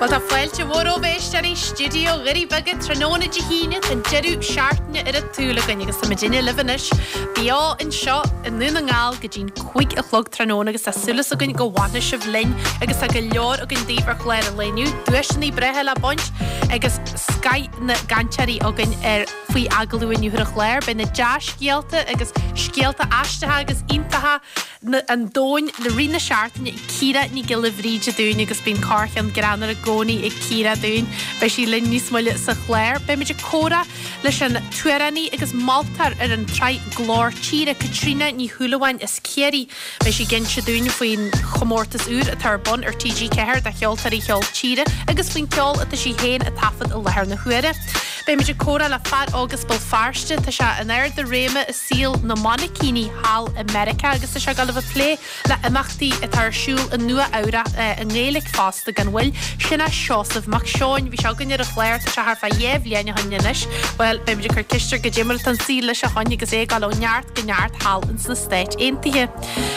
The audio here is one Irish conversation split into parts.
Bhuel tá fáilte mhór romhaibh a éisteoirí, Stiúideo Dhoirí Beaga tráthnóna Dé hAoine, tá an deireadh seachtaine ar an tsúil againn agus tá muidinne libh anois beo anseo i nDún na nGall go dtí'n 5 a chlog tráthnóna agus tá súil againn go bhfanfaidh sibh linn agus tá go leor againn daoibh ar chlár an lae inniu, duaiseanna breátha le baint agus scoth na gcainteoirí againn ar faoi agallamh inniu ar an chlár. Beidh na dea-scéalta agus scéalta aisteacha agus iontacha an domhain i rith na seachtaine ag Ciara Ní Ghiolla Bhríde dúinn agus bíonn corrcheann greannmhar i gcónaí ag Ciara dúinn. Beidh sí linn níos moille sa chlár. Beimid ag comhrá leis an t-amhránaí agus moltóir ar an tsraith Glór Tíre, Caitríona Ní Shúilleabháin as Ciarraí. Beidh sí ag inse dúinn faoin chomórtas úr atá ar bun ar TG4 do cheoltóirí cheol tíre agus faoin ceol atá sí féin ag taifead i láthair na huaire. Beimid ag comhrá le fear óg as Béal Feirste, tá sé in ard a réime i saol na mainicíní thall i Meiriceá agus tá sé ag dul a bheith ag plé le imeachtaí atá ar siúl i Nua Eabhrac i nGaeilge fosta gan mhoill. Sin é Seosamh Mac Seoin. Bhí sé againn ar an chlár, tá sé thart fá dheich bhliain ó shin anois. Bhuel, beimid ag cur ceist air goidé mar atá an saol leis ó shoin agus é ag dul ó neart go neart thall ins na Stáit Aontaithe.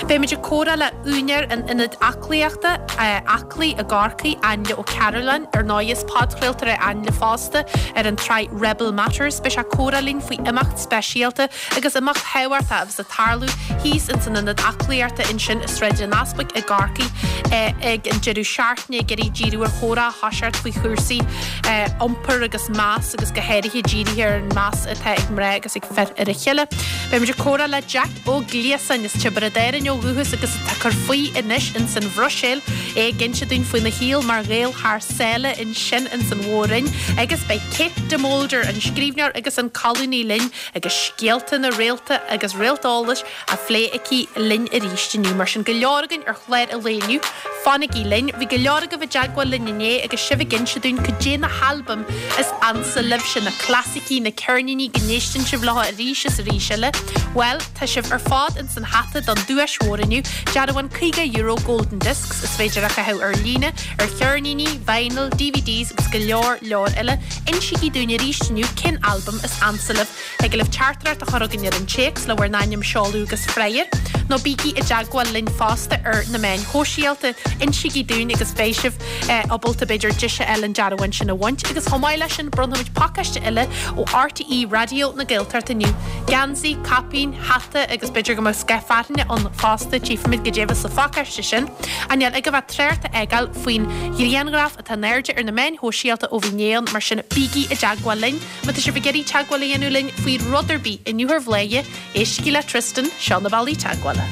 Beimid ag comhrá le úinéir an ionaid aclaíochta, Aclaí i gCorcaigh, Ainle Ó Cearúlláin. Ar ndóigh is podchraoltóir é Ainle fosta ar an tsraith Rebel Matters. Beidh sé ag comhrá linn faoi imeacht speisialta agus imeacht thábhachtach a bheas ag tarlú thíos ins an ionad aclaíochta ansin i Sráid an Easpaig i gCorcaigh ag an deireadh seachtaine ag iarraidh díriú ar chomhrá a thoiseacht faoi chúrsaí iompair agus meas agus go háirithe dírithe ar an meas atá ag mná agus ag fir ar a chéile. Beimid ag comhrá le Jack Ó Gliasáin as Tiobraid Árann ó dhúchas agus atá ag cur faoi anois ins an Bhruiséil, é ag inse dúinn faoina shaol mar Ghael thar sáile ansin ins an Mhór-Roinn agus beidh Kate de Molder, an scríbhneoir agus an colúnaí linn agus scéalta na réalta agus réalt eolais á phlé aici linn arís inniu. Mar sin go leor againn ar chlár an lae inniu. Fanaigí linn. Bhí go leor agaibh i dteagmháil linn inné agus sibh ag inse dúinn cad é na halbaim is ansa libhse, na clasaicí, na ceirníní go n-éisteann sibh leo arís is arís eile. Bhuel, tá sibh ar fad ins an hata don duais mhór inniu, dearbhán €50 Golden Discs is féidir a chaitheamh ar líne, ar cheirníní, vinyl, DVDs agus go leor leor eile. Insígí dúinn arís inniu cén albam is ansa libh. Thig libh teachtaireacht a chur chugainn ar an téacs le bhur n-ainm, seoladh agus freagra, nó bígí i dteagmháil linn fosta ar na meáin shóisialta. Insígí dúinn agus beidh sibh ábalta b'fhéidir deis a fháil an dearbhán sin a bhaint. Agus chomh maith leis sin, bronnfaimid pacáiste eile ó RTÉ Raidió na Gaeltachta inniu. Geansaí, caipín, hata agus b'fhéidir go mbeadh scáth fearthainne ann fosta, tchífimid goidé a bheas sa phacáiste sin. Ach níl agaibh ach trácht a fhágáil faoin ghrianghraf atá in airde ar na meáin shóisialta ó bhí inné ann, mar sin bígí i dteagmháil linn. Má tá sibh ag iarraidh teagmháil a dhéanamh linn faoi rud ar bith inniu ar Bhladhaire, éistigí le Tristan, seo na bealaí teagmhála.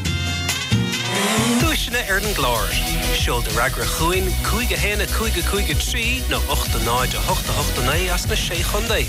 Duaiseanna ar an gclár. Seol do fhreagra chugainn, 5 1 5 5 3 nó 8 0 8 8 9 as na Sé Chontae.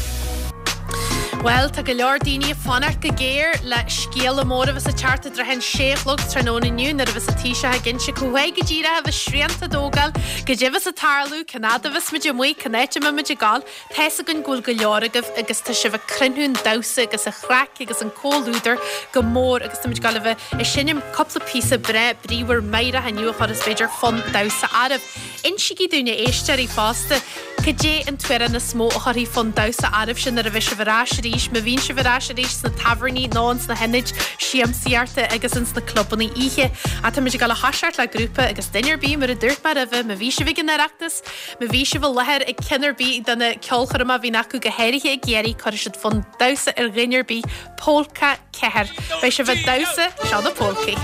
Bhuel, tá go leor daoine ag fanacht go géar le scéala mór a bheas ag teacht i dtrátha an sé a chlog tráthnóna inniu nuair a bheas an Taoiseach ag inse cá háit go díreach a bheas srianta á dtógáil, goidé a bheas ag tarlú, cén fhad a bheas muid amuigh, cén áit a mbeidh muid ag gabháil. Tá's againn go bhfuil go leor agaibh agus tá sibh ag cruinniú an damhsa agus an chraic agus an comhluadar go mór agus táimid ag gabháil a bheith ag seinm cúpla píosa breá bríomhar meidhreach inniu a chuirfeas b'fhéidir fonn damhsa oraibh. Insígí dúinn a éisteoirí fosta cad é an t-amhrán is mó a chuirfidh fonn damhsa oraibhse nuair a bheidh sibh ar ais arís, má bhíonn sibh ar ais arís sna tábhairní nó ins na hionaid siamsaíochta agus ins na clubanna oíche. Ach táimid ag gabháil a thoiseacht le grúpa agus duine ar bith mar a dúirt mé roimhe, má bhí sibh ag an Oireachtas, Má bhí sibh i láthair ag ceann ar bith de na ceolchoirmeacha a bhíonn acu, go háirithe i gCiarraí, cuirfidh siad fonn damhsa ar dhuine ar bith. Pólca 4. Beidh sibh ag damhsa, seo na Pólcaí.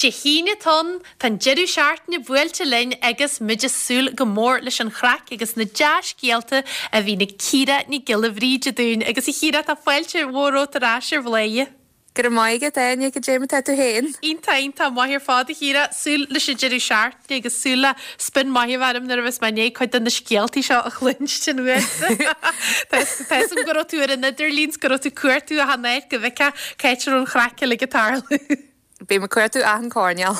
Dé hAoine atá ann, tá an deireadh seachtaine buailte linn agus muid ag súil go mór leis an chraic agus na dea-scéalta a bhíonn ag Ciara Nic Giolla Bhríde dúinn. Agus a Chiara, tá fáilte mhór romhat ar ais ar Bhladhaire. Go raibh maith agat, Áine, goidé mar tá tú féin? Iontach, iontach maith ar fad, a Chiara. Súil leis an deireadh seachtaine agus súil le spion maith a bheith orm nuair a bheas mé i ndiaidh cuid de na scéaltaí seo a chluinstin uaitse. Tá 'fhios agam go raibh tú ar an idirlíon 's go raibh tú ag cuartú achan áit go bhfeicfeá cá háit a raibh an chraic uilig ag tarlú. Bím ag cuartú achan coirnéal.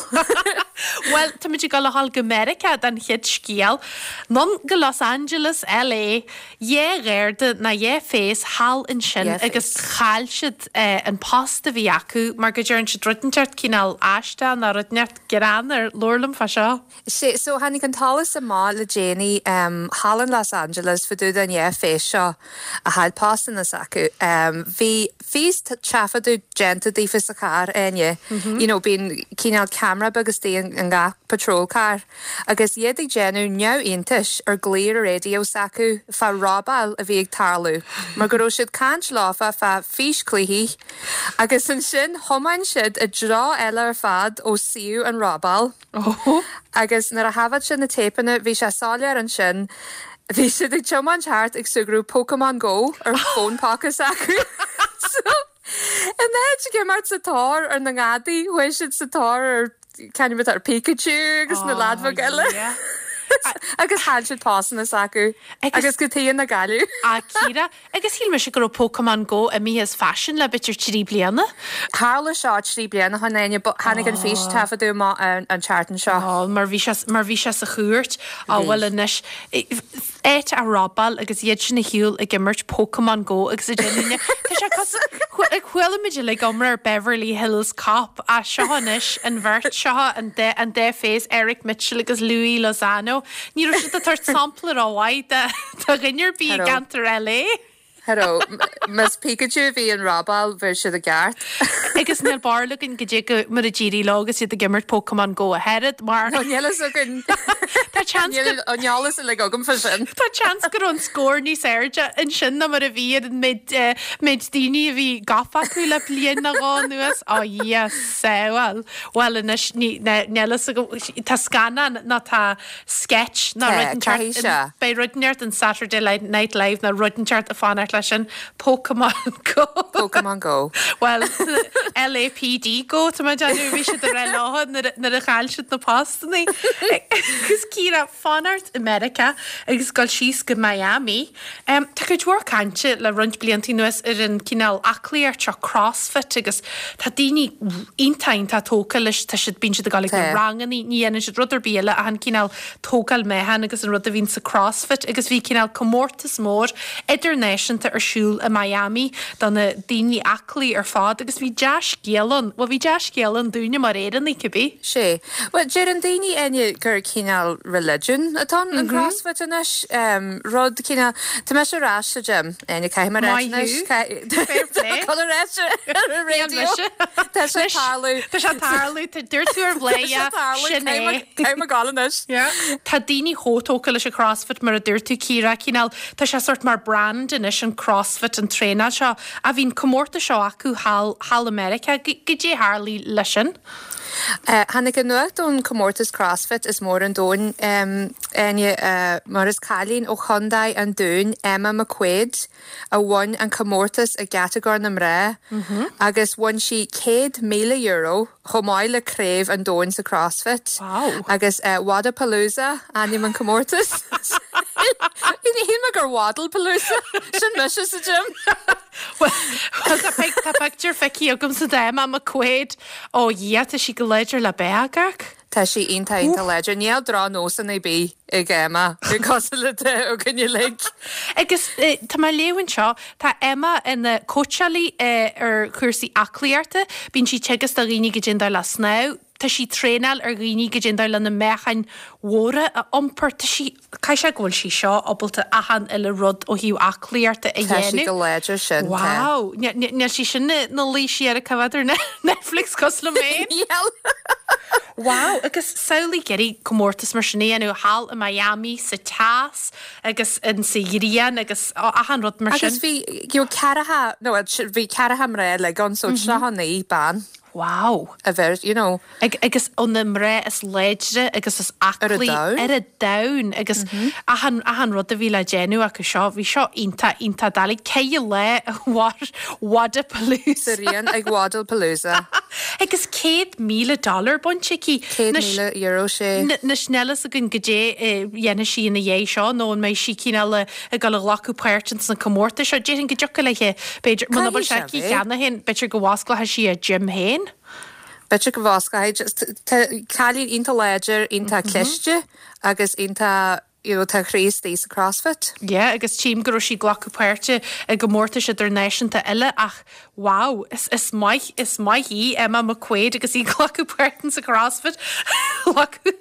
Bhuel, táimid ag dul a ghabháil go Meiriceá don chéad scéal. Anonn go Los Angeles, LA. Dhá gharda ná dhá phéas thall ansin agus chaill siad an post a bhí acu mar go dtearn siad rud inteacht cineál aisteach ná rud inteacht greannmhar. Labhair liom fá seo. Sea, so tháinig an t-eolas amach le déanaí thall in Los Angeles fá dtaobh den dhá phéas seo a chaill postanna s'acu. Bhí fís-taifeadadh déanta daofa sa charr, Áine. You know, bíonn cineál ceamara beag istigh in gach patrol car. Agus iad ag déanamh neamhiontais ar glaoch ar an raidió s'acu fá robáil a bhí ag tarlú, mar go raibh siad caint leofa fá físchluichí. Agus ansin thiomáin siad i dtreo eile ar fad ó suíomh an robáil. Agus nuair a thaifead siad na téipeanna, bhí sé soiléir ansin, bhí siad ag tiomáint thart ag súgradh Pokémon Go ar fón póca s'acu. So, in áit ag imeacht sa tóir ar na ngadaí, chuaigh siad sa tóir ar, c'ainm atá ar Pikachu agus na leaid bheag eile. Agus chaill siad postanna s'acu. Agus cad chuige nár cailleadh. A Chiara, Agus shíl mise go raibh Pokémon Go imithe as faisean le b'fhéidir 3 bliana. Tharla seo 3 bliana ó shin, Áine, but tháinig an fís-taifeadadh amach an tseachtain seo. Ó, mar bhí sé, mar bhí sé sa chúirt. Á, bhuel anois, áit á robáil agus iad sin ar shiúl ag imirt Pokémon Go agus ag déanamh, tá sé cosúil, chuala muid uilig iomrá ar Beverly Hills Cop, ach seo anois an bheirt seo, an dá, an dá phéas, Eric Mitchell agus Louis Lozano. Ní raibh siad ag tabhairt sampla rómhaith de. Do dhuine ar bith i gceantar LA. Cha raibh. Más Pikachu a bhí an robáil, bhí siad i gceart. Agus níl barúil againn goidé go mar a d'éirigh leo agus iad ag imirt Pokémon Go ach oiread, mar. No, níl fhios againn. Tá seans go. Níl an eolas uilig agam fá sin. Tá seans go raibh an scór níos airde ansin ná mar a bhí ar an méid, méid daoine a bhí gafa acu le bliain nó dhó anuas. Ó, Dhia sábháil. Bhuel anois, ní, níl fhios agam, tá scannán nó tá. sketch ná rud inteacht in, beidh rud inteacht in Saturday Night Live ná rud inteacht ag fanacht leis sin. Pokémon Go. Pokémon Go. Bhuel, LAPD Go, tá mé ag déanamh, bhí siad ag rá leo nuair a chaill siad na postannaí. Agus Ciara, fanacht i Meiriceá agus dul síos go Miami. Tá cuid mhór cainte le roinnt blianta anuas ar an cineál aclaíocht seo, CrossFit, agus tá daoine iontach, iontach tógtha leis, tá siad, bíonn siad ag dul ag na rangannaí, ní dhéanann siad rud ar bith eile ach an cineál tógáil meáchain agus an rud a bhíonn sa CrossFit agus bhí cineál comórtas mór idirnáisiúnta ar siúl i Miami do na daoine aclaí ar fad agus bhí dea-scéal ann, bhuel bhí dea-scéal ann dúinne mar Éireannaigh cibé. Sea. Bhuel, deireann daoine, Áine, gur cineál religion atá ann, an CrossFit anois. Rud cineál, tá mise ar ais sa gym, Áine, caithfidh mé a ráit Maith anois. thú. Fair play. Tá dul ar ais ar an Níl raidió. mise. Tá sé ag tarlú. Tá sé ag tarlú, tá dúirt tú ar Tá sé Bhladhaire, ag tarlú, sin é. caithfidh mé, caithfidh mé gabháil anois. Yeah. Tá daoine chomh tógtha leis an CrossFit mar a dúirt tú, Ciara, cineál, tá sé sórt mar brand anois an CrossFit, an traenáil seo. Ach bhí an comórtas seo acu thall, thall i Meiriceá. Goidé tharlaigh leis sin? Tháinig an nuacht ón comórtas CrossFit is mór an domhain, Áine, mar is cailín ó Chondae an Dúin, Emma McQuaid, a bhain an comórtas i gcatagóir na mná agus bhain sí €100,000 chomh maith le craobh an domhain sa CrossFit. Agus Wodapalooza ainm an comórtas. Shíl mé gur Waddlepalooza, sin mise sa gym. Bhuel, tá pictiúr feicthe agamsa d'Emma McQuaid. Ó Dhia, tá sí go láidir le beag, ach. Tá sí iontach, iontach láidir. Níl drochnósanna ar bith ag Emma, cosúil le atá againn uilig. Agus tá mé ag léamh anseo, tá Emma ina cóitseálaí ar chúrsaí aclaíochta, bíonn sí ag teagasc do dhaoine goidé an dóigh le snámh, tá sí ag traenáil ar dhaoine goidé an dóigh le na meáchain mhóra a iompar, tá sí. Caithfidh sé go bhfuil sí seo ábalta achan uile rud ó thaobh aclaíochta a Tá sí dhéanamh. go láidir sin, tá. Wow! Níl sí sin ina luí siar ag coimhéad ar Netflix cosúil liom féin. Níl. Wow! Agus samhlaigh ag iarraidh comórtas mar sin a dhéanamh thall i Miami sa teas agus in sa ghrian agus achan rud mar Agus sin. bhí, you know, ceathracha, no, bhí ceathracha mná uilig ann, so 39 bean. Wow. A bheith, you know. Agus ó na mná is láidre agus is aclaí ar an domhan agus achan, achan rud a bhí le déanamh acu seo, bhí seo iontach, iontach doiligh. Ceithre lá a mhair Wodapalooza. Sa rian ag Wodapalooza. Agus $100,000 dollar bainte aici. €100,000, sé. Anois níl fhios againn goidé a dhéanfaidh sí ina dhiaidh seo nó an mbeidh sí cineál ag dul a ghlacadh páirt ins na comórtais seo. Déarfainn go dtiocfadh léi, b'fhéidir, muna bhfuil sé aici cheana féin, b'fhéidir go bhfosclóidh sí a gym féin. B'fhéidir go bhfosclóidh. Tá cailín iontach láidir, iontach cliste agus iontach, you know, tá a chroí istigh sa CrossFit. Yeah, agus tchím go raibh sí ag glacadh páirte i gcomórtais idirnáisiúnta eile ach Wow, is is maith is maith í Emma McQuaid agus í ag glacadh páirt in sa CrossFit.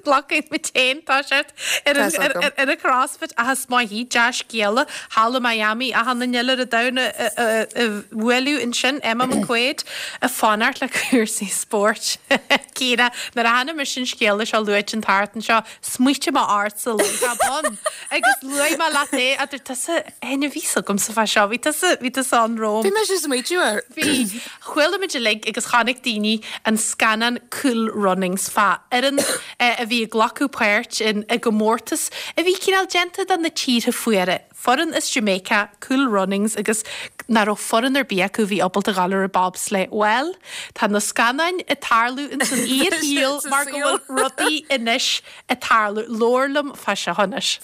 Glacfaidh muid féin, tá sé ar an ar ar ar an CrossFit ach is maith í, dea-scéala, thall i Miami achan duine eile ar an domhan a a a bhualadh ansin, Emma McQuaid ag fanacht le cúrsaí spóirt. Ciara, nuair a chonaic mise an scéala seo luaite an tseachtain seo, smaoitigh mé ortsa láithreach bonn agus luaigh mé leat é a dúirt tusa Áine bhí fhios agamsa fá seo, bhí tusa, bhí tusa ann romham. Bhí mise ag smaoitiú air. Bhí. Chuala muid uilig agus chonaic daoine an scannán Cool Runnings fá fhoireann a bhí ag glacadh páirt in i gcomórtas a bhí cineál déanta do na tíortha fuara. Foireann as Jamaica, Cool Runnings agus nach raibh foireann ar bith acu a bhí ábalta dhul ar an bobsleigh. Bhuel, tá na scannáin ag tarlú ins an fhíorshaol mar go bhfuil rudaí anois ag tarlú. Labhair liom fá seo anois.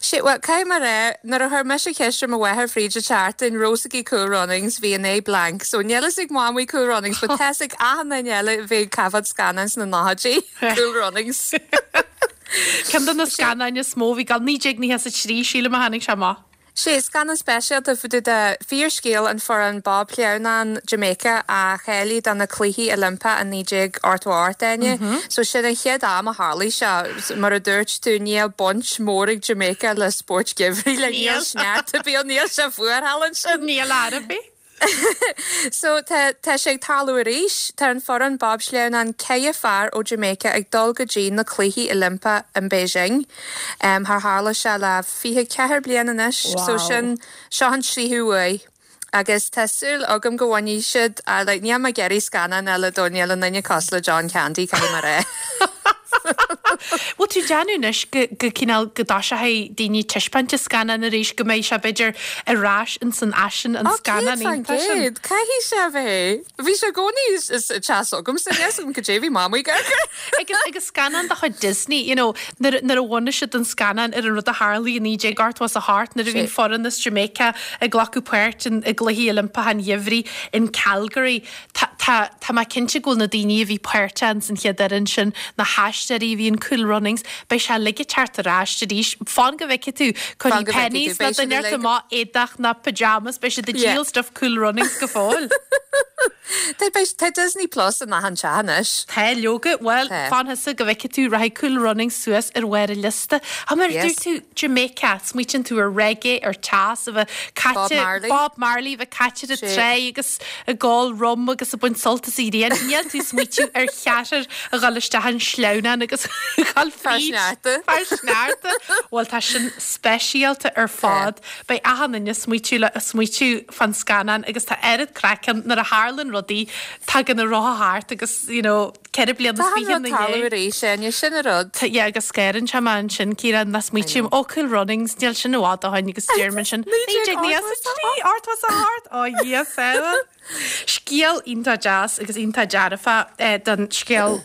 Sé, bhuel, caithfidh mé a rá, nuair a chuir mise ceist ar mo mháthair fríd an tseachtain, raibh fhios aici Cool Runnings, bhí an aghaidh blank. So níl fhios ag Mamaí Cool Runnings, but tá fhios ag achan duine eile a bhí ag taifead scannáin sna nóchaidí, Cool Runnings. Ceann de na scannáin is mó a bhí ag dul, 1993, sílim a tháinig sé amach. Sé, scannán speisialta fá dtaobh de fíorscéal an foireann bobshleamhnán Jamaica a cháiligh do na Cluichí Oilimpeacha i 1988, Áine. So sin an chéad am a tharlaigh sé. Mar a dúirt tú, níl baint mhór ag Jamaica le spóirt geimhridh, like níl sneachta ar bith ann, níl sé fuar thall ansin. Níl ar bith. So, tá, tá sé ag tarlú arís. Tá an foireann bobshleamhnán 4 fear ó Jamaica ag dul go dtí na Cluichí Oilimpeacha in Beijing. Char tharla sé le 24 bliain anois. So Wow. sin, seo an tríú huair. Agus tá súil agam go bhfaigheann siad, like, níl mé ag iarraidh scannán eile dó, níl aon duine cosúil le John Candy, caithfidh mé a rá. Bhfuil tú ag déanamh anois go, go cineál, go dtoiseochaidh daoine ag taispeáint an scannán arís, go mbeidh sé b'fhéidir ar ais ins an fhaisean, an Ó, scannán iontach sin? 100%, caithfidh sé a bheith. Bhí sé i gcónaí sa teach s'agamsa, níl 'fhios agam cad é bhí Mamaí ag amharc air. Agus, agus scannán de chuid Disney, you know, nuair, nuair a bhunaigh siad an scannán ar an rud a tharlaigh i 1988 nuair a bhí an foireann as Jamaica ag glacadh páirt in, i gCluichí Oilimpeacha an Gheimhridh in Calgary. Tá, tá, tá mé cinnte go bhfuil na daoine a bhí páirteach ins an chéad fhoireann sin, na haisteoirí a bhí in Cool Runnings, beidh sé uilig ag teacht ar ais arís. Fan go bhfeicfidh tú, Fan cuirfidh go bhfeicfidh tú, Penneys nó beidh siad duine ort uilig. amach éadach ná pyjamas, beidh siad ag Yeah. díol stuff Cool Runnings go fóill. Tá, beidh, tá Disney Plus in achan teach anois. Tá, leoga, bhuel, Tá. fan thusa go bhfeicfidh tú, rachaidh Cool Runnings suas ar bharr an liosta. Á, mar a Yes. dúirt tú, Jamaica, smaoitíonn tú ar reggae, ar teas, a bheith Bob caite, Marley. Bob Marley, a bheith caite ar an Sé. tráigh agus ag ól rum agus ag baint sult as an ghrian. Níl tú ag smaoitiú ar cheathrar a dhul isteach an sleamhnán agus a dhul Fear fríd. sneachta. Fear sneachta. Bhuel tá sin speisialta ar fad. Beidh achan duine ag smaoitiú le ag smaoitiú fán scannán agus tá oiread craic ann nuair a tharlann rudaí tagann an rotha thart agus you know 24 bliana Tá an rud ina tarlú dhiaidh. arís, Áine, sin an rud. Tá, yeah, agus scanraíonn sé mé ansin, Ciara, nach smaoitím, ó, Cool Runnings, níl sin i bhfad ó shin agus deirim ansin, 1993, 88, ó Dhia sábháil. Scéal iontach deas agus iontach dearfach don scéal,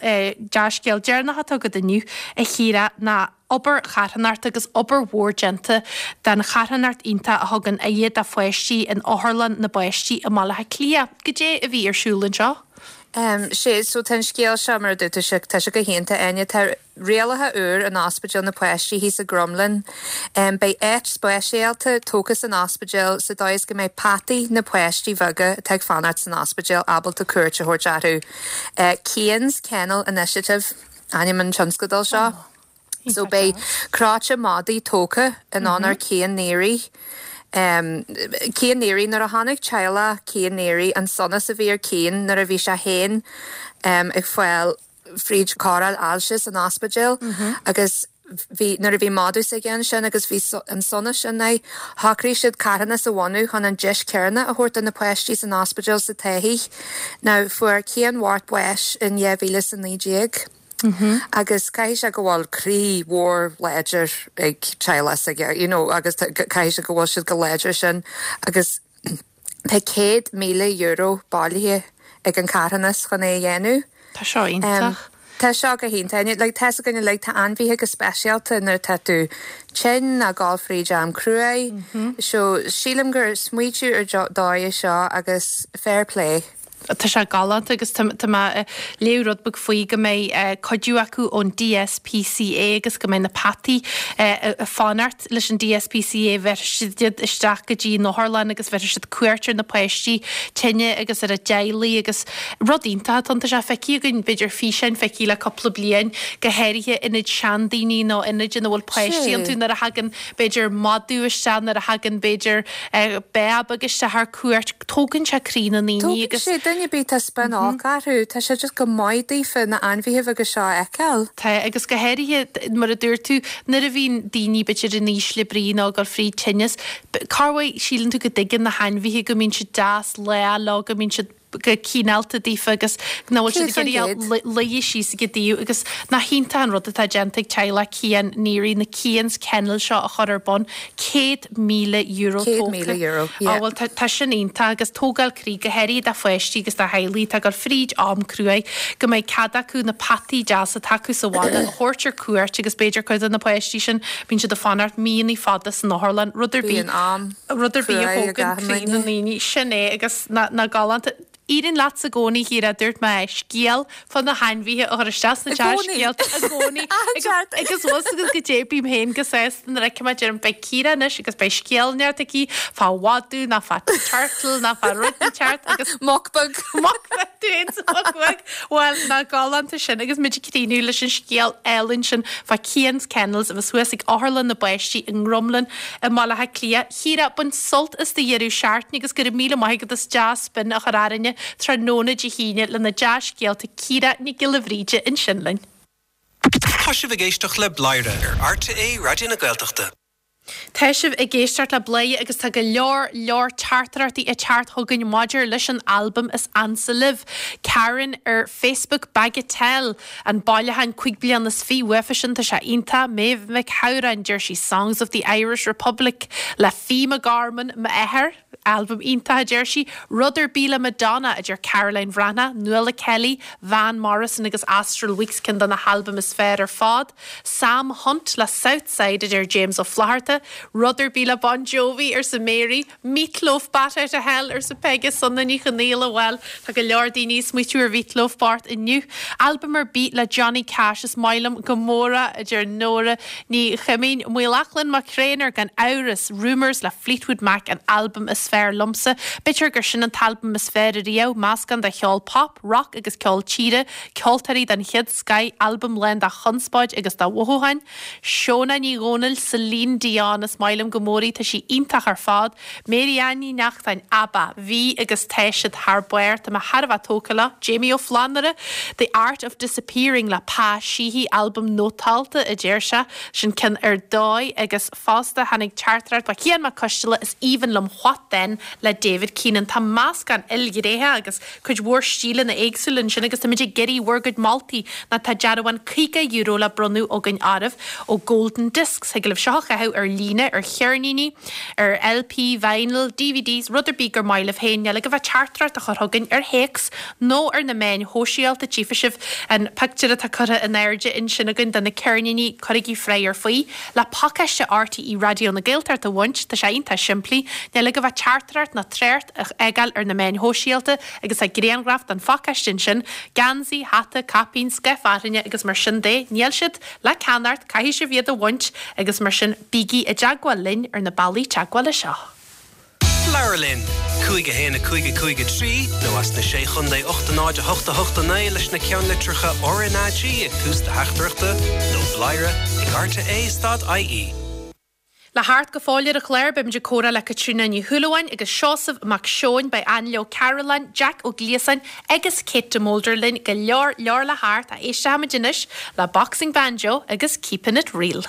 dea-scéal deireanach atá agat inniu, a Chiara, ná obair charthanachta agus obair mhór déanta don charthanacht iontach a thugann aire do pháistí in Otharlann na bPáistí i mBaile Átha Cliath. Goidé a bhí ar siúl anseo? Sé, so tá an scéal seo, mar a dúirt tú, tá sé go hiontach, Áine. Tá rialacha úr in Ospidéal na bPáistí thíos i gCromghlinn. Beidh áit speisialta tógtha san ospidéal sa dóigh is go mbeidh peataí na páistí bheaga atá ag fanacht san ospidéal ábalta cuairt a thabhairt orthu. Cian's Kennel Initiative ainm an tionscadail seo. So beidh cráite madaí tógtha in onóir Cian Neary. Cian Neary, nuair a chonaic teaghlach Cian Neary an sonas a bhí ar Cian nuair a bhí sé féin ag fáil fríd cóireáil ailse san ospidéal agus. bhí, nuair a bhí madadh s'aige ansin agus bhí an sonas sin air, shocraigh siad carthanas a bhunú chun an deis céanna a thabhairt do na páistí san ospidéal sa Taithí. Now, fuair Cian Mhart bás in 2019 agus caithfidh sé go bhfuil croí mhór láidir ag teaghlach s'aige, you know, agus caithfidh sé go bhfuil siad go láidir sin agus tá €100,000 bailithe ag an carthanas chun é a dhéanamh. Tá seo iontach. Tá seo go hiontach. Like, tá's againn uilig, tá ainmhithe go speisialta nuair atá tú tinn nó ag gabháil fríd am cruaidh. So, sílim gur smaoitiú ar dóigh é seo agus fair play. Tá sé galánta agus tá mé ag léamh rud beag faoi go mbeidh cuidiú acu ón DSPCA agus go mbeidh na peataí ag fanacht leis an DSPCA, bhéarfaidh siad iad isteach go dtí an otharlann agus bhéarfaidh siad cuairt ar na páistí tinne agus ar a dteaghlaigh agus rud iontach atá ann. Tá sé feicthe againn, b'fhéidir físeáin feicthe le cúpla bliain, go háirithe ionaid seandaoine nó ionaid ina bhfuil páistí iontu nuair a thagann b'fhéidir madadh isteach, nuair a thagann b'fhéidir béar beag isteach ar cuairt, tógann sé croí na ndaoine Tógann agus. sé, duine ar bith tá spion olc orthu, tá sé just go maith daofa na ainmhithe beaga seo a fheiceáil. Tá, agus go háirithe, mar a dúirt tú, nuair a bhíonn daoine b'fhéidir in ísle brí nó ag dul fríd tinneas, corruair síleann tú go dtuigeann na hainmhithe go mbíonn siad deas lách leo, go mbíonn siad go cineálta daofa agus nach bhfuil siad ag iarraidh luí síos ag a dtaobh agus nach hiontach an rud atá déanta ag teaghlach Cian Neary na Cian's Kennel seo a chur ar bun. €100,000 tógtha. €100,000, yeah. Á bhuel tá tá sin iontach agus tógáil croí go háirithe do pháistí agus do theaghlaigh atá ag dul fríd am cruaidh go mbeidh cead acu na peataí deasa atá acu sa bhaile a thabhairt ar cuairt agus b'fhéidir cuid de na páistí sin bíonn siad ag fanacht míonna fada san otharlann rud ar bith Bíonn am rud ar bith a cruaidh ag thógann achan croí na duine. ndaoine. Sin é agus nach galánta. Éiríonn leatsa i gcónaí, a Chiara, dúirt mé, scéal fá na hainmhithe a chur isteach sna I gcónaí. dea-scéalta i gcónaí. Achan Agus seachtain. agus bhfuil fhios agat goidé bím féin go sásta nuair a fheicim é deirim beidh Ciara anois agus beidh scéal inteacht aici fá mhadadh nó fá turtle nó fá rud inteacht agus Muc beag. Muc beag, tú féin sa mhuc bheag. Bhuel, nach galánta sin agus muid ag críochnú leis an scéal álainn sin fá Cian's Kennels a bheas thuas ag Otharlann na bPáistí i nDrumlin i mBaile Átha Cliath. Chiara, bain sult as do dheireadh seachtaine agus go raibh míle maith agat as dea-spin a chur orainne tráthnóna Dé hAoine le na dea-scéalta Ciara Nic Giolla Bhríde ansin linn. Tá sibh ag éisteacht le Bladhaire ar RTÉ Raidió na Gaeltachta. Tá sibh ag éisteacht le Bladhaire agus tá go leor leor teachtaireachtaí ag teacht chugainn maidir leis an albam is ansa libh. Karen ar Facebook Bagatelle. An bailiúchán 25 bliana uafa sin, tá sé iontach. Méabh Mhic Shamhráin, deir sí Songs of the Irish Republic le Fiadh McGorman, m'athair. Albam iontach, a deir sí. Rud ar bith le Madonna, a deir Caroline Bhreathnach. Nuala Kelly, Van Morrison agus Astral Weeks ceann de na halbaim is fearr ar fad. Sam Hunt le Southside, a deir James Ó Flatharta. Rud ar bith le Bon Jovi, arsa Mary. Meat Loaf Bat Out of Hell, arsa Peige Sona Ní Chonaola. Bhuel, tá go leor daoine ag smaoitiú ar Mheat Loaf bocht inniu. Albam ar bith le Johnny Cash is maith liom go mór é, a deir Nóra Ní Chuimín. Maolachlainn Mac Thréinir, gan amhras, Rumours le Fleetwood Mac an albam is fearr liomsa. B'fhéidir gur sin an t-albam is fearr ariamh, meascán de cheol pop, rock agus ceol tíre, ceoltóirí den chéad scoith, albam lán de chonspóid agus de mhothúcháin. Shona Ní Dhomhnaill, Celine Dion, is maith liom go mór í, tá sí iontach ar fad. Mary Ann Ní Neachtain, ABBA, bhí agus tá siad thar barr, tá mé thar a bheith tógtha leo. Jamie Ó Flannúra, The Art of Disappearing le Pa Sheehy, albam nótálta a deir sé, sin ceann ar dóigh agus fosta tháinig teachtaireacht ó Chian Mac Coisteala, is aoibhinn liom What Then le David Keenan. Tá meascán ilghnéitheach agus cuid mhór stíleanna éagsúla ansin agus táimid ag iarraidh bhur gcuid moltaí nó tá dearbhán €50 le bronnadh againn oraibh ó Golden Discs. Thig libh seo a chaitheamh ar líne, ar cheirníní, ar LP, vinyl, DVDs, rud ar bith gur maith libh féin. Níl agaibh ach teachtaireacht a chur chugainn ar théacs nó ar na meáin shóisialta. Tchífidh sibh an pictiúr atá curtha in airde ansin againn de na ceirníní. Cuirigí freagra faoi le pacáiste RTÉ Raidió na Gaeltachta a bhaint. Tá sé iontach simplí. Níl agaibh ach teachtaireacht nó trácht a fhágáil ar na meáin shóisialta agus tá grianghraf den phacáiste ansin, geansaí, hata, caipín, scaif fhearthainne agus mar sin de. Níl siad le ceannacht, caithfidh sibh iad a bhaint agus mar sin bígí i dteagmháil linn ar na bealaí teagmhála seo. Labhair linn! 5 1 5 5 3 nó as na Sé Chontae 8 0 8 8 9 leis na ceannlitreacha RnaG ag tús do theachtaireachta nó bladhaire ag rte stad ie. Le theacht go fóill ar an chlár, beimid ag comhrá le Caitríona Ní Shúilleabháin agus Seosamh Mac Seoin, beidh Ainle Ó Cairealláin, Jack Ó Gliasáin agus Kate de Molder linn, go leor leor le theacht, ach éistfimid anois le Boxing Banjo agus Keepin' It Real.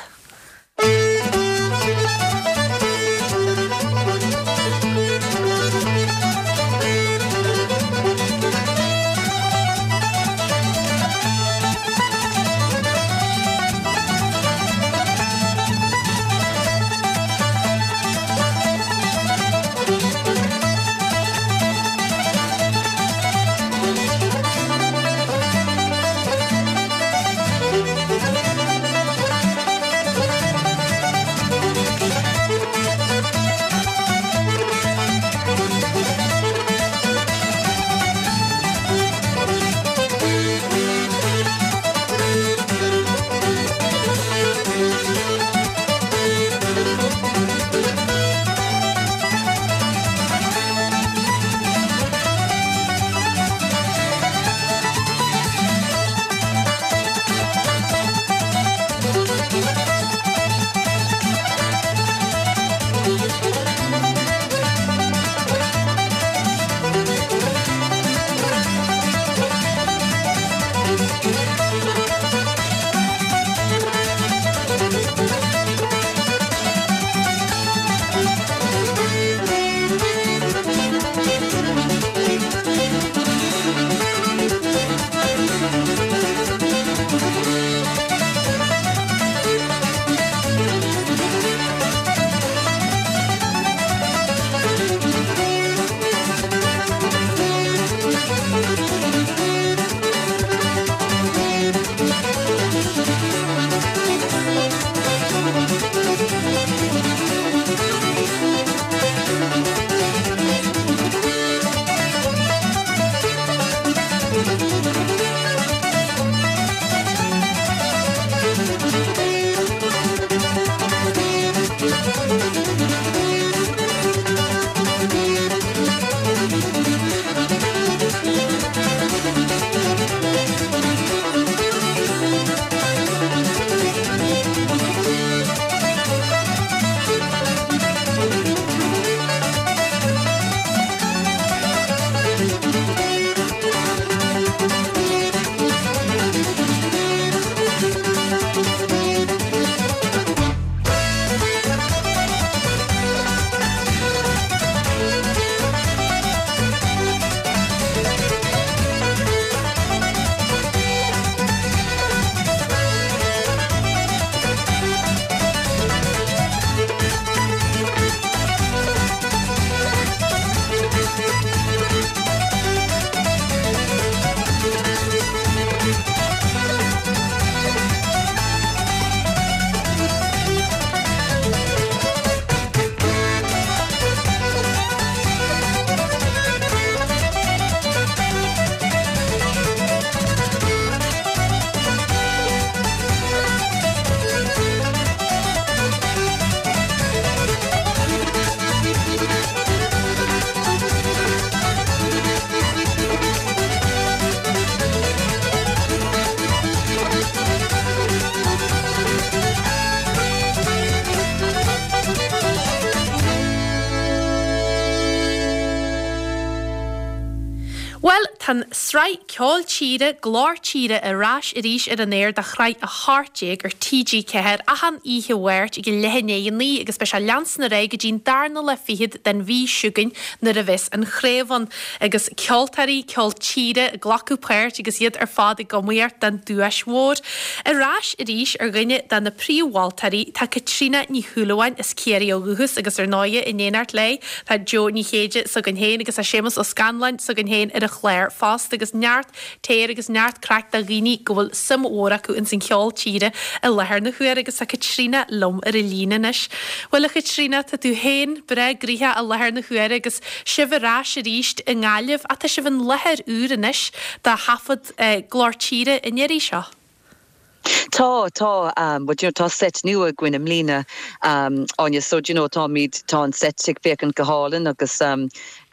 Bhuel, tá an tsraith Ceol Tíre, Glór Tíre ar ais arís ar an aer do shraith 18 ar TG4 achan oíche Mháirt ag a leath i ndiaidh a 9 agus beidh sé ag leanstan ar aghaidh go dtí'n darna lá fichead den mhí seo chugainn nuair a bheas an chraobh ann agus ceoltóirí ceol tíre ag glacadh páirt agus iad ar fad ag iomaíocht don duais mhór. Ar ais arís ar dhuine de na príomh-mholtóirí tá Caitríona Ní Shúilleabháin as Ciarraí ó dhúchas agus ar ndóighe in éineacht léi Tá Joe Ní Chéide s'againn féin agus tá Séamus Ó Scanláin s'againn féin ar an chlár fosta agus neart téir agus neart craic do dhaoine go bhfuil suim mhór acu ins an cheol tíre i láthair na huaire agus tá Caitríona liom ar an líne anois. Bhuel a Chaitríona, tá tú féin breá gnoitheach i láthair na huaire agus sibh ar ais arís i nGaillimh ach tá sibh in láthair úr anois do thaifead Glór Tíre an iarraidh seo. Tá, tá, but you know tá seit nua againn i mbliana, Áine, so do you know táimid, tá an seit ag féachaint go hálainn agus do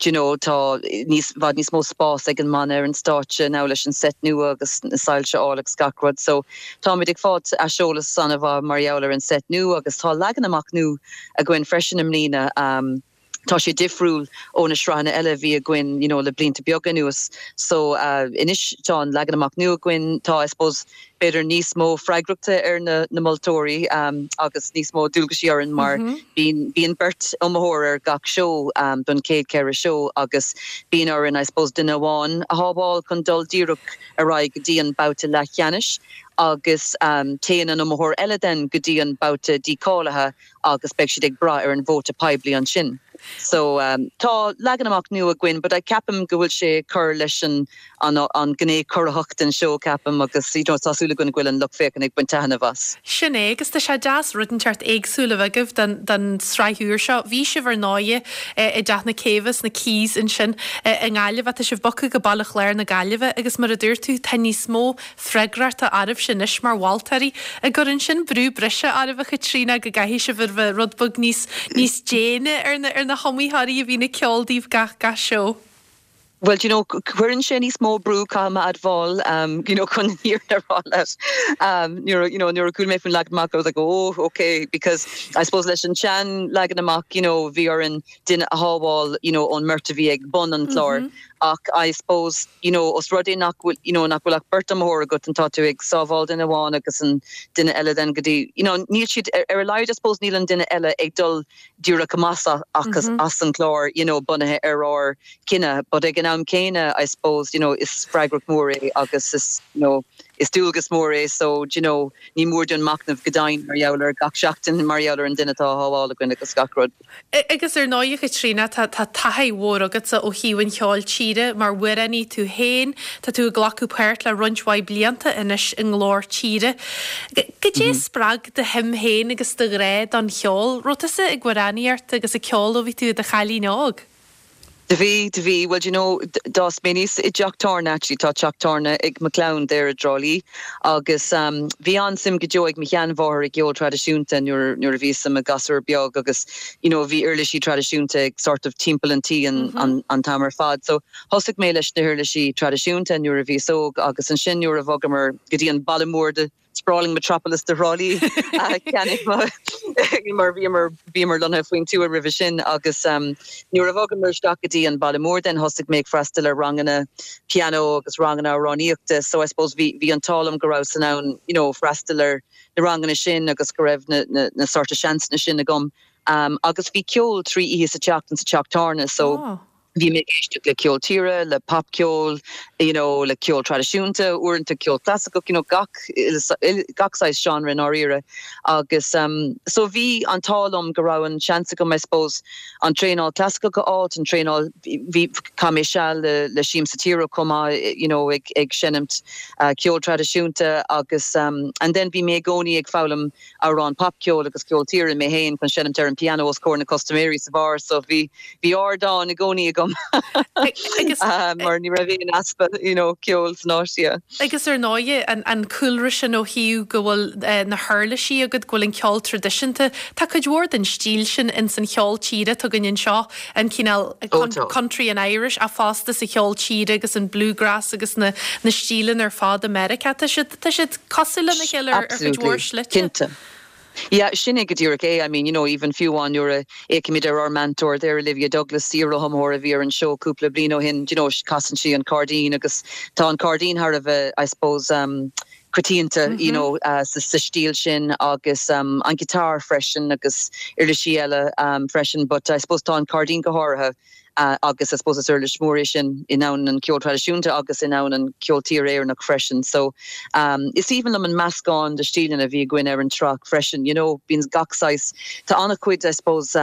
you know tá níos, bhfad níos mó spás ag an mbanna ar an stáitse now leis an seit nua agus na soilse a fháil agus gach rud so táimid ag fáilt aiseolas an-mhaith mar gheall ar an seit nua agus tá leagan amach nua againn freisin i mbliana. Tá sé difriúil ó na sraitheanna eile a bhí againn you know le blianta beaga anuas. So anois tá an leagan amach nua againn, tá I suppose b'fhéidir níos mó freagrachta ar na na moltóirí agus níos mó dualgaisí orainn mar bíonn bíonn beirt iomaitheoir ar gach seó don chéad cheithre seó agus bíonn orainn I suppose duine amháin a shábháil chun dul díreach ar aghaidh go dtí an babhta leathcheannais agus téann an iomaitheoir eile then go dtí an babhta dícháilithe agus beidh siad ag brath ar an vóta poiblí ansin. So tá leagan amach nua againn but I ceapaim go bhfuil sé ag cur leis an an an gné corraitheach den seó ceapaim agus you know tá súil againn go bhfuil an lucht féachana ag baint taitneamh as. Sin é agus tá sé deas rud inteacht éagsúil a bheith agaibh don don sraith úr seo. Bhí sibh ar ndóighe i dTeach na Céibhe sna Quays ansin i nGaillimh ach tá sibh bogtha go Baile Chláir na Gaillimhe agus mar a dúirt tú tá níos mó freagrachta oraibhse anois mar mholtóirí. An gcuireann sin brú breise oraibh, a Chaitríona, go gcaithfidh sibh a bheith rud beag níos, níos déine ar na, ar na hiomaitheoirí a bhíonn ag ceol daoibh gach, gach seó? Bhuel, do you know, cuireann sé níos mó brú, caithfidh mé a admháil, you know, chun an fhírinne a rá leat. Nuair a, you know, nuair a chuala mé faoin leagan amach, I was like, oh, okay, because I suppose leis an sean leagan amach, you know, bhí orainn duine a shábháil, you know, ón mbeirt a bhí ag bun an chláir. Ach I suppose, you know, os rud é nach bhfuil, you know, nach bhfuil ach beirt iomaitheoir agat and tá tú ag sábháil duine amháin agus an duine eile then go dtí, you know, níl siad, ar, ar a laghad I suppose níl an duine eile ag dul díreach amach as, as an chlár, you know, bunaithe ar ár gcinneadh. But ag an am céanna I suppose, you know, is freagracht mhór é agus is, you know, is dualgas mór é so, do you know, ní mór dúinn machnamh go dian mar gheall ar gach seachtain mar gheall ar an duine atá á shábháil againn agus gach rud. Agus ar ndóigh, a Chaitríona, tá taithí mhór agatsa ó thaobh an cheoil tíre mar amhránaí tú féin. Tá tú ag glacadh páirt le roinnt mhaith blianta anois i nGlór Tíre. Goidé a spreag do shuim féin agus do ghrá don cheol? Raibh tusa ag amhránaíocht agus ag ceol ó bhí tú i do chailín óg? Do bhí, do bhí. Bhuel, do you know, d'fhás mé aníos i dteach tábhairne actually, tá teach tábhairne ag mo chlann there i dTrá Lí agus bhí an-suim go deo ag mo sheanmháthair i gceol traidisiúnta nuair, nuair a bhíos i mo ghasúr beag agus you know bhí uirlisí traidisiúnta ag sort of timpeall an tí an, an, an t-am ar fad. So thosaigh mé leis na huirlisí traidisiúnta nuair a bhíos óg agus ansin nuair a bhogamar go dtí an baile mór de sprawling metropolis de Thrá Lí cheannaigh mar bhíomar bhíomar lonnaithe faoin tuath roimhe sin agus nuair a bhogamar isteach go dtí an baile mór then thosaigh mé ag freastal ar ranganna pianó agus ranganna amhránaíochta so I suppose bhí bhí an t-ádh liom go rabhas in ann you know freastal ar na ranganna sin agus go raibh na na na sort of seansanna sin agam agus bhí ceol 3 oíche sa tseachtain sa teach tábhairne so oh. Bhí mé ag éisteacht le ceol tíre, le popcheol, you know, le ceol traidisiúnta, uaireanta ceol clasaiceach, you know, gach, gach saghas genre i ndáiríre. Agus um so bhí an t-ádh liom go raibh an seans agam, I suppose, an traenáil clasaiceach a fháilt, an traenáil, bhí, chaith mé seal le, le Siamsa Tíre chomh maith, you know, ag, ag seinimt ceol traidisiúnta agus um and then bhí mé i gcónaí ag foghlaim amhráin popcheoil agus ceol tíre mé féin chun seinimt ar an pianó os comhair na custaiméirí sa bheár so bhí bhí ardán i gcónaí agam mar ní raibh aon easpa you know ceoil san áit yeah. Agus ar ndóighe an an cúlra sin ó thaobh go bhfuil na huirlisí agat, go bhfuil an ceol traidisiúnta, tá cuid mhór den stíl sin ins an cheol tíre atá againn anseo, an cineál country and Irish ach fosta sa cheol tíre agus an bluegrass agus na na stíleanna ar fad i Meiriceá. Tá siad tá siad cosúil lena chéile ar chuid mhór slite. Cinnte. Yeah, sin é go díreach é. I mean, you know, even fiú amháin nuair a fhéachaimid ar ár meantóir there, Olivia Douglas, iar-iomaitheoir a bhí ar an seó cúpla bliain ó shin, you know, casann sí an cairdín agus tá an cairdín thar a bheith, I suppose, um, coitianta, you know, sa stíl sin agus an guitar freisin agus uirlisí eile freisin but I suppose tá an cairdín go háirithe agus I suppose is uirlis mhór é sin i ndomhan an cheoil traidisiúnta agus i ndomhan an cheoil tíre Éireannach freisin. So is aoibhinn liom an meascán de stíleanna a bhí againn ar an tsraith freisin, you know, bíonn gach saghas, tá an-chuid I suppose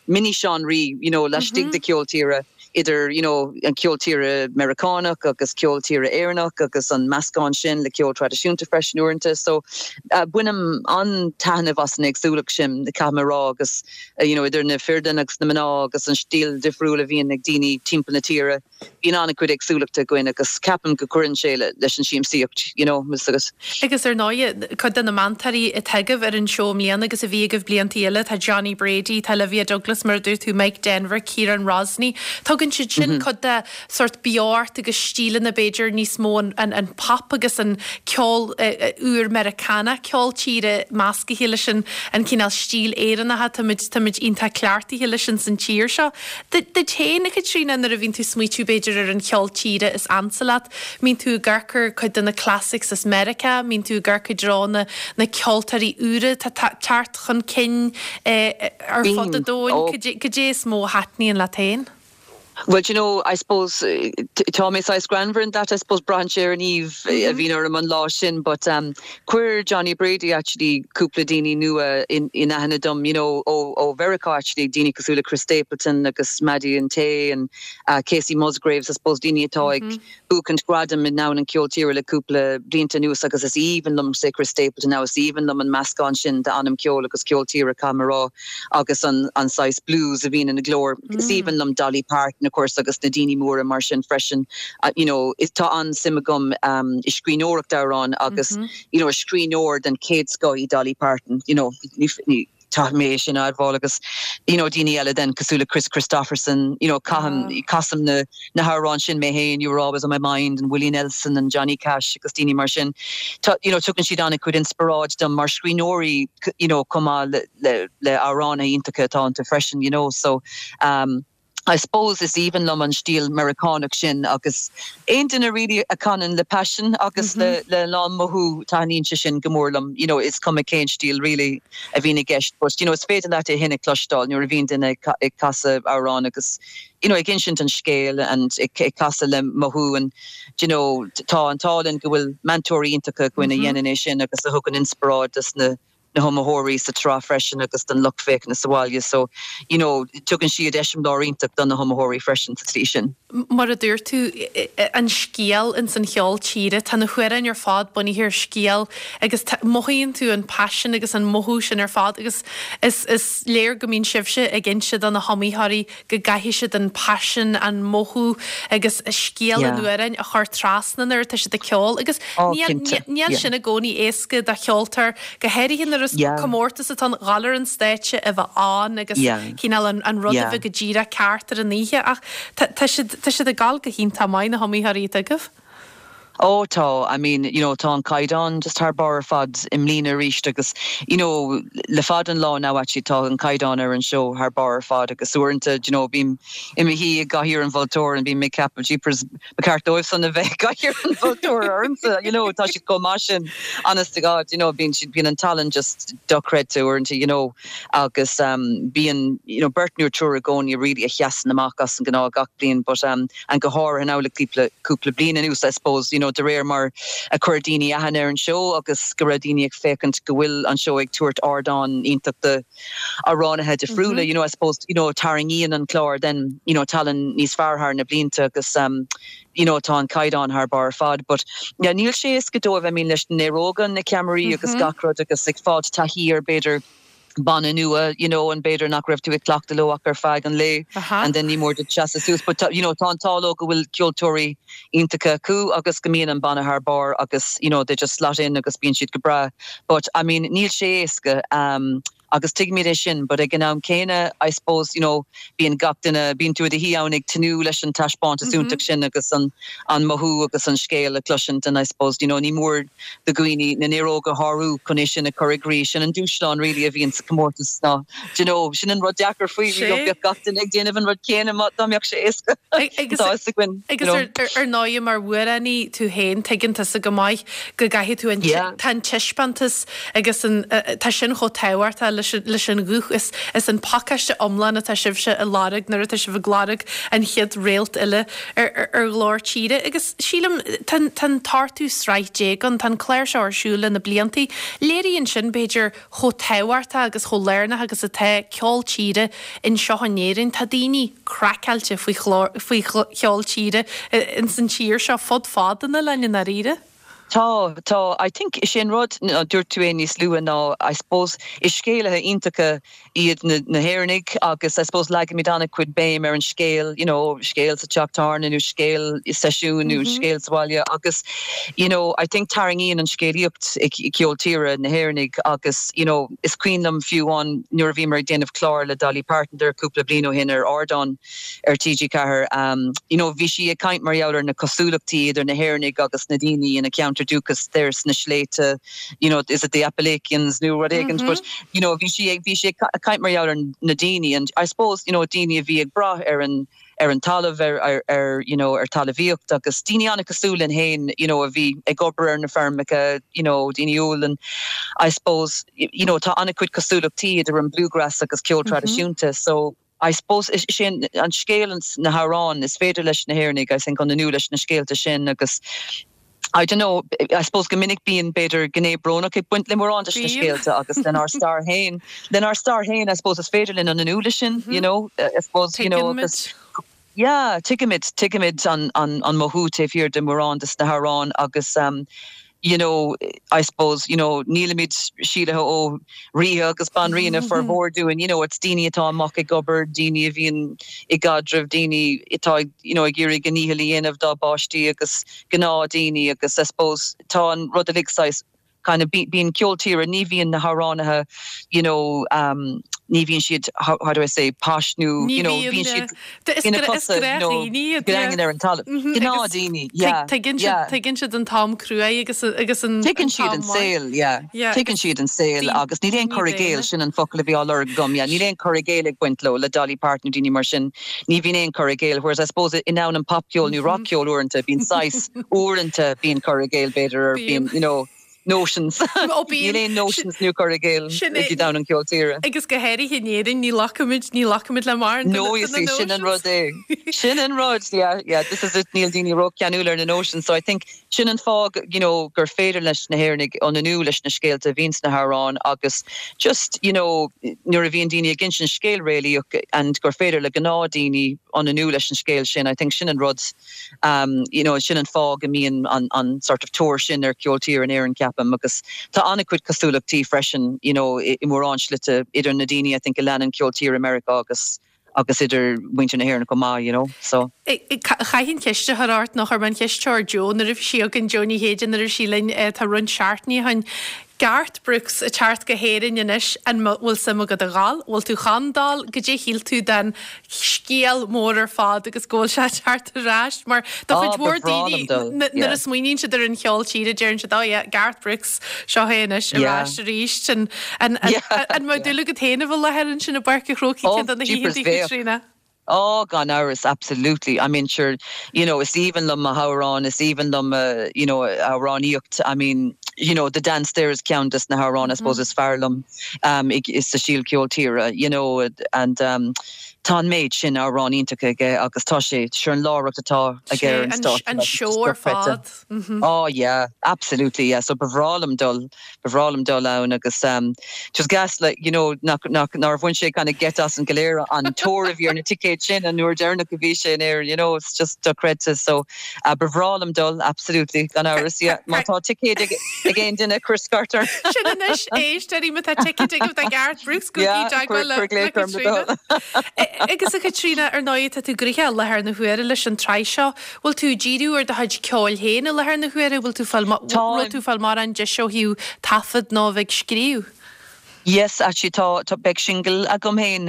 mini-seánraí, you know, laistigh de cheol tíre. idir you know an ceol tíre Meiriceánach agus ceol tíre Éireannach agus an meascán sin le ceol traidisiúnta freisin uaireanta. So bainim an-taitneamh as an éagsúlacht sin, caithfidh mé a rá, agus you know idir na fir agus na mná agus an stíl difriúil a bhíonn ag daoine timpeall na tíre. bíonn an-chuid éagsúlachta againn agus ceapaim go gcuireann sé leis an siamsaíocht, you know, 'fhios agat. Agus ar ndóighe, cuid de na meantóirí atá agaibh ar an seó i mbliana agus a bhí agaibh blianta eile, tá Johnny Brady, tá Olivia Douglas, mar a dúirt tú, Mike Denver, Ciarán Rosney. Tugann siad sin cuid de sórt beocht agus stíleanna b'fhéidir níos mó an pop agus an ceol úr Meiriceánach, ceol tíre meascaithe leis an cineál stíl Éireannach táimid táimid iontach cleachtaithe leis ins an tír seo. Duit féin, a Chaitríona, nuair a bhíonn tú ag smaoitiú b'fhéidir ar an cheol tíre is ansa leat, mbíonn tú ag amharc ar cuid de na classics as Meiriceá, mbíonn tú ag amharc i dtreo na na ceoltóirí úra atá teacht chun cinn ar fud an domhain, cad é is mó a thaitníonn leat féin? Well, do you know, I suppose, tá mé saghas greannmhar in that, I suppose, braitheann sé ar an aoibh a bhíonn orm an lá sin, but chuir Johnny Brady actually cúpla daoine nua in aithne dom, you know, ó ó Mheiriceá actually, daoine cosúil le Chris Stapleton agus Maddie and Tae and Kacey Musgraves, I suppose, daoine atá ag buachaint gradaim i ndomhan an cheoil tíre le cúpla blianta anuas agus is aoibhinn liom, say Chris Stapleton now, is aoibhinn liom an meascán sin d'anam ceoil agus ceol tíre, caithfidh mé a rá, agus an an saghas blues a bhíonn ina glór. Is aoibhinn liom Dolly Parton, of course, agus na daoine móra mar sin freisin. You know, is tá an-suim agam i scríbhneoireacht amhrán agus, you know, is scríbhneoir den chéad scoth í Dolly Parton, you know, ní, Caithfidh mé é sin a admháil agus you know daoine eile then cosúil le Kris Kristofferson, you know caithim, casaim na na hamhráin sin mé féin, You Were Always On My Mind and Willie Nelson and Johnny Cash agus daoine mar sin. Tá you know tugann siad an-chuid inspioráid dom mar scríbhneoirí you know chomh maith le le le amhránaithe iontacha atá iontu freisin you know so um I suppose is aoibhinn liom an stíl Meiriceánach sin agus aon duine really a chanann le paisean agus le le lán mothú taitníonn sé sin go mór liom you know is cuma cén stíl really a bhíonn i gceist but you know is féidir leat é sin a chloisteáil nuair a bhíonn duine ag casadh amhrán agus you know ag insint an scéil and ag ag casadh le mothú and you know tá an t-ádh linn go bhfuil meantóirí iontacha againn a dhéanann é sin agus a thugann inspioráid dos na na hiomaitheoirí sa tsraith freisin agus don lucht féachana sa bhaile so you know tugann siad eiseamláir iontach do na hiomaitheoirí freisin sa tslí sin. Mar a dúirt tú, an scéal ins an cheol tíre, tá na hamhráin ar fad bunaithe ar scéal agus mothaíonn tú an paisean agus an mothú sin ar fad agus is is léir go mbíonn sibhse ag inse do na hiomaitheoirí go gcaithfidh siad an paisean, an mothú agus scéal an amhráin a chur trasna nuair atá siad ag ceol agus níl sin i gcónaí éasca do cheoltóir, go háirithe nuair is comórtas atá ann, dhul ar an stáitse, a bheith ann agus cineál an rud a bheith go díreach ceart ar an oíche ach tá siad tá siad ag gabháil go hiontach maith na hiomaitheoirí atá agaibh. Ó tá, I mean, you know, tá an caighdeán just thar barr ar fad i mbliana arís agus, you know, le fada an lá now actually tá an caighdeán ar an seó thar barr ar fad agus uaireanta, do you know, bím i mo shuí i gcathaoir an mholtóra and bím ag ceapadh, jeepers, ba cheart dóibh san a bheith i gcathaoir an mholtóra ormsa, you know, tá siad chomh maith sin, honest to God, you know, bíonn siad, bíonn an tallann just dochreidte uaireanta, you know, agus bíonn, you know, beirt nó triúr i gcónaí really a sheasann amach as an ngnáth gach bliain but, and go háirithe now le cúpla, cúpla bliain anuas I suppose, you know, de réir mar a chuir daoine aithne ar an seó agus go raibh daoine ag féachaint go bhfuil an seó ag tabhairt ardán iontach do amhránaithe difriúla, you know, I suppose, you know, tarraingíonn an clár then, you know, tallann níos fearr thar na blianta agus um, you know, tá an caighdeán thar barr ar fad but yeah, níl sé éasca dóibh, I mean, leis na néaróga, na ceamaraí agus gach rud agus ag fáilt taithí ar b'fhéidir banna nua, you know, and b'fhéidir nach raibh tú ag cleachtadh leo ach ar feadh an lae and then ní mór duit seasamh suas. But you know, tá an t-ádh leo go bhfuil ceoltóirí iontacha acu agus go mbíonn an banna thar barr agus you know, they just slot in agus bíonn siad go breá. But I mean, níl sé éasca um, agus tuigimid é sin, but ag an am céanna, I suppose, you know, bíonn gach duine, bíonn tú i do shuí ann ag tnúth leis an taispeántas iontach sin agus an an mothú agus an scéal a chloisint and I suppose, you know, ní mór do dhaoine na néaróga a shárú chun é sin a chur i gcrích. Sin an dúshlán really a bhíonn sa chomórtas ná, do you know, sin an rud deacair faoi, you know, bheadh gach duine ag déanamh an rud céanna má dá mbeadh sé éasca. Agus Tá fhios againn, you agus know. ar ar ndóigh mar amhránaí tú féin, tuigeann tusa go maith go gcaithfidh tú an Yeah. tá an taispeántas agus an tá sin chomh tábhachtach leis leis an ghuth is is an pacáiste iomlán atá sibhse a lorg nuair atá sibh ag lorg an chéad réalt eile ar ar Ghlór Tíre agus sílim tá an tá an t-ochtú sraith déag ann, tá an clár seo ar siúl le na bliantaí. Léiríonn sin b'fhéidir chomh tábhachtach agus chomh lárnach agus atá ceol tíre anseo in Éirinn. Tá daoine craiceáilte faoi chlár faoi cheol tíre ins an tír seo fud fad an oileáin i ndáiríre. Tá, tá. I think is é an rud, dúirt tú é níos luaithe ná I suppose is scéalaithe iontacha iad na na hÉireannaigh agus I suppose leagaimid an-chuid béim ar an scéal, you know, scéal sa teach tábhairne nó scéal i seisiún nó scéal sa bhaile agus you know, I think tarraingíonn an scéalaíocht i gceol tíre na hÉireannaigh agus you know, is cuimhin liom fiú amháin nuair a bhíomar ag déanamh clár le Dolly Parton there cúpla bliain ó shin ar ardán ar TG4, you know, bhí sí ag caint mar gheall ar na cosúlachtaí idir na hÉireannaigh agus na daoine ina ceantar dúchais there sna sléibhte, you know, is it the Appalachians nó rud éigin, but, you know, bhí sí ag, bhí sí ag caint mar gheall ar na daoine and I suppose, you know, daoine a bhí ag brath ar an, ar an talamh, ar, ar, ar, you know, ar talamhaíocht agus daoine an-chosúil linn féin, you know, a bhí ag obair ar na feirmeacha, you know, daoine umhal and I suppose, you know, tá an-chuid cosúlachtaí idir an bluegrass agus ceol traidisiúnta so, I suppose is é an scéal na hamhráin is féidir leis na hÉireannaigh I think ionannú leis na scéalta sin agus I don't know I suppose go minic bíonn b'fhéidir gné brónach ag baint le mórán de na scéalta agus lenár stair féin lenár stair féin I suppose is féidir linn ionannú leis sin you know I suppose you know agus yeah tuigimid tuigimid an an an mothú taobh thiar de mórán de na hamhráin agus um, you know, I suppose, you know, nílimid síolraithe ó ríthe agus banríona formhór dúinn, you know, it's daoine atá amach ag obair, daoine a bhíonn i gcaidreamh, daoine atá ag, you know, ag iarraidh a ndícheall a dhéanamh dá bpáistí agus gnáthdhaoine agus I suppose tá an rud uilig saghas kind of bíonn ceol tíre, ní bhíonn na hamhránaithe, you know, um, ní bhíonn siad, how, how do I say, posh nó, you know, bíonn siad ina cosa, you know, daingean ar an talamh. Gnáthdhaoine, yeah. Tuigeann siad, tuigeann siad an t-am cruaidh agus agus an Tuigeann siad an saol, yeah. Tuigeann siad an saol agus níl aon cur i gcéill, sin an focal a bhí á lorg agam, yeah, níl aon cur i gcéill ag baint leo, le Dolly Parton nó daoine mar sin, ní bhíonn aon cur i gcéill, whereas I suppose i ndomhan an popcheoil nó rockcheoil uaireanta, bíonn saghas, uaireanta bíonn cur i gcéill b'fhéidir or bíonn, you know, notions. Ó bíonn. Níl aon notions nó cur i gcéill i domhan an cheoil tíre. Agus go háirithe in Éirinn, ní ghlacaimid, ní ghlacaimid le mórán de na notions. Sin an rud é. Sin an rud, yeah, yeah, this is it, níl daoine ró-cheanúil ar na notions, so I think sin an fáth, you know, gur féidir leis na hÉireannaigh ionannú leis na scéalta a bhíonn sna hamhráin agus just, you know, nuair a bhíonn daoine ag insint scéal réalaíoch and gur féidir le gnáthdhaoine ionannú leis an scéal sin, I think sin an rud. You know, sin an fáth go mbíonn an an sort of tóir sin ar cheol tíre in Éirinn, ceapaim, agus tá an-chuid cosúlachtaí freisin, you know, i mórán slite idir na daoine I think a leanann ceol tíre i Meiriceá agus agus idir muintir na hÉireann chomh maith, you know, so. Chaithfinn ceist a chur ort, nó chuir mé an cheist seo ar Joe nuair a bhí sí againn, Joe Ní Chéide, nuair a bhí sí linn, tá roinnt seachtainí ó shin. Garth Brooks ag teacht go hÉirinn anois, an bhfuil suim agat a dhul? Bhfuil tú chun dul? Goidé shíl tú den scéal mór ar fad agus go bhfuil sé ag teacht ar ais? Mar do chuid mhór daoine nuair a smaoiníonn siad ar an cheol tíre deireann siad oh yeah, Garth Brooks, seo é anois ar ais arís. An mbeadh dúil agat féin a bheith i láthair ansin i bPáirc an Chrócaigh ceann de na hoícheanta, a Chaitríona? Oh, gan amhras, absolutely. I mean, sure, you know, is aoibhinn liom a hamhráin, is aoibhinn liom a, you know, a amhránaíocht. I mean, you know, The Dance there is ceann des na hamhráin, I suppose, is fearr liom um, i, sa stíl ceol tíre, you know, and um, tá an méid sin amhráin iontacha aige agus tá sé, sure an láithreacht atá aige ar an stáitse. An seó ar fad. Oh yeah, absolutely, yeah. So ba bhreá liom dul Ba bhreá liom dul ann agus just gas like you know nach nach nár bhain sé kind of geit asainn go léir an tóir a bhí ar na ticéid sin an uair deireanach a bhí sé in Éirinn you know it's just dochreidte so uh, ba bhreá liom dul absolutely gan amhras yeah má tá ticéid ag ag aon duine cuir scairt orm. Sin anois éisteoirí má tá ticéid agaibh do Garth Brooks gabhaigí i dteagmháil le le Caitríona. Agus a Chaitríona ar ndóigh tá tú gnoitheach i láthair na huaire leis an tsraith seo. Bhfuil tú ag díriú ar do chuid ceoil féin i láthair na huaire? Bhfuil tú fáil, raibh tú fáil mórán deis ó thaobh taifead nó a bheith ag scríobh? Yes, actually tá, tá, beidh singil agam féin,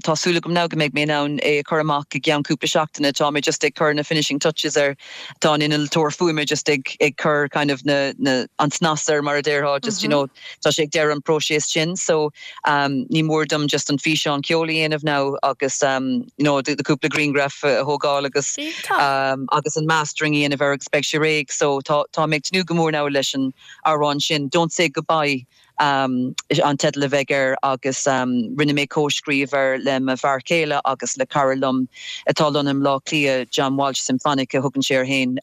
tá súil agam now go mbeidh mé in ann é a chur amach i gceann cúpla seachtaine, tá mé just ag cur na finishing touches air, tá an innealtóir fuaime just ag, ag cur kind of na, na, an snas air mar a déarfá, just you know, tá sé ag deireadh an próiseas sin so ní mór dom just an físeán ceoil a dhéanamh now agus you know the cúpla grianghraf a thógáil agus agus an mastering a dhéanamh air agus beidh sé réidh so tá tá mé ag tnúth go mór now leis an amhrán sin Don't Say Goodbye. An teideal a bheidh air agus rinne mé comhscríobh air le mo bhfear céile agus le cara liom atá lonnaithe i mBleá Cliath, John Walsh Symphonic a thugann sé air féin.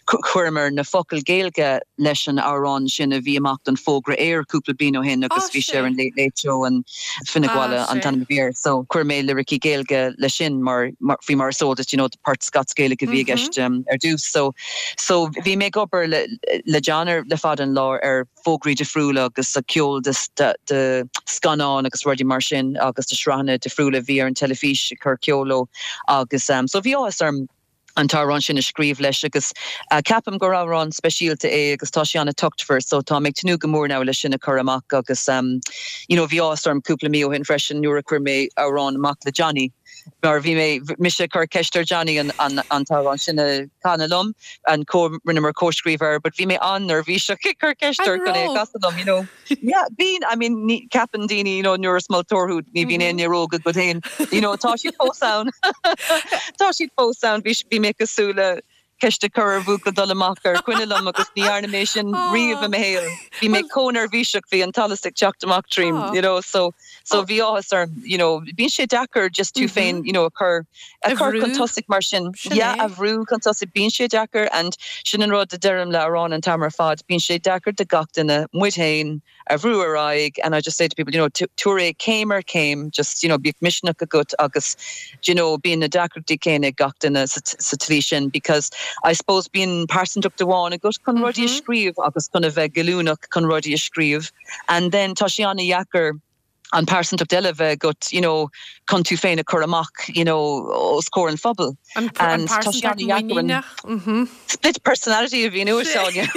Chuireamar na focail Gaeilge leis an amhrán sin a bhí amach don fógra aeir cúpla bliain ó shin agus bhí sé ar an Late Late Show and Fionnuala an t-ainm a bhí air. So chuir mé liricí Gaeilge leis sin mar faoi mar is eol duit you know port Scots-Gaelic a bhí i gceist ar dtús. So so bhí mé ag obair le le John ar le fada an lá ar fógraí difriúla agus ceol de scannáin agus rudaí mar sin agus de shraitheanna difriúla a bhí ar an teilifís ag cur ceol leo agus so bhí áthas orm an t-amhrán sin a scríobh leis agus ceapaim gur amhrán speisialta é agus tá sé an-tochtmhar so tá mé ag tnúth go mór now leis sin a chur amach agus you know bhí áthas orm cúpla mí ó shin freisin nuair a chuir mé amhrán amach le Johnny mar bhí mé, mise ag cur ceist ar Johnny an t-amhrán sin a chanadh liom, an co, rinneamar comhscríobh air, but bhí mé an-neirbhíseach ag cur ceist air chun é a chasadh liom, you know. Yeah, bíonn, I mean, ní, ceapann daoine, you know, nuair is moltóir thú, ní bhíonn aon néaróg agat féin, you know, tá siad fós ann. Tá siad fós ann, bhí, bhí mé cosúil le ceist a chur ar bhuachaill dul amach ar choinne liom agus ní dhearna mé sin riamh i mo shaol. Bhí mé chomh neirbhíseach, bhí an t-allas ag teacht amach tríom, you know, so, so bhí áthas orm, you know, bíonn sé deacair just tú féin, you know, a chur, a chur chun tosaigh mar sin. Yeah, a bhrú chun tosaigh, bíonn sé deacair and sin an rud a deirim le amhráin an t-am ar fad, bíonn sé deacair do gach duine, muid féin, a bhrú ar aghaidh and I just say to people, you know, tabhair é céim ar chéim, just, you know, bíodh misneach agat agus, do you know, bíonn na deacrachtaí céanna ag gach duine sa tslí sin because I suppose bíonn pearsantacht amháin agat chun rudaí a scríobh agus chun a bheith goilliúnach chun rudaí a scríobh and then tá sé an-dheacair an pearsantacht eile a bheith agat, you know, chun tú féin a chur amach, you know, os comhair an phobail. An And tá sé an-dheacair an muiníneach. split personality a mhíniú, Áine.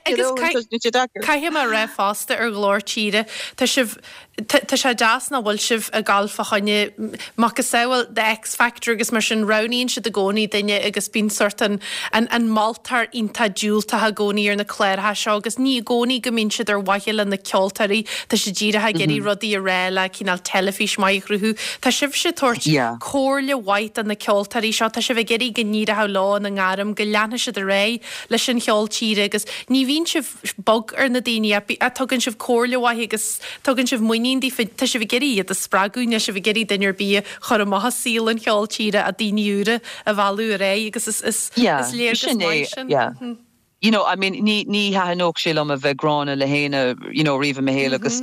Agus caithfidh mé a rá fosta ar Ghlór Tíre, tá sibh, tá sé deas nach bhfuil sibh ag gabháil fá choinne macasamhail The X Factor agus mar sin, roghnaíonn siad i gcónaí duine agus bíonn sórt an, an moltóir iontach diúltach i gcónaí ar na cláracha seo agus ní i gcónaí go mbíonn siad ar mhaithe le na ceoltóirí, tá siad díreach ag iarraidh rudaí a rá le cineál teilifís maith a chruthú. Tá sibhse ag tabhairt comhairle mhaith do na ceoltóirí seo, tá sibh ag iarraidh go n-éireoidh leo ina ngairm, go leanfaidh siad ar aghaidh leis an cheol tíre agus ní bhíonn sibh bog ar na daoine ach tugann sibh comhairle mhaith agus tugann sibh muinín daofa, tá sibh ag iarraidh iad a spreagadh, níl sibh ag iarraidh duine ar bith a chur amach as saol an cheoil tíre ach daoine úra a mhealladh ar aghaidh agus is is is léargas maith sin. Yeah. You know, I mean, ní, ní thaitneodh sé liom a bheith gránna le héinne, you know, riamh i mo shaol agus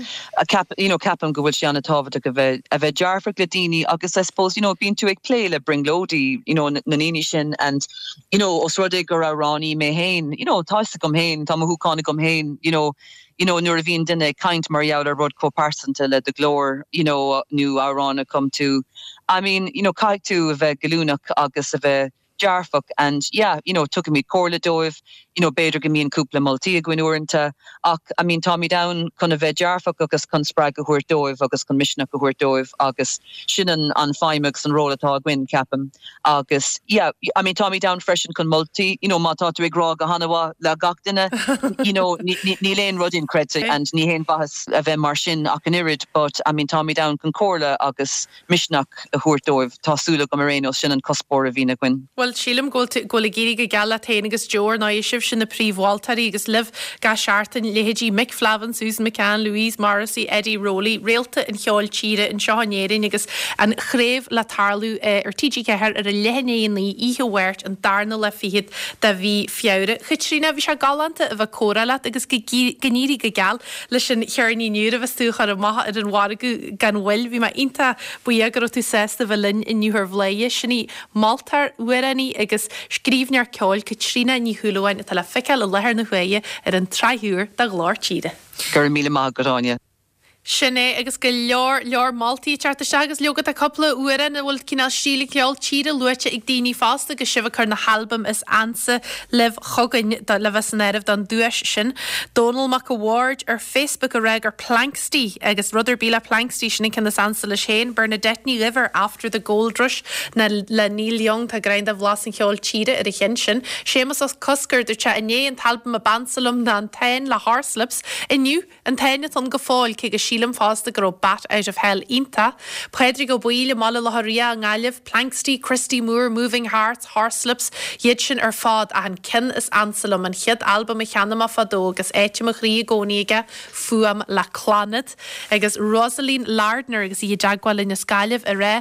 ceap, you know, ceapaim go bhfuil sé an-tábhachtach a bheith, a bheith dearfach le daoine agus I suppose, you know, bíonn tú ag plé le brionglóidí, you know, na ndaoine sin and, you know, os rud é gur amhránaí mé féin, you know, tá fhios agam féin, tá mothúcháin agam féin, you know, you know, nuair a bhíonn duine ag caint mar gheall ar rud chomh pearsanta le do ghlór, you know, nó amhrán a chum tú, I mean, you know, caithfidh tú a bheith goilliúnach agus a bheith dearfach and yeah, you know, tugaimid comhairle dóibh, you know, b'fhéidir go mbíonn cúpla moltaí againn uaireanta ach I mean táimid ann chun a bheith dearfach agus chun spreagadh a thabhairt dóibh agus chun misneach a thabhairt dóibh agus sin an an feidhm agus an ról atá againn, ceapaim. Agus yeah, I mean táimid ann freisin chun moltaí, you know, má tá tú ag rá go han-mhaith le gach duine, you know, níl aon rud inchreidte and ní haon mhaitheas a bheith mar sin ach an oiread but I mean táimid ann chun comhairle agus misneach a thabhairt dóibh. Tá súil agam ar aon nós, sin an cuspóir a bhíonn againn. Bhuel, sílim go bhfuil tú, go bhfuil ag éirí go geal leat féin agus Joe, ar ndóigh, sibhse na príomh-mholtóirí agus libh gach seachtain, leithéidí Mick Flavin, Susan McCann, Louise Morrissey, Eddie Rowley, réalta an cheoil tíre anseo in Éirinn agus an chraobh le tarlú ar TG4 ar a leath i ndiaidh 9 oíche Mháirt an darna lá fichead de mhí Feabhra. Chaitríona, bhí sé galánta a bheith ag comhrá leat agus go n-éirí go geal leis an cheirnín úr a bheas tú a chur amach ar an mhargadh gan mhoill. Bhí mé iontach buíoch go raibh tú sásta a bheith linn inniu ar Bhladhaire. Sin í moltóir, amhránaí agus scríbhneoir ceoil Caitríona Ní Shúilleabháin atá le feiceáil i láthair na huaire ar an tsraith úr de Ghlór Tíre. Go raibh míle maith agat, Áine. Sin é, agus go leor, leor moltaí ag teacht isteach agus leoga tá cúpla amhrán a bhfuil cineál stíl an cheoil tíre luaite ag daoine fosta agus sibh ag cur na halbaim is ansa libh chugainn le bheith san áireamh don duais sin. Dónall Mac a' Bhaird ar Facebook ag rá gur Planxty agus rud ar bith le Planxty, sin an ceann is ansa leis féin. Bernadette Ní Dhuibh ar After the Gold Rush na le Neil Young, tá greim de bhlas an cheoil tíre ar an cheann sin. Séamus Ó Cosgair, dúirt sé inné an t-albam ab ansa liom ná An Táin le Horslips. Inniu, An Táin atá ann go fóill, cé go sílim. Sílim fosta go raibh Bat Out of Hell iontach. Pádraig Ó Baoill i mBaile Locha Riach i nGaillimh, Planxty, Christy Moore, Moving Hearts, Horslips, iad sin ar fad ach an ceann is ansa liom, an chéad albam a cheannaigh mé fadó agus áit i mo chroí i gcónaí aige, Fuaim le Clannad. Agus Rosaleen Lardner agus í i dteagmháil linn as Gaillimh ag rá,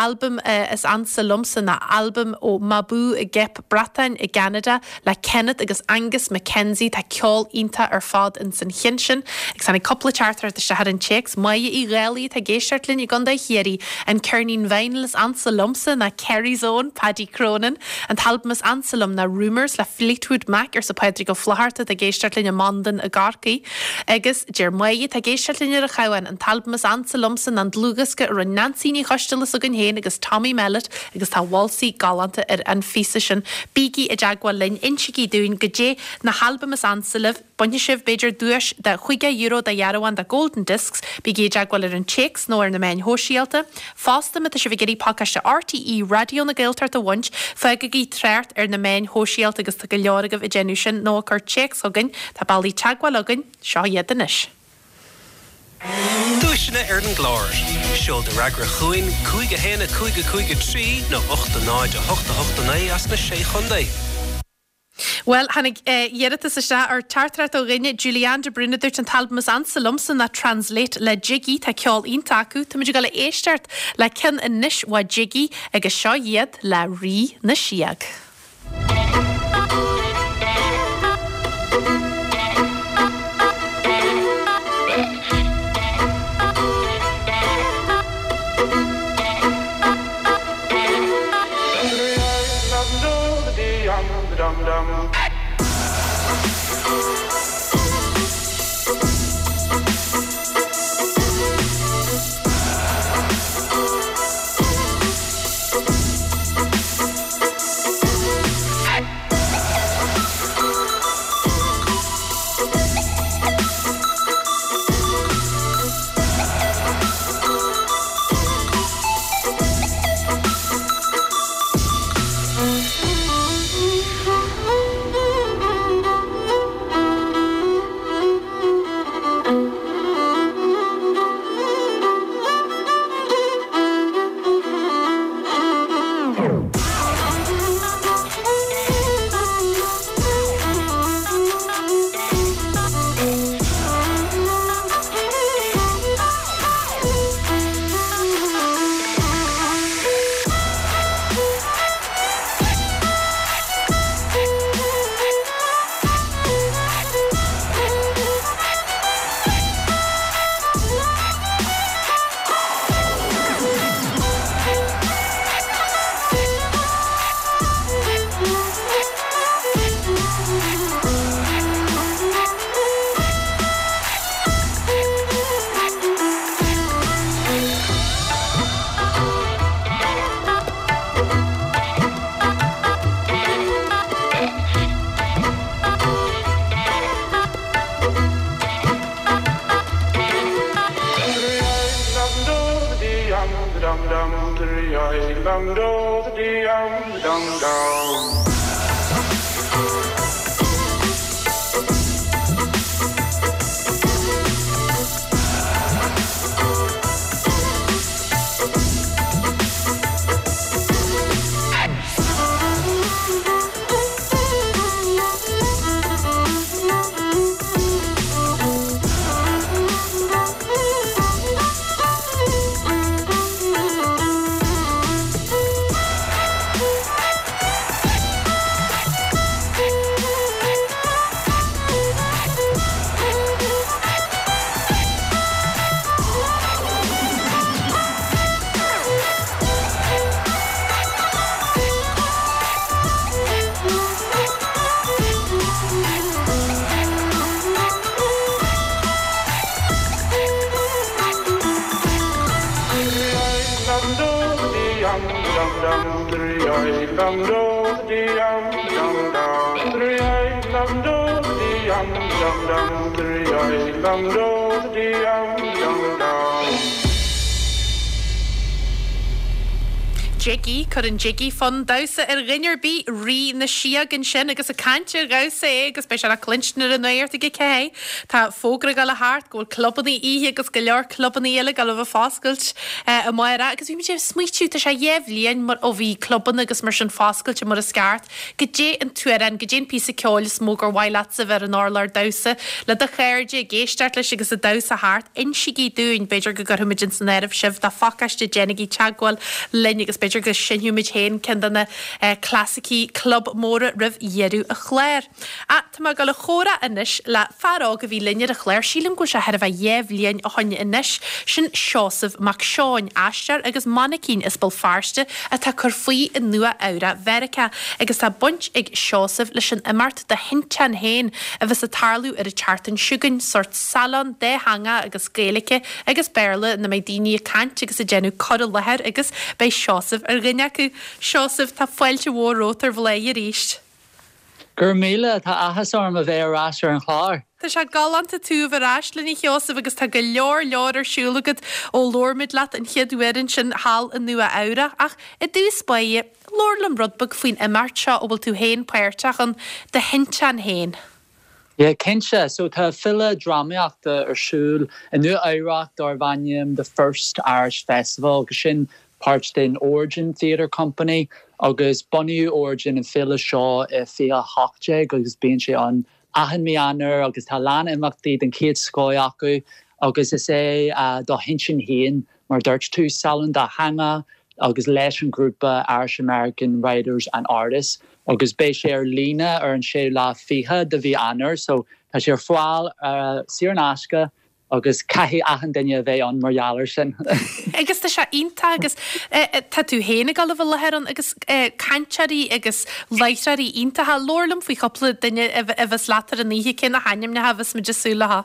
Albam is ansa liomsa ná albam ó Mabou i gCeap Breatainn i gCeanada le Kenneth agus Angus MacKenzie, tá ceol iontach ar fad ins an chinn sin. Agus tháinig cúpla teachtaireacht isteach ar an téacs, Máire Uí Dhálaigh atá ag éisteacht linn i gContae Chiarraí, An ceirnín vinyl is ansa liomsa ná Kerry's Own, Paddy Cronin. An t-albam is ansa liom ná Rumours le Fleetwood Mac, arsa Pádraig Ó Flaithearta atá ag éisteacht linn i Mandain i gCorcaigh. Agus deir Máire atá ag éisteacht linn ar an Chabhán, An t-albam is ansa liomsa ná an dlúthdhiosca a rinne Neansaí Ní Choisteala s'againn féin agus Tommy Mellett agus tá válsaí galánta ar an phíosa sin. Bígí i dteagmháil linn, insígí dúinn goidé na halbaim is ansa libh, bainfidh sibh, b'fhéidir, duais de €50 de dhearbhán de Golden Discs. Bígí i dteagmháil ar an téacs nó ar na meáin shóisialta. Fosta, má tá sibh ag iarraidh pacáiste RTÉ Raidió na Gaeltachta a bhaint, fágaigí trácht ar na meáin shóisialta agus tá go leor agaibh ag déanamh sin, nó ag cur téacs chugainn. Tá bealaí teagmháil againn, seo iad anois. Duaiseanna ar an gclár. Seol do fhreagra chugainn, 5 1 5 5 3 nó 8 0 8 8 9 as na Sé Chontae. Bhuel, tháinig iarratas isteach ar teachtaireacht ó dhuine, Julianne de Brún, a dúirt an t-albam is ansa liomsa ná Translate le Jiggy, tá ceol iontach acu. Táimid ag dul a éisteacht le ceann anois ó Jiggy agus seo iad le Rí na Síog. Jiggy, cuireann Jiggy fonn damhsa ar dhuine ar bith, Rí na Síog ansin agus ag caint ar dhamhsa é agus beidh sé le cluinstin ar an nuacht ag a 4. Tá fógra ag dul a theacht go bhfuil clubanna oíche agus go leor clubanna eile ag dul a bheith foscailt amárach agus bhí muid ag smaoitiú, tá sé dhéa bhliain mar ó bhí clubanna agus mar sin foscailte mar is ceart. Goidé an t-amhrán, goidé an píosa ceoil is mó gur mhaith leatsa a bheith ar an urlár damhsa le do chairde, ag éisteacht leis agus ag damhsa thart? Insígí dúinn, b'fhéidir go gcuirfimid ins an áireamh sibh do phacáiste, déanaigí teagmháil linn agus b'fhéidir go seinnfimid féin ceann de na clasaicí club móra roimh dheireadh an chláir. Ach tá mé ag dul a chomhrá anois le fear óg a bhí linn ar an chlár, sílim go bhfuil sé thar a bheith dhéa bhliain ó shoin anois, sin Seosamh Mac Seoin, aisteoir agus mainicín as Béal Feirste atá ag cur faoi i Nua Eabhrac Mheiriceá agus tá baint ag Seosamh leis an imeacht Do Thinteán Féin a bheas ag tarlú ar an tseachtain seo chugainn, sórt salon dátheangach agus Gaeilge agus Béarla ina mbeidh daoine ag caint agus ag déanamh cur i láthair agus beidh Seosamh ar dhuine acu. Seosamh, tá fáilte mhór romhat ar Bhláth arís. Go raibh míle, tá áthas orm a bheith ar ais ar an chlár. Tá sé galánta tú a bheith ar ais linn a Sheosaimh agus tá go leor leor ar siúl agat ó labhair muid leat an chéad uair ansin thall i Nua Eabhrac. Ach i dtús báire, labhair liom rud beag faoin imeacht seo a bhfuil tú féin páirteach ann, Do Thinteán Féin. Yeah, cinnte. So tá féile drámaíochta ar siúl i Nua Eabhrac darb ainm The First Irish Festival agus sin páirt den Origin Theatre Company agus bunaíodh Origin an féile seo i 2018 agus bíonn sé ann achan mí Eanáir agus tá a lán imeachtaí den chéad scoth acu agus is é Do Thinteán Féin Mar a dúirt tú, salon dátheangach agus leis an ghrúpa Irish American Writers and Artists agus beidh sé ar líne ar an séú lá fichead de mhí Eanáir so tá sé ar fáil saor in aisce agus caithfidh achan duine a bheith ann mar gheall air sin. Agus tá sé iontach agus tá tú féin ag dul a bheith i láthair ann agus cainteoirí agus láithreoirí iontacha. Labhair liom faoi chúpla duine a bheas leat ar an oíche, cé na hainmneacha a bheas muid ag súil leo?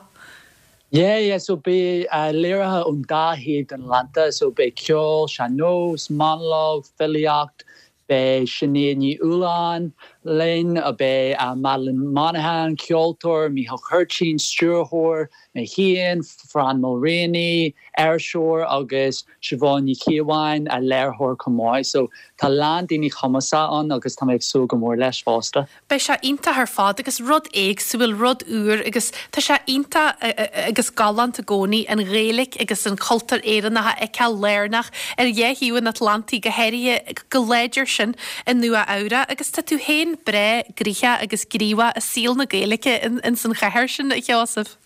Yeah, yeah, so beidh léirithe ón dá thaobh den Atlantach, so beidh ceol, sean-nós, monalóg, filíocht, beidh Sinéad Ní Fhaoláin linn, beidh Madeline Monaghan, ceoltóir, Mícheál Cuirtín, stiúrthóir, mé féin, Fran Mulraney, iriseoir agus Siobhán Ní Chíobháin, léiritheoir chomh maith. So tá a lán daoine cumasach ann agus tá mé ag súil go mór leis fosta. Beidh sé iontach ar fad agus rud éagsúil, rud úr agus tá sé iontach agus galánta i gcónaí an Ghaeilge agus an cultúr Éireannach a fheiceáil lárnach ar dhá thaobh an Atlantaigh, go háirithe go láidir sin i Nua Eabhrac agus tá tú féin breá gnoitheach agus gníomhach i saol na Gaeilge ins an chathair sin, a Sheosaimh.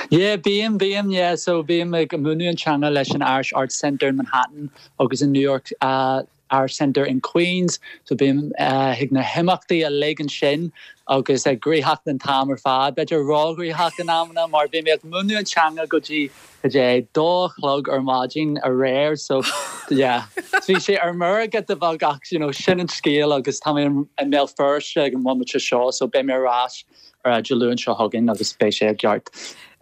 Yeah, bím, bím, yeah, so bím ag múineadh an teanga leis an Irish Arts Centre in Manhattan agus in New York Irish Centre in Queens, so bím chuig na himeachtaí uilig ansin agus ag gnoitheach an t-am ar fad, b'fhéidir róghnoitheach in amanna mar bhí mé ag múineadh an teanga go dtí cad é dó a chlog ar maidin aréir so yeah bhí sé ar meirge de bheag ach you know sin an scéal agus tá mé i mBéal Feirste ag an mbomaite seo so beidh mé ar ais ar Dé Luain seo chugainn agus beidh sé i gceart.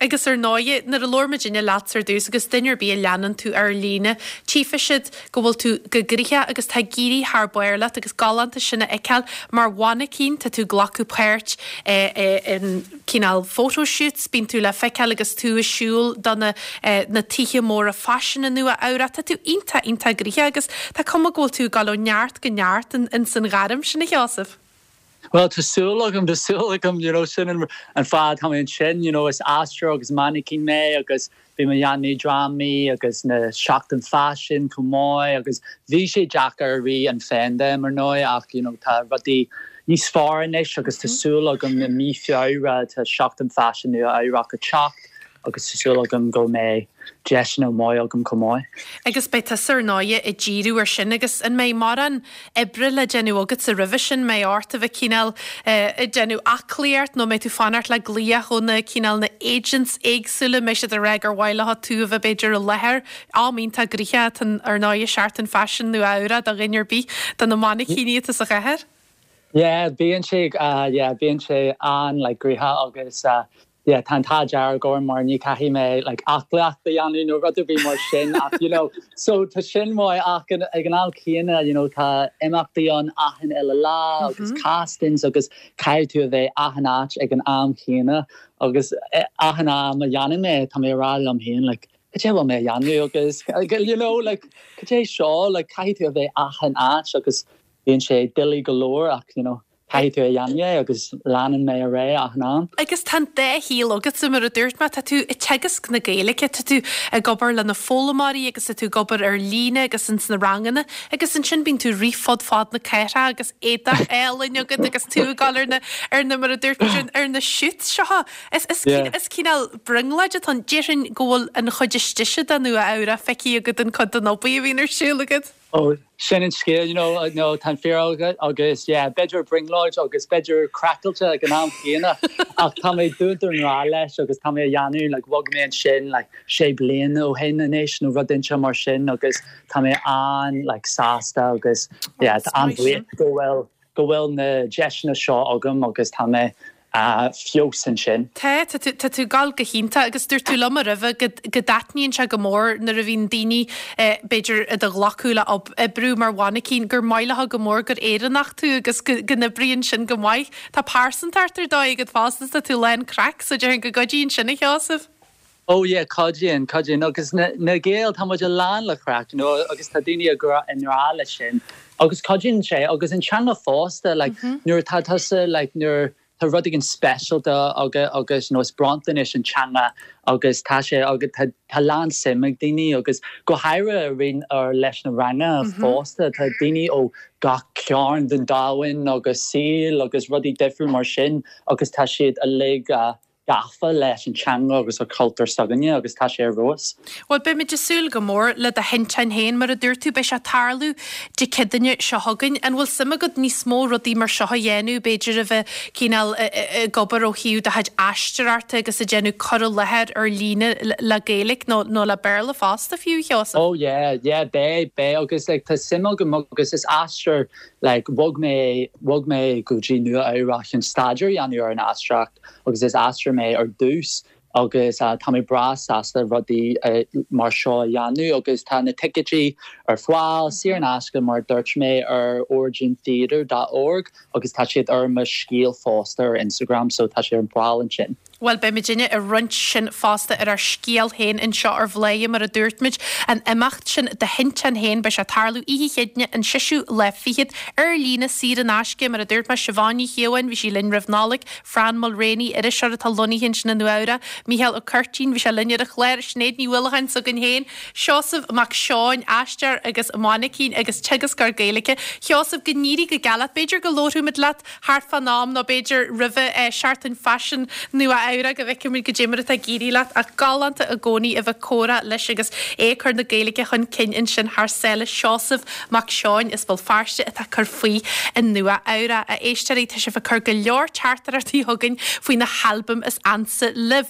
Agus ar ndóighe, nuair a labhair muidinne leatsa ar dtús agus duine ar bith a leanann tú ar líne, tchífidh siad go bhfuil tú go gnoitheach agus tá ag éirí thar barr leat agus galánta sin a fheiceáil mar mhainicín, tá tú ag glacadh páirt in cineál photo shoots, bíonn tú le feiceáil agus tú ag siúl do na na tithe móra faisin i Nua Eabhrac, tá tú iontach iontach gnoitheach agus tá cuma go bhfuil tú ag dul ó neart go neart ins an ghairm sin a Sheosaimh. Bhuel, tá súil agam, tá súil agam, you know, sin an fáth atá mé ansin, you know, is aisteoir agus mainicín mé agus bhí mé ag déanamh drámaí agus na seachtain faisin chomh maith agus bhí sé deacair i rith an phaindéim ar ndóigh ach, you know, tá rudaí níos fearr anois agus tá súil agam i mí Feabhra tá seachtain faisin Nua Eabhrac ag teacht agus tá súil agam go mbeidh deiseanna maith agam chomh maith. Agus beidh tusa ar ndóighe ag díriú ar sin agus an mbeidh mórán oibre le déanamh agatsa roimhe sin, mbeidh ort a bheith cineál ag déanamh aclaíocht nó mbeidh tú fanacht le glaoch ó na cineál na agents éagsúla, mbeidh siad ag rá gur mhaith leo tú a bheith b'fhéidir i láthair, am iontach gnoitheach atá ar ndóighe Seachtain Faisin Nua Eabhrac do dhuine ar bith de na mainicíní atá sa chathair. Yeah, bíonn sé, yeah, bíonn sé an-like gnoitheach agus yeah tá an t-ádh dearg orm mar ní caithfidh mé like aclaíocht a dhéanamh nó rud ar bith mar sin ach you know so tá sin maith ach ag an am céanna you know tá imeachtaí ann achan uile lá agus castings agus caithfidh tú a bheith achan áit ag an am chéanna agus achan am a dhéanann mé tá mé ag rá liom féin like. cad é a bhfuil mé a dhéanamh agus you know like cad é seo like caithfidh tú a bheith achan áit agus bíonn sé doiligh go leor ach you know caithfidh tú a dhéanamh é agus leanann mé ar aghaidh achan am. Agus tá an dá shaol agatsa, mar a dúirt mé, tá tú ag teagasc na Gaeilge, tá tú ag obair le na foghlaimeoirí agus tá tú ag obair ar líne agus ins na ranganna agus ansin bíonn tú ag rith fud fad na cathrach agus éadach álainn agat agus tú ag dul ar na, ar na, mar a dúirt muid, ar na shoots seo. Is, is, is cineál brionglóid atá ann. Déarfainn go bhfuil an chuid istigh de Nua Eabhrac feicthe agat an cuid den obair a bhíonn ar siúl agat. Oh, sin an scéal, you know, no, tá an fíor agat agus yeah, b'fhéidir brionglóid agus b'fhéidir craiceáilte ag an am chéanna ach tá mé dúnta i ngrá leis agus tá mé a dhéanamh, like, bhog mé ansin like sé bliana ó shin anois nó rud inteacht mar sin agus tá mé an like sásta agus yeah, tá an-bhuíoch go bhfuil go bhfuil na deiseanna seo agam agus tá mé feabhas ansin. Tá, tá tú, tá tú ag gabháil go hiontach agus dúirt tú liom roimhe go, go dtaitníonn sé go mór nuair a bhíonn daoine b'fhéidir i do ghlacadh le oibriú mar mhainicín gur maith leo go mór gur Éireannach tú agus go, go n-oibríonn sin go maith. Tá pearsantacht ar dóigh agat fosta, tá tú lán craic so déarfainn go gcuidíonn sin a Sheosaimh. Oh yeah, cuidíonn, cuidíonn agus na, na Gaeil, tá muid lán le craic, you know, agus tá daoine i ngrá, i ngrá leis sin agus cuidíonn sé agus an teanga fosta, like, nuair atá tusa, like, nuair tá rud éigin speisialta agat agus, you know, is bronntanais an teanga agus tá sé agus tá, tá lán suim ag daoine agus go háirithe roinn ar leis na ranganna fosta, tá daoine ó gach cearn den domhan agus saol agus rudaí difriúil mar sin agus tá siad uilig gafa leis an teanga agus an cultúr s'againne agus tá sé ar fheabhas. Bhuel, beimid ag súil go mór le do thinteán féin, mar a dúirt tú, beidh sé ag tarlú Dé Céadaoine seo chugainn. An bhfuil suim agat níos mó rudaí mar seo a dhéanamh, b'fhéidir a bheith cineál ag obair ó thaobh do chuid aisteoireachta agus ag déanamh cur i láthair ar líne le Gaeilge nó nó le Béarla fosta fiú, a Sheosaimh? Oh yeah, yeah, beidh, beidh agus like tá suim agam agus is aisteoir like bhog mé, bhog mé go dtí Nua Eabhrac chun staidéar a dhéanamh ar an aisteoireacht agus is aisteoir mé ar dtús agus tá mé breá sásta rudaí mar seo a dhéanamh agus tá na ticéidí ar fáil saor in aisce mar a dúirt mé ar origintheatre dot org agus tá siad ar mo scéal fosta ar Instagram so tá sé ar fáil ansin. Bhuel, beidh muidinne ag roinnt sin fosta ar ár scéal féin anseo ar Bhladhaire, mar a dúirt muid, an imeacht sin do thinteán féin, beidh sé ag tarlú oíche Chéadaoine an seisiú lá fichead, ar líne, saor in aisce, mar a dúirt mé, Siobhán Ní Chíobháin, bhí sí linn roimh Nollaig, Fran Mulraney, iriseoir atá lonnaithe ansin i Nua Eabhrac, Mícheál Ó Curtín, bhí sé linn ar an chlár, Sinéad Ní Uallacháin s'againn féin, Seosamh Mac Seoin, aisteoir agus mainicín agus teagascóir Gaeilge. Sheosamh, go n-éirí go geal leat, b'fhéidir go labharfaimid leat thart fán am nó b'fhéidir roimhe Seachtain Faisin Nua Eabhrac go bhfeicfimid goidé mar atá ag éirí leat ach galánta i gcónaí a bheith ag comhrá leis agus é ag cur na Gaeilge chun cinn ansin thar sáile Seosamh Mac Seoin as Béal Feirste atá ag cur faoi i Nua Eabhrac. A éisteoirí, tá sibh ag cur go leor teachtaireachtaí chugainn faoi na halbaim is ansa libh.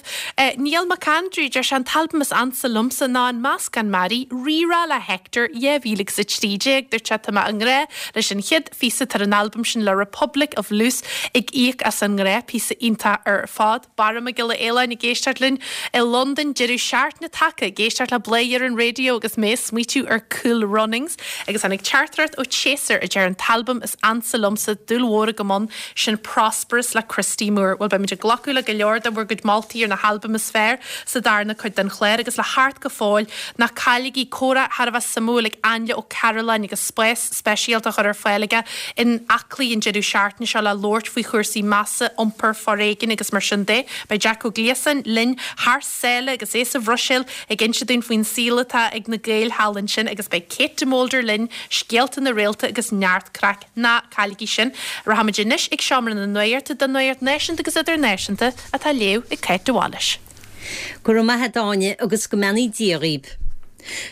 Niall Mac Aindriú, deir sé an t-albam is ansa liomsa ná An Meascán Mearaí, Rí-Rá le Hector 2013. Dúirt sé tá mé i ngrá leis an chéad phíosa atá ar an albam sin le Republic of Loose ag íoc as an ngrá, píosa iontach ar fad. Barra Mac Giolla Fhaoláin ag éisteacht linn i Londain, deireadh seachtaine tagtha, ag éisteacht le Bladhaire ar an raidió agus mé ag smaoitiú ar Cool Runnings agus tháinig teachtaireacht ó Chaser a deir an t-albam is ansa liomsa, dúil mhór agam ann, sin Prosperous le Christy Moore. Bhuel beimid ag glacadh le go leor de bhur gcuid moltaí ar na halbaim is fearr sa darna cuid den chlár agus le theacht go fóill, ná cailligí comhrá thar a bheith suimiúil ag Ainle Ó Cairealláin agus spás speisialta á chur ar fáil aige in Aclaí an deireadh seachtaine seo le labhairt faoi chúrsaí measa, iompair, foréigin agus mar sin de. Beidh Jack Ó Gliasáin linn thar sáile agus é sa Bhruiséil ag inse dúinn faoin saol atá ag na Gaeil thall ansin agus beidh Kate de Molder linn, scéalta na réalta agus neart craic. Ná cailligí sin. Rachaimid anois ag Seomra na Nuachta don nuacht náisiúnta agus idirnáisiúnta atá á léamh ag Cáit de Bhailís. Go raibh maith a't a Áine agus go mbeannaí Dia dhaoib.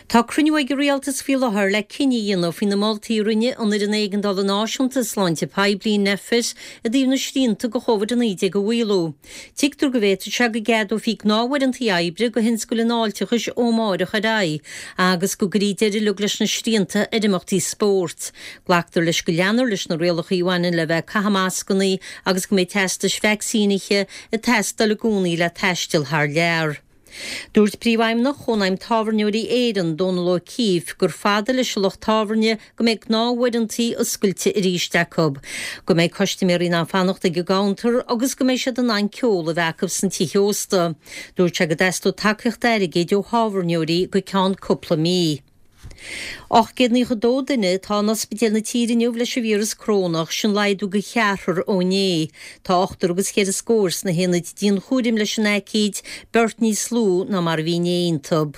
Tá cruinniú ag an Rialtas faoi láthair le cinneadh a dhéanamh faoi na moltaí a rinne an Fhoireann Éigeandála Náisiúnta Sláinte Poiblí, Nphet, i dtaobh na srianta do Chóvid-19 a mhaolú. Tuigtear go bhféadfadh sé go gceadófaí gnáthuaireantaí oibre do thionscail an fháilteachais ó amárach ar aghaidh agus go gcuirfí deireadh uilig leis na srianta ar imeachtaí spóirt. Glactar leis go leanfar leis na rialacha a bhaineann le bheith ag caitheamh mascannaí agus go mbeidh teastais vacsaínithe ag teastáil i gcónaí le taisteal thar lear. Dúirt Príomhfheidhmeannach Chónaidhm Tábhairneoirí Éireann, Dónal O'Keeffe, gur fada leis an lucht tábhairne go mbeidh gnáthuaireantaí oscailte arís acu, go mbeidh custaiméirí in ann fanacht ag an gcuntar agus go mbeidh siad in ann ceol a bheith acu sna tithe ósta. Dúirt sé go dteastódh tacaíocht airgid ó thábhairneoirí go ceann cúpla mí. 892 duine atá in ospidéil na tíre inniu leis an víreas corónach, sin laghdú de cheathrar ó inné. Tá ochtar agus cheithre scór sna haonaid dianchúraim leis an aicíd, beirt níos lú ná mar a bhí inné iontu.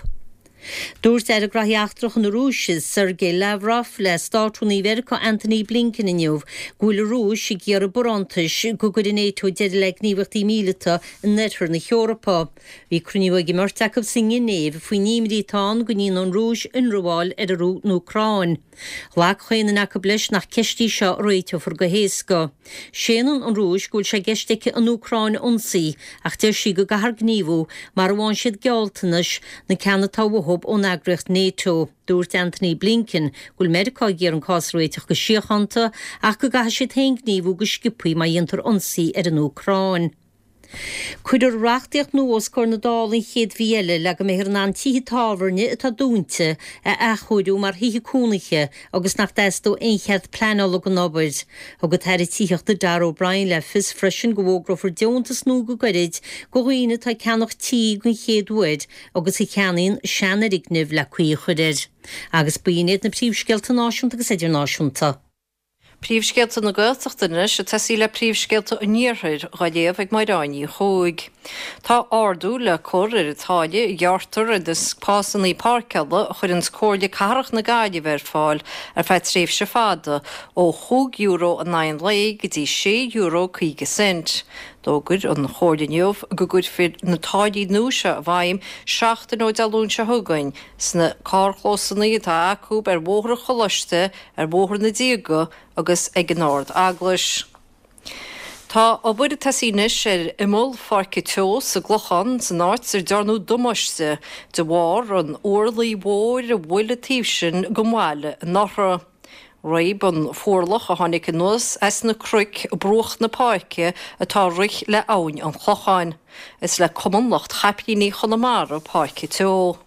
Dúirt Aire Graithí Eachtracha na Rúise, Sergei Lavrov, le Státrúnaí Mheiriceá Antony Blinken inniu go bhfuil an Rúis ag iarraidh barántais go gcuirfidh NATO deireadh le gníomhaíochtaí míleata in oirthear na hEorpa. Bhí cruinniú ag an mbeirt acu sa nGinéiv faoin imní atá ann go ndéanfaidh an Rúis ionramháil ar an Úcráin. Ghlac chaon duine acu leis nach ceist í seo a réiteofar go héasca. Séanann an Rúis go bhfuil sé i gceist aici an Úcráin a ionsaí ach deir sí go gcaithfear gníomhú mara bhfaigheann siad gealltanais, na ceanna atá uathu ón eagraíocht NATO. Dúirt Antony Blinken go bhfuil Meiriceá ag iarraidh an cás a réiteach go síochánta ach go gcaithfidh siad féin gníomhú go sciobthaí má dhéantar ionsaí ar an Úcráin. Cuirfear reachtaíocht nua os comhair na Dála an chéad mhí eile le go mbeifear in ann tithe tábhairne atá dúnta a athchóiriú mar thithe cónaithe agus nach dteastóidh aon chead pleanála don obair. Thug an tAire Tithíochta Darragh O'Brien le fios freisin go bhfógrófar deontas nua go gairid do dhaoine atá ag ceannach tí den chéad uair agus a cheannaíonn seanfhoirgneamh le caoi a chur air. Agus b'in iad na príomhscéalta náisiúnta agus idirnáisiúnta. Príomhscéalta na Gaeltachta anois, ag tosaí le príomhscéalta an Iarthair, dhá léamh ag Máire Ní Chuaig. Tá ardú le cur ar an táille a ghearrtar ar na spásanna páirceála a chuireanns Comhairle Cathrach na Gaillimhe ar fáil ar feadh tréimhse fada, ó chúig euro in aghaidh an lae go dtí sé euro 50 cent. D'fhógair an Chomhairle inniu go gcuirfear na táillí nua seo i bhfeidhm seachtain ó Dé Luain seo chugainn sna carrchlósanna atá acu ar Bhóthar an Choláiste, ar Bhóthar na Díoga agus ag an Ard Eaglais. Tá obair ag tosaí anois ar imeall Pháirce Teo sa gClochán, san áit ar dearnadh damáiste de bharr an fhuarlaigh mhóir a bhuail an taobh sin den bhaile anuraidh. Réab an fuarlach a tháinig anuas as na cnoic bruach na páirce atá ag rith le Abhainn an Chlocháin. Is le Cumann Lucht Chaiplíní Chonamara Páirc Teo.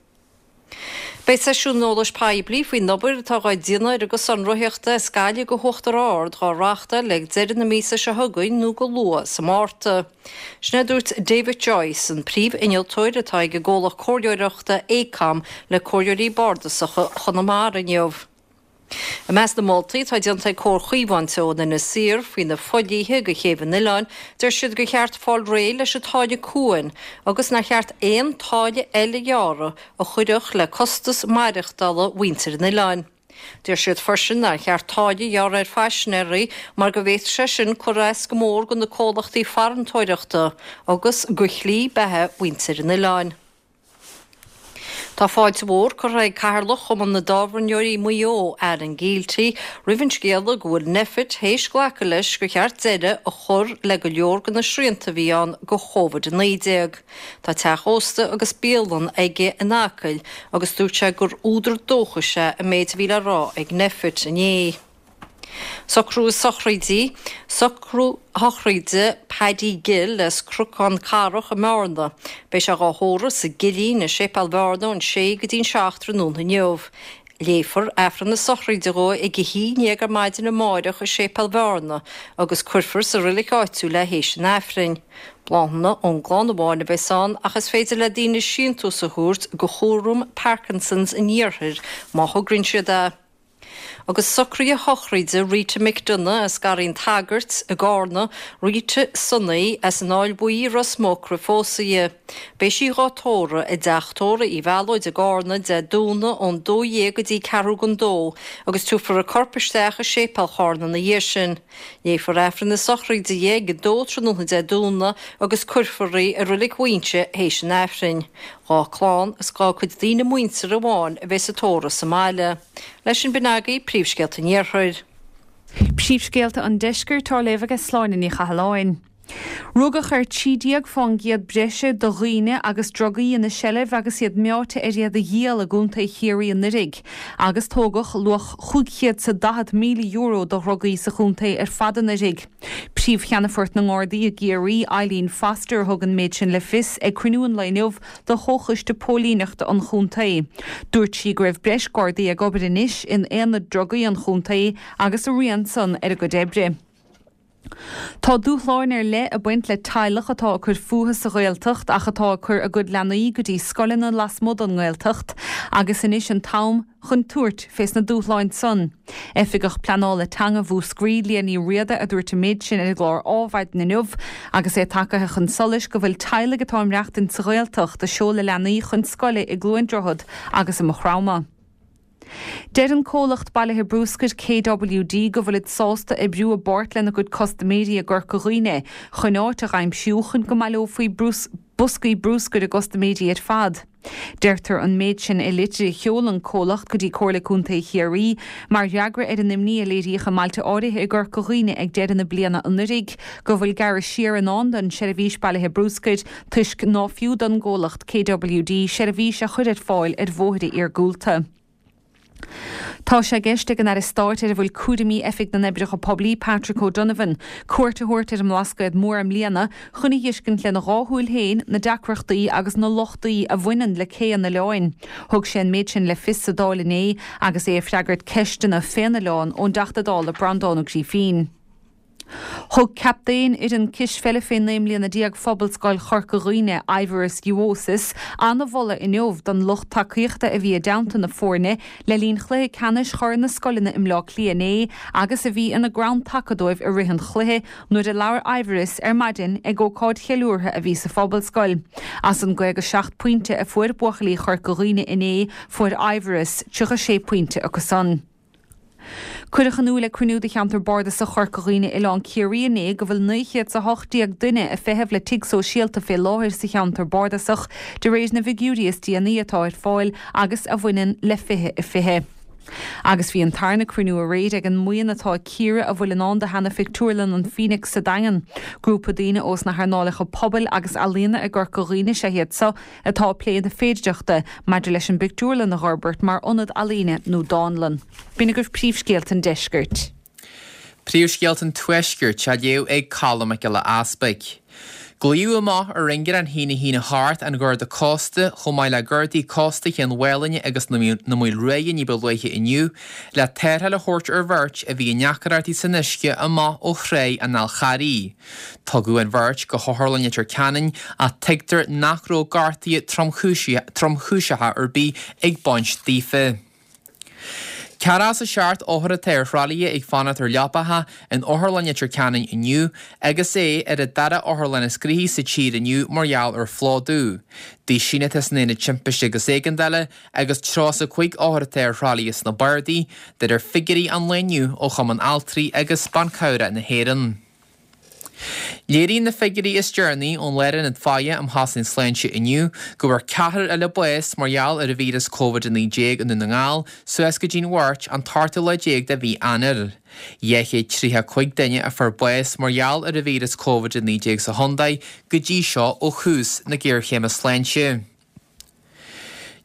Beidh seisiún eolais poiblí faoin obair atá dhá déanamh ar an gcosán rothaíochta as Gaillimh go hUachtar Ard dhá reáchtáil ag deireadh na míosa seo chugainn nó go luath sa Márta. Sin é a dúirt David Joyce, an príomh-innealtóir atá ag an gcomhlacht comhairleoireachta Aecom le Comhairleoirí Bardasacha Chonamara inniu. I measc na moltaí atá déanta ag Comhar Chaomhán Teo in Inis Oírr faoi na fodhlíthe go chéibh an oileáin, deir siad gur cheart fáil réidh leis an táille cuain agus nár cheart aon táille eile a ghearradh a chuirfeadh le costas maireachtála mhuintir an oileáin. Deir siad freisin nár cheart táille a ghearradh ar phaisinéirí mar go bhféadfadh sé sin cur as go mór do na comhlachtaí farantóireachta agus do shlí beatha mhuintir an oileáin. Tá fáilte mhór curtha ag Cathaoirleach Chumann na dTábhairneoirí Maigh Eo, Alan Gielty, roimh an scéala go bhfuil Nphet théis glacadh leis gur cheart deireadh a chur le go leor de na srianta a bhí ann do Covid-19. Tá teach ósta agus bialann aige in Acaill agus dúirt sé gur údar dóchais é an méid a bhí le rá ag Nphet inné. Socrú sochraidí, Socrú sochraide Paddy Gill as Cnocán Carrach i mBearna. Beidh sé dhá thórramh sa gCillín i Séipéal Bhearna ón sé go dtí'n 7 tráthnóna inniu. Léifear Aifreann na sochraide dhó ag a haon dhéag ar maidin amáireach i Séipéal Bhearna agus cuirfear sa roilig áitiúil é théis an Aifrinn. Bláthanna ón gclann amháin a bheas ann ach is féidir le daoine síntiús a thabhairt go Chúram Parkinson's an Iarthair má thograíonn siad é. Agus socruithe sochraide Rita McDonagh as Garraí an tSagairt i gCarna, Rita Sonaí as an Fháil Bhuí i Ros Muc roimh phósadh di. Beidh sí dhá tórramh i dteach tórraimh Uí Mhealóid i gCarna Dé Domhnaigh ón 12 go dtí ceathrú don dó agus tabharfar a corp isteach i Séipéal Charna ina dhiaidh sin. Léifear Aifreann na sochraide di ag a dó tráthnóna Dé Domhnaigh agus cuirfear í i Reilig Mhaínse théis an Aifrinn. Dhá clann is dhá cuid daoine muinteartha amháin a bheidh sa tórramh sa mbaile. Leis sin b'in agaibh príomhscéalta an Iarthair. Príomhscéalta an Deiscirt á léamh aige Sláine Ní Chathalláin. Rugadh ar 13% breise de dhaoine agus drugaí ina seilbh agus iad meáite ar iad a dhíol i gContae Chiarraí anuraidh, agus tógadh luach €540,000 de dhrugaí sa chontae ar fad anuraidh. Príomh-Cheannfort na nGardaí i gCiarraí, Eileen Foster, a thug an méid sin le fios ag cruinniú an lae inniu de Chomhchoiste Póilíneachta an chontae. Dúirt sí go raibh breis Gardaí ag obair anois in aonad drugaí an chontae agus a rian san ar a gcuid oibre. Tá dúshláin ar leith ag baint le teaghlach atá ag cur fúthu sa Ghaeltacht ach atá ag cur a gcuid leanaí go dtí scoileanna lasmuigh den nGaeltacht agus anois an t-am chun tabhairt fés na dúshláin san. Oifigeach Pleanála Teanga Mhúscraí, Liadh Ní Riada a dúirt an méid sin ar an gclár Ádhmhaidin inniu agus é tagaithe chun solais go bhfuil teaghlaigh atá ag maireachtaint sa Ghaeltacht ag seoladh leanaí chun scoile i gCluain Droichead agus i Maigh Chromtha. Deir an comhlacht bailithe brúscair KWD go bhfuilid sásta oibriú i bpáirt lena gcuid custaiméirí i gCorca Dhuibhne chun áit a dh'aimsiú chun go mbaileofaí boscaí brúscair a gcustaiméirí ar fad. Deirtear an méid sin i litir a sheol an comhlacht go dtí Comhairle Contae Chiarraí mar fhreagra ar an imní a léiríodh i mbailte áirithe i gCorca Dhuibhne ag deireadh na bliana anuraidh go bhfuil gearradh siar i ndán don seirbhís bailithe brúscair toisc ná fiú don gcomhlacht KWD seirbhís a chur ar fáil ar bhóithre iargúlta. Tá sé i gceist ag an Aire Stáit ar a bhfuil cúraimí Oifig na nOibreacha Poiblí, Patrick O'Donovan, cuairt a thabhairt ar an mBlascaod Mór i mbliana chun a dh'fheiscint lena dhá shúil féin na deacrachtaí agus na lochtaí a bhaineann le cé an oileáin. Thug sé an méid sin le fios sa Dáil inné agus é ag freagairt ceisteanna fén oileán ón dTeachta Dála Breandán Ó Grífín. Thug captaen fhoireann cispheile fé 19 mbliana Phobalscoil Chorca Dhuibhne, Aivaras Juozas, an-mholadh inniu don lucht tacaíochta a bhí i dteannta na foirne le linn chluiche ceannais Chorn na Scoileanna i mBleá Cliath inné agus a bhí ina gcrann taca dóibh i rith an chluiche nuair a labhair Aivaras ar maidin ag ócáid cheiliúrtha a bhí sa Phobalscoil. As an 57 pointe a fuair buachaillí Chorca Dhuibhne inné fuair Aivaras 36 pointe acu san. Cuireadh in iúl ag cruinniú de Cheantar Bardasach Chorca Dhuibhne Oileán Ciarraí inné go bhfuil 918 duine ag feitheamh le tigh sóisialta fé láthair sa cheantar bardasach, de réir na bhfigiúirí is déanaí atá ar fáil agus a bhaineann le 2020. Agus bhí an tarna cruinniú aréir ag an mbuíon atá ag cíoradh a bhfuil i ndán do sheana-phictiúrlann an Phoenix sa Daingean. Grúpa daoine ós na hearnálacha pobail agus ealaíona i gCorca Dhuibhne is ea iad seo atá ag plé na féidireachta maidir leis an bpictiúrlann a dh'fhorbairt mar ionad ealaíne nó dánlann. B'in agaibh príomhscéalta an deiscirt. Príomhscéalta an tuaiscirt á léamh ag Colm Mac Giolla Easpaig. Glaodh amach ar ingearán 1 1 8 an Gharda Cósta chomh maith le Gardaí Cósta Chéin Mhálainne agus na Maoil Ruaidhe ní ba luaithe inniu le tarrtháil a thabhairt ar bheirt a bhí i ndeacaireachtaí san uisce amach ó Thráigh an Fháil Charraigh. Tugadh an bheirt go hOtharlann Leitir Ceanainn ach tuigtear nach raibh gortuithe tromchúiseacha ar bith ag baint daofa. 47 othar atá ar thralaithe ag fanacht ar leapacha in Otharlann Leitir Ceanainn inniu agus é ar an dara otharlann is gnoithí sa tír inniu mar gheall ar phlódú. Daoine atá san Aonad Timpiste agus Éigeandála agus 35 othar atá ar thralaithe sna bardaí, de réir figiúirí an lae inniu ó Chumann Altraí agus Ban Cabhrach na hÉireann. Léiríonn na figiúirí is deireanaí ón Lárionad Faire um Chosaint Sláinte inniu go bhfuair ceathrar eile bás mar gheall ar an víreas Covid-19 i nDún na nGall suas go dtí'n Mháirt an t-ochtú lá déag de mhí Eanáir. 235 duine a fuair bás mar gheall ar an víreas Covid-19 sa chontae go dtí seo ó thús na géarchéime sláinte.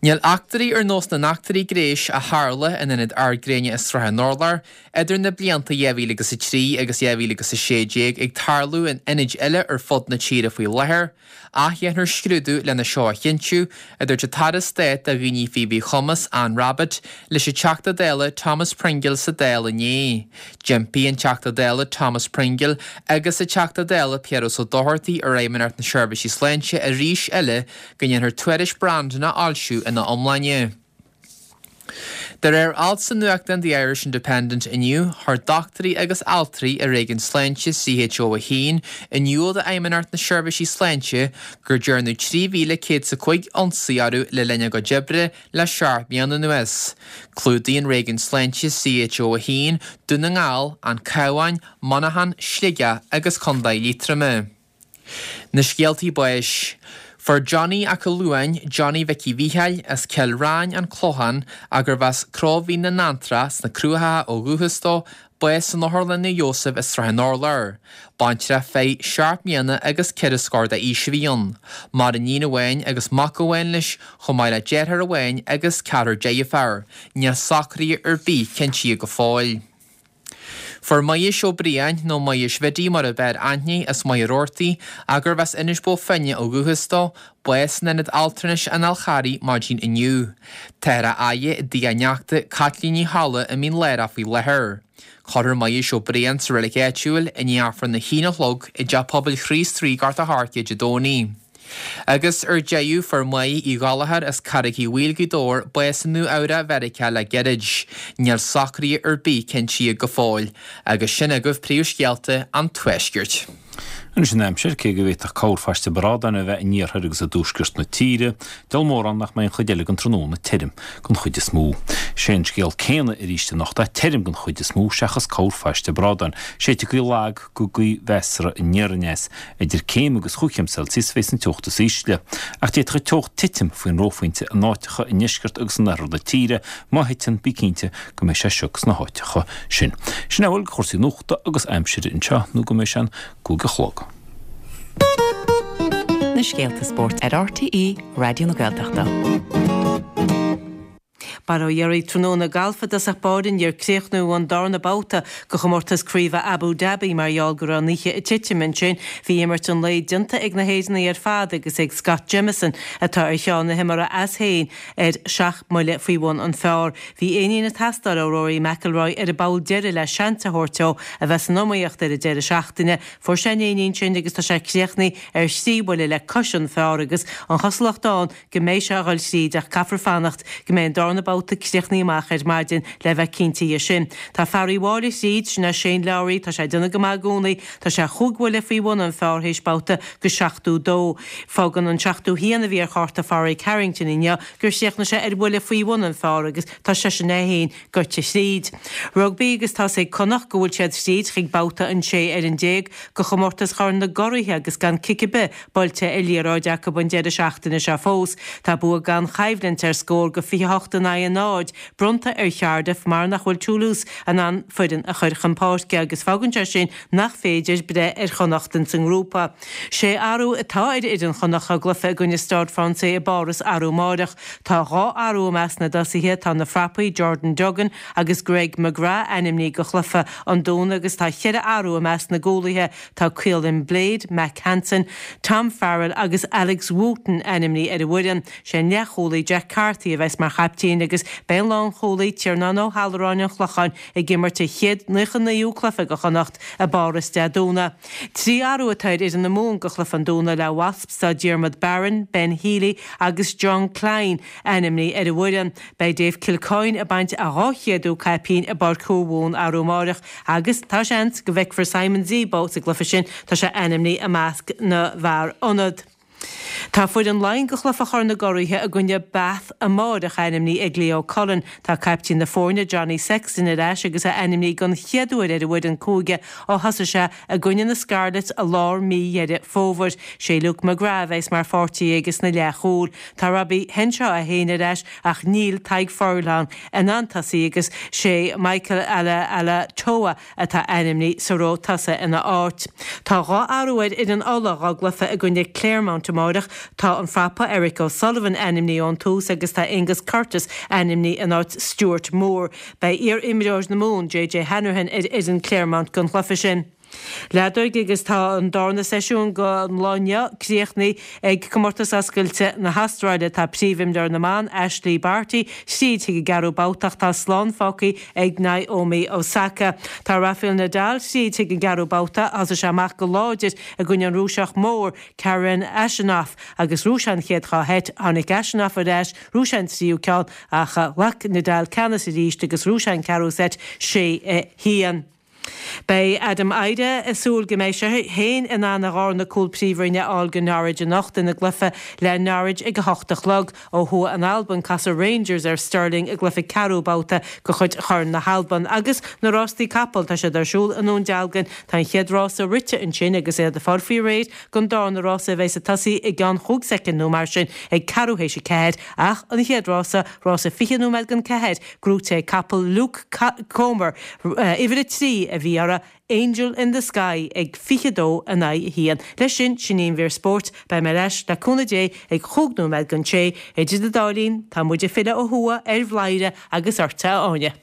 Níl eachtraí ar nós na n-eachtraí gnéis a tharla in Ionad Ard Gréine i Srath an Urláir idir na blianta 2003 agus 2016 ag tarlú in ionaid eile ar fud na tíre faoi láthair, ach dhéanfar scrúdú lena seo a chinntiú, a dúirt an tAire Stáit do Dhaoine Faoi Mhíchumas, Anne Rabbitte, leis an Teachta Dála Thomas Pringle sa Dáil inné. D'impigh an Teachta Dála Thomas Pringle agus an Teachta Dála Piaras Ó Dochartaigh ar Fheidhmeannacht na Seirbhíse Sláinte arís eile go ndéanfar tuairisc Brandon a fhoilsiú ina iomláine. De réir alt sa nuachtán The Irish Independent inniu, chuir dochtúirí agus altraí i réigiún sláinte CHO 1 in iúl d'Fheidhmeannacht na Seirbhísí Sláinte gur dearnadh 3,105 ionsaí orthu le linn a gcuid oibre le seacht mbliana anuas. Clúdaíonn réigiún sláinte CHO 1 Dún na nGall, An Cabhán, Monaghan, Sligeach agus Contae Liatroma. Na scéaltaí báis. Fuair Johnny 'ac Luain, Johnny Mhicí Mhícheáil, as Cill Ráin, An Clochán, ach gurbh as Cró Mhín na nAntrach sna Cruachacha ó dhúchas dó, bás san Otharlann Naomh Iósaf i Srath an Urláir. Baintreach fir 7 mbliana agus 4 scór d'aois a bhí ann. Maireann iníon amháin agus mac amháin leis, chomh maith le deartháir amháin agus ceathrar deirféar. Níl socruithe ar bith cinntithe go fóill. Fuair Muiris Ó Briain, nó Muiris Bhiddy mar ab fhearr aithne, as Machaire Rabhartaigh, ach gurbh as Inis Bó Finne ó dhúchas dó, bás in Ionad Altranais an Fháil Charraigh maidin inniu. Táthar á fhaire i dtigh a neachta, Caitlín Ní Cholla, i Mín Lárach faoi láthair. Cuirfear Muiris Ó Briain sa reilig áitiúil i ndiaidh Aifreann a haon a chlog i dTeach Pobail Chríost Rí, Gort a' Choirce, Dé Domhnaigh. Agus ar deireadh, fuair Máire Uí Ghallchóir as Carraig Uí Bhaoill, Gaoth Dobhair, bás i Nua Eabhrac, Mheiriceá le gairid. Níl socruithe ar bith cinntithe go fóill. Agus sin agaibh príomhscéalta an Tuaiscirt. Anois an aimsir, cé go bhféadfadh corrphaiste bradáin a bheith in iarthar agus i dtuaisceart na tíre, diabhal mórán nach mbeidh an chuid eile den tráthnóna tirim den chuid is mó. Sé an scéal céanna arís anocht ach tirim den chuid is mó seachas corrphaiste bradáin. Séidfidh gaoth lag go gaoth mheasartha aniar aneas. Idir céim agus chúig chéim Celsius a bheas an teocht is ísle. Ach d'fhéadfadh an teocht titim faoin reophointe in áiteacha i ndeisceart agus in oirthear na tíre. Má thiteann, bí cinnte go mbeidh sé sioc sna háiteacha sin. Sin é a bhfuil de chúrsaí nuachta agus aimsire anseo nó go mbeidh sé an gcúig a chlog. Na scéalta spóirt ar RTÉ Raidió na Gaeltachta. Bail ó Dhia oraibh tráthnóna galf i dtosach báire níor críochnaíodh an darna babhta de chomórtas craoibhe Abu Dhabi mar gheall go raibh an oíche ag titim ansin. Bhí imirt an lae déanta ag na hÉireannaigh ar fad agus ag Scott Jamieson atá ar cheann na himeartha as féin ar sheacht mbuille faoi bhun an phar. Bhí éinín ag teastáil ó Rory McIlroy ar an bpoll deiridh le seans a thabhairt dó a bheith san iomaíocht ar an deireadh seachtaine. Fuair sé an éinín sin agus tá sé críochnaithe ar thrí bhuille le cois an phar agus an chosúlacht ann go mbeidh sé a dhul thríd ach caithfear fanacht go mbeidh an darna babhta críochnaithe amach ar maidin le bheith cinnte dhe sin. Tá fear Uíbh Fhailí thríd, sin é Shane Lowry, tá sé ag déanamh go maith i gcónaí, tá sé chúig bhuille faoi bhun an phar théis babhta go 72. Fágann an 71 a bhí ar chárta Phádraig Harrington inniu gur chríochnaigh sé ar bhuille faoi bhun an phar agus tá seisean é féin goite thríd. Rugbaí agus tá's ag Connacht go bhfuil siad thríd chuig babhta an 16 ar an de chomórtas Chorn na gCuraithe agus gan cic ar bith buailte ar liathróid acu an deireadh seachtaine seo fós. Tá bua gan choimhlint ar scór go 28 in aghaidh 0 bronnta ar Chardiff mar nach bhfuil Toulouse in ann foireann a chur chun páirce agus fágann sé sin nach féidir breith ar Chonnacht ins an ngrúpa. Sé athrú atá ar fhoireann Chonnacht dá gcluiche i gcoinne Stade Français i bPáras arú amáireach. Tá 2 athrú i measc na dtosaithe, tá na frapaí Jordan Duggan agus Greg McGrath ainmnithe do chluiche an Domhnaigh agus tá cheithre athrú i measc na gcúlaithe, Tá Caolin Blade, Mack Hansen, Tom Farrell agus Alex Wootton ainmnithe ar an bhfoireann. Sé an leathchúlaí Jack Carthy a bheas mar chaiptín agus beidh an lánchúlaí Tiarnán Ó hAlluráin an Chlocháin ag imirt a chéad 99ú cluiche do Chonnacht i bPáras Dé Domhnaigh. 3 athrú atá ar fhoireann na Mumhan do chluiche an Domhnaigh le Wasps tá Diarmuid Barron, Ben Healy agus Jean Kleyn ainmnithe ar an bhfoireann. Beidh Dave Kilcoyne ag baint a 200ú caipín i bPáirc Mhumhan arú amáireach Agus tá seans go bhfeicfear Simon Zebo sa gcluiche sin, tá sé ainmnithe i measc na bhfear ionad. Tá foireann Laighean do chluiche Chorn na gCuraithe i gcoinne Bath amáireach ainmnithe ag Leo Cullen. Tá caiptín na foirne Johnny Sexton ar ais agus é ainmnithe don chéad uair ar an bhfoireann cúige ó thosaigh sé i gcoinne na Scarlets i lár mí Dheireadh Fómhair. Sé Luke McGrath a bheas mar pháirtí aige sna leathchúil. Tá Robbie Henshaw é féin ar ais ach níl Tadhg Furlong in ann tosaí agus sé Michael Alaalatoa atá ainmnithe sa ró tosaigh ina áit. Tá 2 athrú ar fhoireann Uladh dá gcluiche i gcoinne Clermont amáireach. Tá an frapa Eric O'Sullivan ainmnithe ón tús agus tá Angus Curtis ainmnithe in áit Stuart Moore. Beidh iar-imreoir na Mumhan, JJ Hanrahan ar fhoireann Clermont don chluiche sin. Leadóg agus tá an darna seisiún den lá inniu críochnaithe ag Comórtas Oscailte na hAstráile. Tá príomhimreoir na mban, Ashleigh Barty, tríd chuig an gceathrú babhta ach tá slán fágtha ag Naomi Osaka. Tá Rafael Nadal tríd chuig an gceathrú babhta. Thosaigh sé amach go láidir i gcoinne an Rúiseach mór, Karen Khachanov, agus ghnóthaigh sé an chéad dhá sheit. Tháinig Khachanov ar ais, ghnóthaigh sé an tríú ceann ach ghlac Nadal ceannas arís agus ghnóthaigh sé an ceathrú seit, 6 1. Beidh Adam Idah ag súil go mbeidh sé féin in ann a dhárna cúl Príomhroinne a fháil do Norwich anocht ina gcluiche le Norwich ag a hocht a chlog. Ó thuaidh in Albain, casfaidh Rangers ar Stirling i gcluiche ceathrú babhta de chuid Chorn na hAlban. Agus na rástaí capall, tá siad ar siúl i nDún Dealgan. Tá an chéad rása rite ansin agus iad ag fáil faoi réir don dárna rása a bheas ag tosaí i gceann chúig soicind nó mar sin ag ceathrú théis a ceathair. Ach an chéad rása, rása 20 nóiméad don ceathair, gnóite ag capall Luke Comer, uimhir 3 a bhí orthu, Angel in the Sky ag 22 in aghaidh 1. Leis sin, sin í an mhír spóirt. Beidh mé ar ais, le cúnamh Dé, ag chúig nóiméad don sé. Idir an dá linn, tá muid ag filleadh ó thuaidh ar Bhladhaire agus ortsa, a Áine.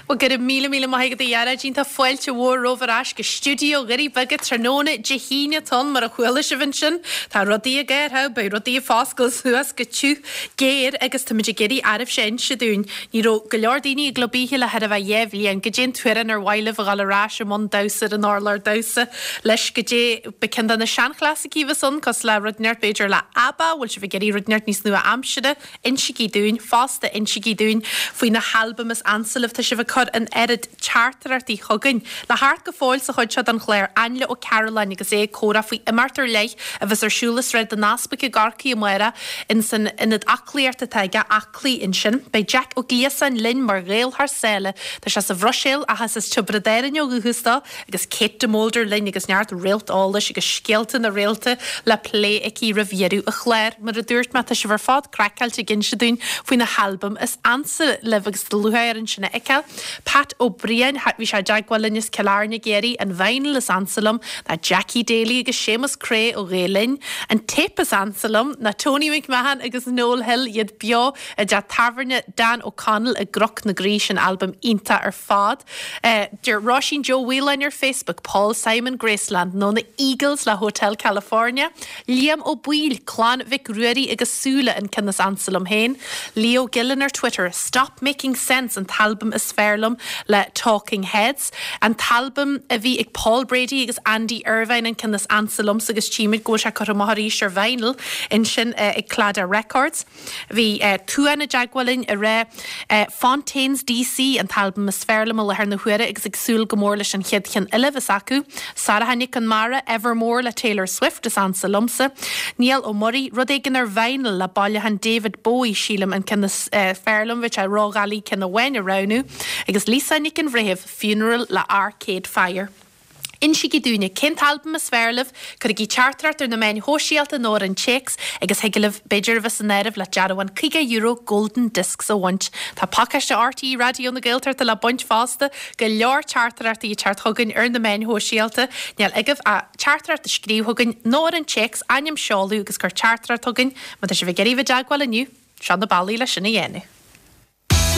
Bhuel, go raibh míle míle maith agat a Ghearóidín. Tá fáilte mhór romhaibh ar ais go stiúideo Dhoirí Beaga tráthnóna Dé hAoine atá ann, mar a chuala sibh ansin. Tá rudaí ag athrú, beidh rudaí ag foscailt suas go tiubh géar agus táimid ag iarraidh oraibhse a inse dúinn. Ní raibh go leor daoine i gClub Oíche le chóir a bheith 2 bhliain. Goidé an t-amhrán ar mhaith libh a dhul ar ais i mbun damhsa ar an urlár damhsa leis? Goidé ba ceann de na seanchlasaicí a bheas ann, cosúil le rud inteacht b'fhéidir le ABBA, bhfuil sibh ag iarraidh rud inteacht níos nua-aimsire? Insígí dúinn. Fosta, insígí dúinn faoi na halbaim is ansa libh. Tá sibh ag cur an oiread teachtaireachtaí chugainn. Le theacht go fóill sa chuid seo den chlár, Ainle Ó Cearúlláin agus é ag comhrá faoi imeacht ar leith a bheas ar siúl i Sráid an Easpaig i gCorcaigh amárach ins an ionad aclaíochta atá aige, Aclaí, ansin. Beidh Jeaic Ó Gliasáin linn mar Ghael thar sáile. Tá sé sa Bhruiséil ach is as Tiobraid Árann ó dhúchas dó agus Kate de Molder linn agus neart réalt eolais agus scéalta na réalta le plé aici roimh dheireadh an chláir. Mar a dúirt mé, tá sibh ar fad craiceáilte ag inse dúinn faoi na halbaim is ansa libh agus tá lúcháir orainn sin a fheiceáil. Pat Ó Briain, bhí sé i dteagmháil linn as Cill Airne ag iarraidh an vinyl is ansa liom ná Jackie Daly agus Séamus Creagh ó Ghael Linn. An téip is ansa liom ná Tony McMahon agus Noel Hill, iad beo i dteach tábhairne Dan O'Connell i gCnoc na Graí, sin albam iontach ar fad. Deir Róisín Joe Mhaoláin ar Facebook, Paul Simon Graceland nó na Eagles le Hotel California. Liam Ó Baoill, Clann Mhic Ruairí agus Súile an ceann is ansa liom féin. Leo Gillen ar Twitter, Stop Making Sense an t-albam is fearr liom le Talking Heads. An t-albam a bhí ag Paul Brady agus Andy Irvine an ceann is ansa liomsa agus tchímid go bhfuil sé curtha amach arís ar vinyl ansin ag Claddagh Records. Bhí Tuan i dteagmháil linn ag rá Fontaines DC an t-albam is fearr liom i láthair na huaire agus ag súil go mór leis an chéad cheann eile a bheas acu. Sarah Nic Con Mara, Evermore le Taylor Swift is ansa liomsa. Niall Ó Muirí, rud éigin ar vinyl le bailiúchán David Bowie sílim an ceann is fearr liom, bheadh sé ródhoiligh ceann amháin a roghnú. Agus Lisa Nic an Bhreithimh, Funeral le Arcade Fire. Insígí dúinne cén t-albam is fearr libh, cuirigí teachtaireacht ar na meáin shóisialta nó ar an téacs agus thig libh b'fhéidir a bheith san áireamh le dearbhán €50 Golden Discs a bhaint. Tá pacáiste RTÉ Raidió na Gaeltachta le baint fosta, go leor teachtaireachtaí ag teacht chugainn ar na meáin shóisialta. Níl agaibh ach teachtaireacht a scríobh chugainn nó ar an téacs, ainm, seoladh agus cuir teachtaireacht chugainn má tá sibh ag iarraidh bheith i dteagmháil inniu. Seo na bealaí le sin a dhéanamh.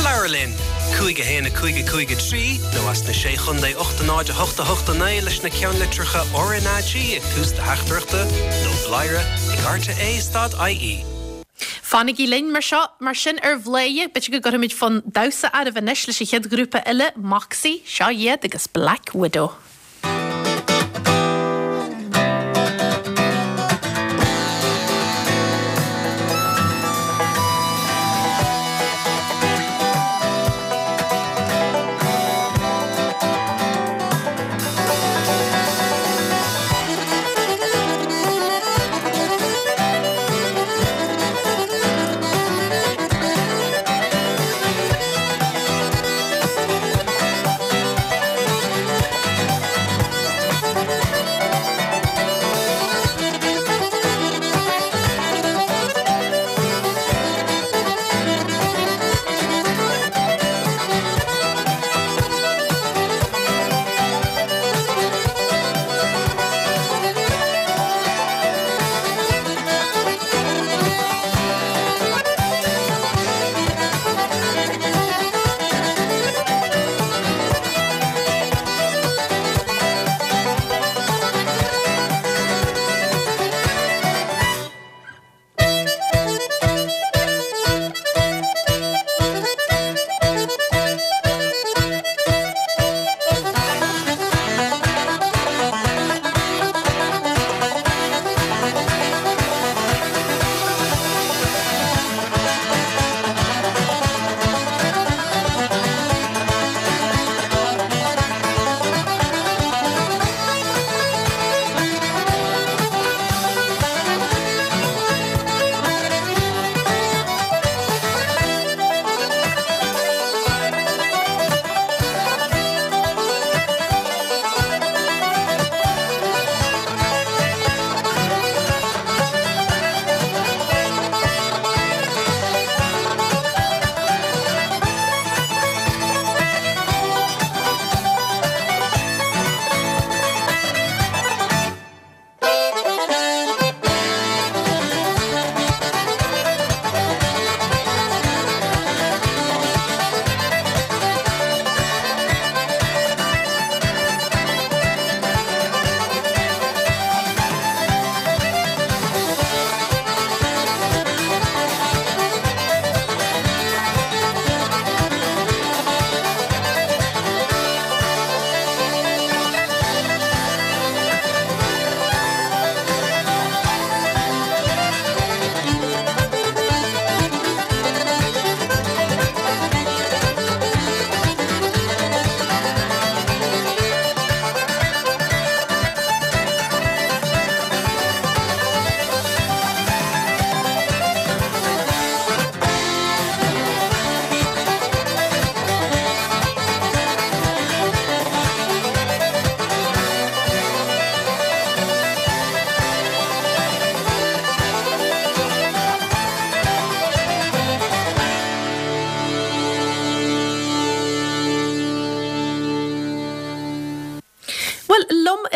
Labhair linn! 5 1 5 5 3 nó as na Sé Chondae 8 0 8 8 9 leis na ceannlitreacha RnaG ag tús do theachtaireachta nó bladhaire ag rte stad ie. Fanaigí linn mar seo, mar sin ar Bhladhaire, b'fhéidir go gcuirfimid fonn damhsa oraibh anois leis an chéad ghrúpa eile, Moxie, seo iad agus Black Widow.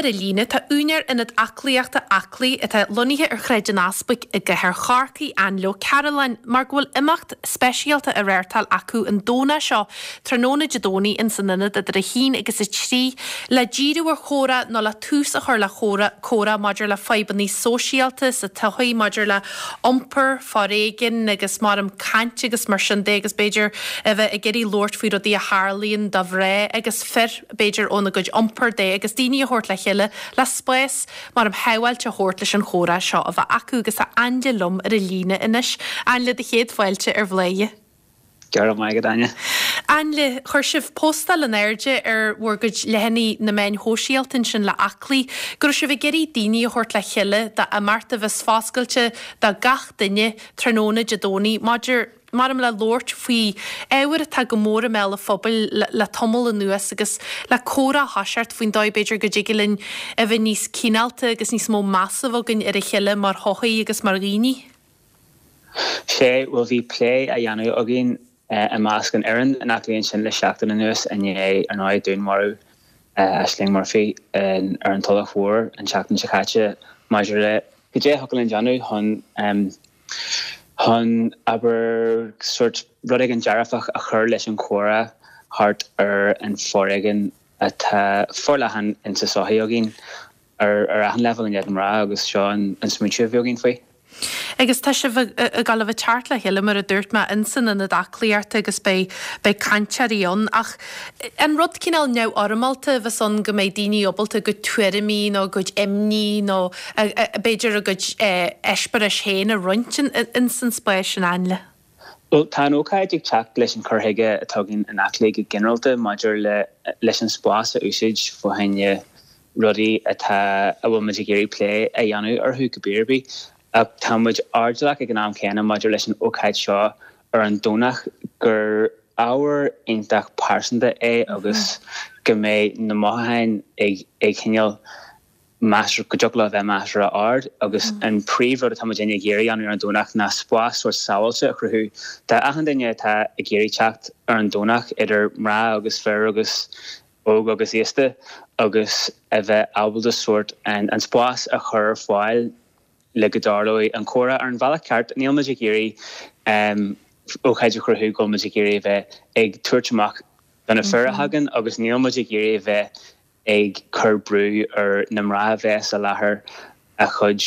ar an líne tá úinéir Ionad Aclaíochta Aclaí atá lonnaithe ar Shráid an Easpaig i gcathair Chorcaí, Ainle Ó Cearúlláin, mar go bhfuil imeacht speisialta á reáchtáil acu an Domhnach seo, tráthnóna Dé Domhnaigh ins an ionad idir 1 agus 3, le díriú ar chomhrá nó le tús a chur le chomhrá, comhrá maidir le fadhbanna sóisialta sa tsochaí, maidir le iompar, foréigean agus maram caint agus mar sin de agus b'fhéidir a bheith ag iarraidh labhairt faoi rudaí a tharlaíonn do mhná agus fir, b'fhéidir óna gcuid iompair de agus daoine a thabhairt le chéile le spás maram shábháilte a thabhairt leis an chomhrá seo a bheith acu agus tá Ainle liom ar an líne anois. Ainle, do chéad fáilte ar Bhladhaire. Go raibh maith agat, Áine. Ainle, chuir sibh postáil in airde ar bhur gcuid leathanaigh na meáin shóisialta ansin le Aclaí go raibh sibh ag iarraidh daoine a thabhairt le chéile d'imeacht a bheas foscailte do gach duine tráthnóna Dé Domhnaigh maidir maram le labhairt faoi ábhair atá go mór i mbéal an phobail le tamall anuas agus le comhrá a thoiseacht faoin dóigh b'fhéidir go dtig linn a bheith níos cineálta agus níos mó measa a bheith againn ar a chéile mar shochaí agus mar dhaoine. Sea, bhuel bhí plé á dhéanamh againn i measc an fhoireann in Aclaí ansin le seachtain anuas i ndiaidh, ar ndóigh, dúnmharú Ashling Murphy ar an Tulach Mhór an tseachtain seo caite maidir le cad é a thiocfadh linn déanamh chun, chun, abair, sórt rud éigin dearfach a chur leis an chomhrá thart ar an foréigean atá forleathan insa sochaí againn. ar achan leibhéal i ndiaidh na mná agus seo an smaointiú a bhí againn faoi. Agus tá sibh ag dul a bheith ag teacht le chéile, mar a dúirt mé, ins an ionad aclaíochta agus beidh, beidh cainteoirí ann. Ach an rud cineál neamhfhoirmeálta a bheas ann go mbeidh daoine ábalta a gcuid tuairimí nó a gcuid imní nó b'fhéidir a gcuid eispéiris féin a roinnt ins an spás sin, Ainle? Bhuel, tá an ócáid ag teacht leis an cur chuige atá againn in Aclaí go ginearálta maidir le leis an spás a úsáid fá choinne rudaí atá, a bhfuil muid ag iarraidh plé a dhéanamh orthu cibé ar bith. Ach tá muid airdeallach ag an am céanna maidir leis an ócáid seo ar an Domhnach gur ábhar iontach pearsanta é agus go mbeidh na mothúcháin ag ag cineál measartha, go dtiocfadh leo a bheith measartha ard agus an príomhrud atá muidinne ag iarraidh a dhéanamh ar an Domhnach ná spás sórt sábháilte a chruthú d'achan duine atá ag iarraidh teacht ar an Domhnach, idir mná agus fir agus óg agus aosta agus a bheith ábalta sórt an spás a chur ar fáil le go dtarlóidh an comhrá ar an bhealach ceart. Níl muid ag iarraidh ócáid a chruthú go bhfuil muid ag iarraidh a bheith ag tabhairt amach do na fir a thagann agus níl muid ag iarraidh a bheith ag cur brú ar na mná a bheas i láthair a gcuid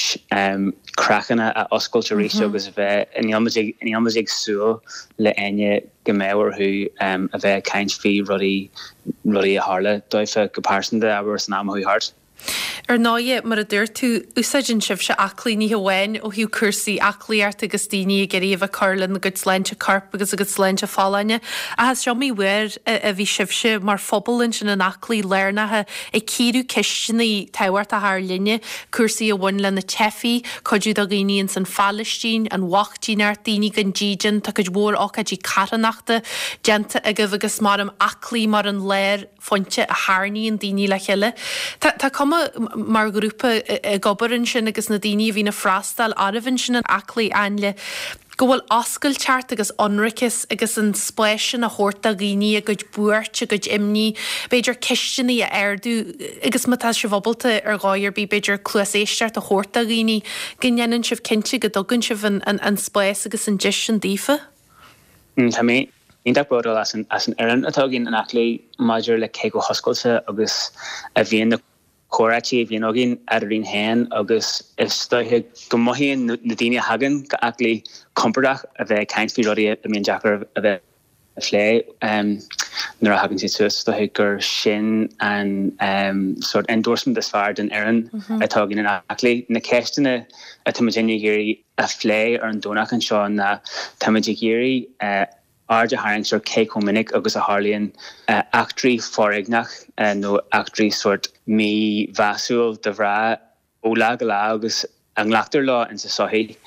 craiceanna a oscailt arís agus a bheith, níl muid ag, níl muid ag súil le éinne go mbeadh orthu a bheith ag caint faoi rudaí, rudaí a tharla dóibh go pearsanta, abair, san am a chuaigh thart. Ar ndóighe, mar a dúirt tú, úsáideann sibhse aclaí ní hamháin ó thaobh cúrsaí aclaíochta agus daoine ag iarraidh a bheith ag cur lena gcuid sláinte coirp agus a gcuid sláinte folláine, ach is iomaí uair a bhí sibhse mar phobal ansin in Aclaí lárnach ag cíoradh ceisteanna tábhachtacha ár linne, cúrsaí a bhain le na teifigh, cuidiú do dhaoine ins an Phalaistín, an bhochtaineacht, daoine gan dídean, tá cuid mhór ócáidí carthanachta déanta agaibh agus maram Aclaí mar an lár phointe a tharraingíonn daoine le chéile. Tá tá cuma mar ghrúpa ag obair ansin agus na daoine a bhíonn ag freastal oraibh ansin in Aclaí, Ainle, go bhfuil oscailteacht agus ionraiceas agus an spás sin a thabhairt do dhaoine a gcuid buairt, a gcuid imní, b'fhéidir ceisteanna a ardú agus má tá sibh ábalta ar dhóigh ar bith b'fhéidir cluas éisteachta a thabhairt do dhaoine, go ndéanann sibh cinnte go dtugann sibh an an an spás agus an deis sin daofa. Tá mé iontach bródúil as an fhoireann atá againn in Aclaí maidir le cé chomh hoscailte agus a bhíonn na comhráití a bhíonn againn eadrainn féin agus is dóiche go mothaíonn na daoine a thagann go Aclaí compordach a bheith ag caint faoi rudaí a mbíonn deacair a bheith a phlé nuair a thagann siad suas. Is dóiche gur sin an sórt endorsement is fearr den fhoireann atá againn in Aclaí. Na ceisteanna atá muidinne ag iarraidh a phlé ar an Domhnach anseo ná táimid ag iarraidh aird a tharraingt ar cé chomh minic agus a tharlaíonn eachtraí foréigneach nó eachtraí sórt mímheasúil do mhná ó lá go lá agus a nglactar leo insa sochaí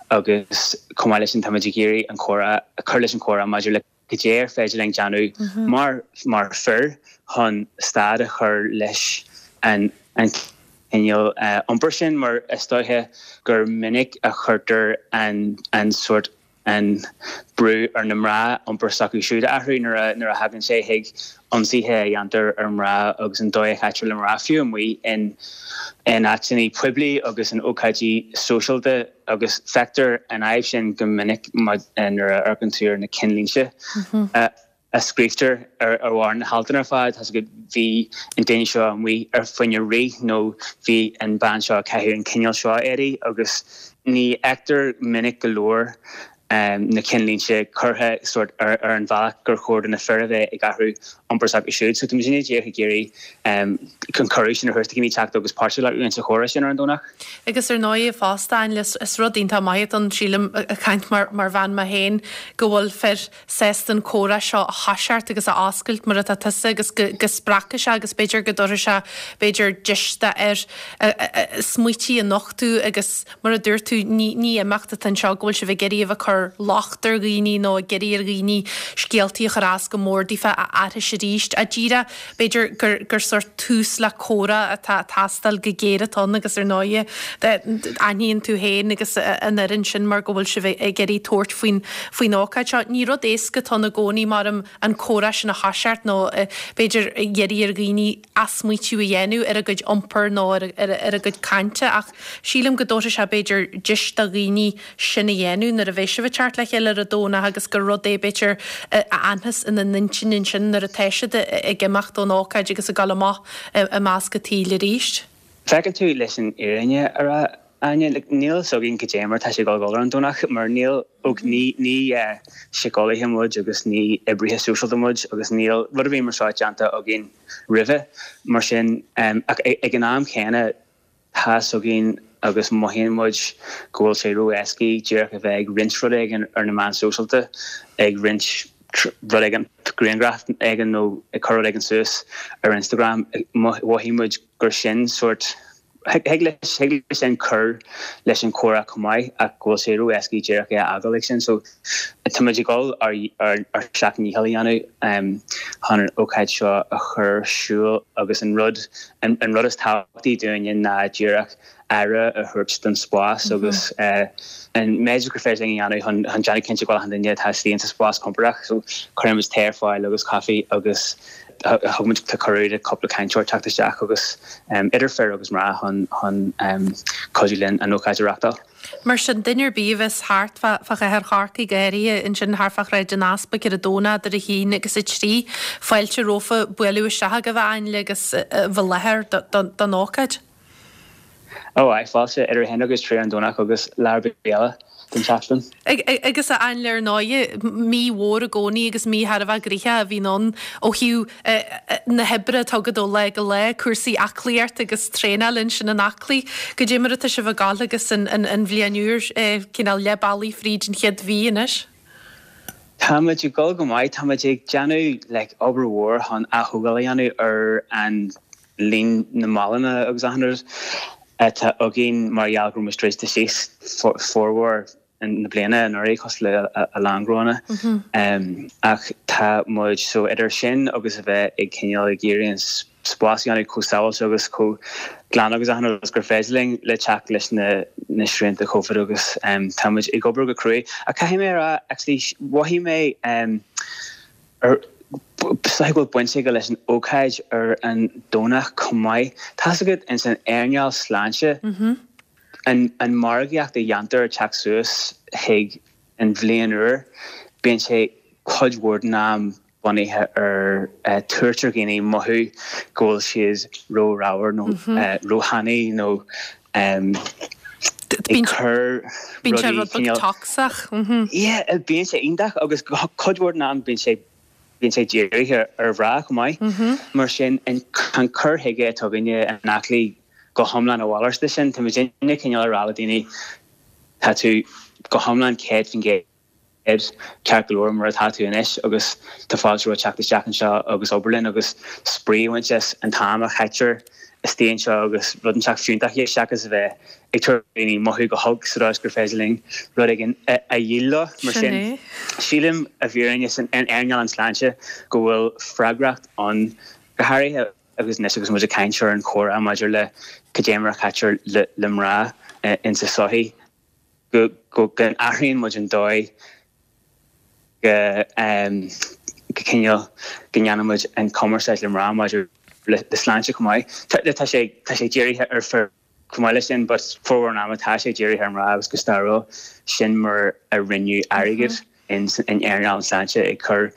agus chomh maith leis sin táimid ag iarraidh an comhrá, cur leis an chomhrá maidir le cad é ar féidir linn déanamh mar mar fir chun stad a chur leis an an cineál iompair sin mar is dóiche gur minic a chuirtear an an sórt. An brú ar na mná iompar s'acu siúd a athrú nuair a nuair a thagann sé chuig ionsaithe a dhéantar ar mhná agus an dóigh a chaitear le mná, fiú amuigh in in áiteanna poiblí agus in ócáidí sóisialta agus feictear an fhadhb sin go minic nuair a amharcann tú ar na cinnlínte. a scríobhtar ar bharr na haltanna ar fad, tá's agat, bhí an duine seo amuigh ar fá choinne rith nó bhí an bean seo ag caitheamh an cineál seo éadaí agus ní fheictear minic go leor na cinnlínte curtha sórt ar an bhealach gur chóir do na fir a bheith ag athrú iompar s'acu siúd. So tá muid díreach ag iarraidh an cuireadh sin a thabhairt do dhaoine teacht agus páirt a ghlacadh insa chomhrá sin ar an Domhnach. Agus ar ndóigh fosta, is rud iontach maith atá ann, sílim, ag caint mar bhean mé féin, go bhfuil fir sásta an comhrá seo a thoiseacht agus a oscailt mar atá tusa agus go spreagfaidh sé agus b'fhéidir go dtabharfaidh sé b'fhéidir deis d'fhir smaoití a nochtadh agus mar a dúirt tú ní ní imeacht atá anseo go bhfuil sibh ag iarraidh a bheith ag cur locht ar dhaoine nó ag iarraidh ar dhaoine scéaltaí a chur as go mór daofa a aithris arís ach díreach b'fhéidir gur gur sórt tús le comhrá atá ag teastáil go géar atá ann agus ar ndóighe aithníonn tú féin agus an fhoireann sin mar go bhfuil sibh ag iarraidh tabhairt faoin faoin ócáid seo. Ní rud éasca atá ann i gcónaí maram an comhrá sin a thoiseacht nó b'fhéidir iarraidh ar dhaoine athsmaoitiú a dhéanamh ar a gcuid iompair nó ar ar a gcuid cainte ach sílim go dtabharfaidh sé b'fhéidir deis do dhaoine sin a dhéanamh nuair a bheidh sibh ag teacht le chéile ar an Domhnach agus gur rud é b'fhéidir a fhanfas ina n-intinn ansin nuair atá siad ag imeacht ón ócáid agus ag dul amach i measc an tsaoil arís. Feiceann tú, leis an fhírinne a rá, Áine, like, níl fhios againn cad é mar tá sé ag dul a dhul ar an Domhnach mar níl, ok, ní, ní síceolaithe muid agus ní oibrithe sóisialta muid agus níl rud ar bith mar seo déanta againn roimhe, mar sin, ach ag an am chéanna, Tá fhios againn agus mothaíonn muid go bhfuil sé ró-éascaí díreach a bheith ag roinnt rud éigin ar na meáin sóisialta, ag roinnt rud éigin, grianghraf éigin nó ag cur rud éigin suas ar Instagram. Mhothaigh muid gur sin sórt, thig leis, thig leis sin cur leis an chomhrá chomh maith ach go bhfuil sé ró-éascaí díreach é a fhágáil ag sin. So tá muid ag dul ár ár seacht ndícheall a dhéanamh chun an ócáid seo a chur ar siúl agus an rud an rud is tábhachtaí dúinne ná díreach aire a thabhairt don spás agus an méid gur féidir linn a dhéanamh chun chun déanamh cinnte go bhfuil achan duine atá istigh insa spás compordach. So cuireann muid tae ar fáil agus caife agus thug muid cuireadh do cúpla cainteoir teacht isteach agus idir fir agus mná chun chun cuidiú linn an ócáid a reachtáil. Mar sin, duine ar bith a bheas thart fá chathair Chorcaí, go háirithe ansin thart fá Shráid an Easpaig ar an Domhnach idir 1 agus 3, fáilte rompu bualadh isteach agaibh a Ainle agus a bheith i láthair don ócáid. Ó aye, fáilte idir 1 agus 3 ar an Domhnach agus lá ar bith eile den tseachtain. Agus a Ainle ar ndóighe, mí mhór i gcónaí agus mí thar a bheith gnoitheach a bhíonn ann ó thaobh na hoibre atá agat ó lá go lá, cúrsaí aclaíochta agus traenáil ansin in Aclaí. Goidé mar atá sibh ag gabháil agus an bhliain úr cineál leath bealaigh fríd an chéad mhí anois? Tá muid ag dul go maith. Tá muid ag déanamh like obair mhór chun aththógáil a dhéanamh ar an líon na mbalúin agus achan rud atá againn mar gheall go raibh muid druidte síos formhór na bliana anuraidh cosúil le a lán gnóanna. Ach tá muid, so idir sin agus a bheith ag cineál ag iarraidh an spás a dhéanamh chomh sábháilte agus chomh glan agus achan rud is gur féidir linn le teacht leis na na srianta Covid agus tá muid ag obair go cruaidh. Ach caithfidh mé a rá actually mhothaigh mé ar is dóigh go bhfuil baint aige leis an ócáid ar an Domhnach chomh maith. Tá's agat ins an earnáil sláinte, an margaíocht a dhéantar ag teacht suas chuig an bhliain úr, bíonn sé cuid mhór den am bunaithe ar tabhairt ar dhaoine mothú go bhfuil siad ró-ramhar nó róthanaí nó ag cur Bíonn sé rud beag tocsach. Yeah, bíonn sé iontach agus cuid mhór den am bíonn sé bíonn sé dírithe ar mhná chomh maith. Mar sin an cur chuige atá againne in Aclaí go hiomlán a mhalairt de sin. Tá muidinne cineál ag rá le daoine tá tú go hiomlán 100% ceart go leor mar atá tú anois agus tá fáilte romhat teacht isteach anseo agus obair linn agus spraoi a bhaint as an t-am a chaitear istigh anseo agus rud inteacht fiúntach a dhéanamh seachas a bheith ag tabhairt daoine mothú go holc sa dóigh is gur féidir linn rud éigin a dhíol leo. Mar sin, sílim i bhfírinne san earnáil an tsláinte go bhfuil freagracht ann go háirithe agus anois agus muid ag caint ar an chomhrá maidir le cad é mar a chaitear le mná insa tsochaí. Go n-athraíonn muid an dóigh go go cineál go ndéanann muid an cumarsáid le mná maidir le sláinte chomh maith. Tá sé tá sé dírithe ar fir chomh maith leis sin but formhór an ama tá sé dírithe ar mná agus go stairiúil sin mar a rinneadh airgead in earnáil na sláinte ag cur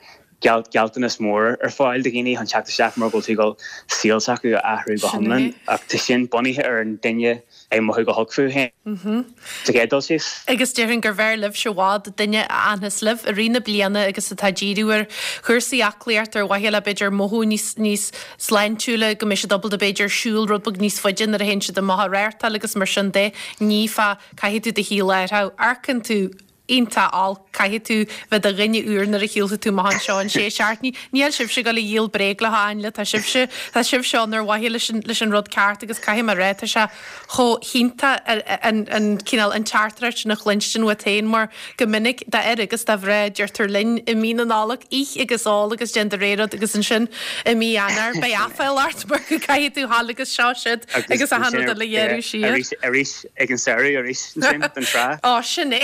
gealltanas mór ar fáil do dhaoine chun teacht isteach mar go bhfuil tú ag dul saol s'acu a athrú go hiomlán ach tá sin bunaithe ar an duine ag mothú go holc fúthu féin sa chéad dul síos. Agus déarfainn gurbh fhearr libhse i bhfad duine a fhanfas libh i rith na bliana agus atá ag díriú ar chúrsaí aclaíochta ar mhaithe le b'fhéidir mothú níos níos sláintiúla, go mbeidh siad ábalta b'fhéidir siúl rud beag níos faide nuair a théann siad amach ag rártáil agus mar sin de. Ní fá caithfidh tú do shaol a athrú. Amharcann tú iontach olc. Caithfidh tú bheith i do dhuine úr nuair a shiúlfaidh tú amach anseo in sé seachtainí. Níl sibhse ag dul a dhíol bréag leo, a Ainle, tá sibhse, tá sibhse ann ar mhaithe leis an, leis an rud ceart agus caithfidh mé a rá, tá sé chomh hiontach an, an cineál, an teachtaireacht sin a chluinstin uait féin mar go minic d'fhir agus do mhná deirtear linn i mí na Nollag, ith agus ól agus déan do rogha rud agus ansin i mí Eanáir beidh aiféal ort mar go gcaithfidh tú dhul agus seo siúd agus achan rud eile a ghearradh siar. Arís, arís ag an samhradh arís ansin don trá. Ó, sin é.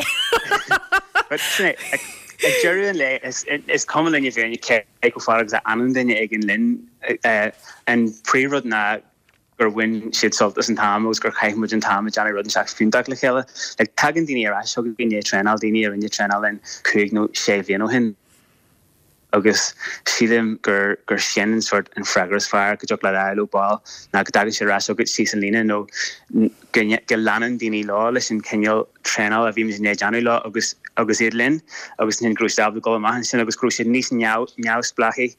But sin é, ag deireadh an lae is cuma linn i bhfírinne cé chomh fada agus a fhanann duine éigin linn. An príomhrud ná gur bhain siad sult as an t-am agus gur chaith muid an t-am ag déanamh rud inteacht fiúntach le chéile. Like, tagann daoine ar ais chugainn i ndiaidh traenáil, daoine a rinne traenáil linn cúig nó sé bhliain ó shin. agus sílim gur gur sin an sórt an freagra is fearr go dtiocfadh leat a fháil ó ball ná go dtagann siad ar ais chugat síos an líne nó go go leanann daoine leo leis an cineál traenála a bhí muid i ndiaidh déanamh leo agus agus iad linn agus ansin go raibh siad ábalta dul amach ansin agus go raibh siad níos neamhspleáchaí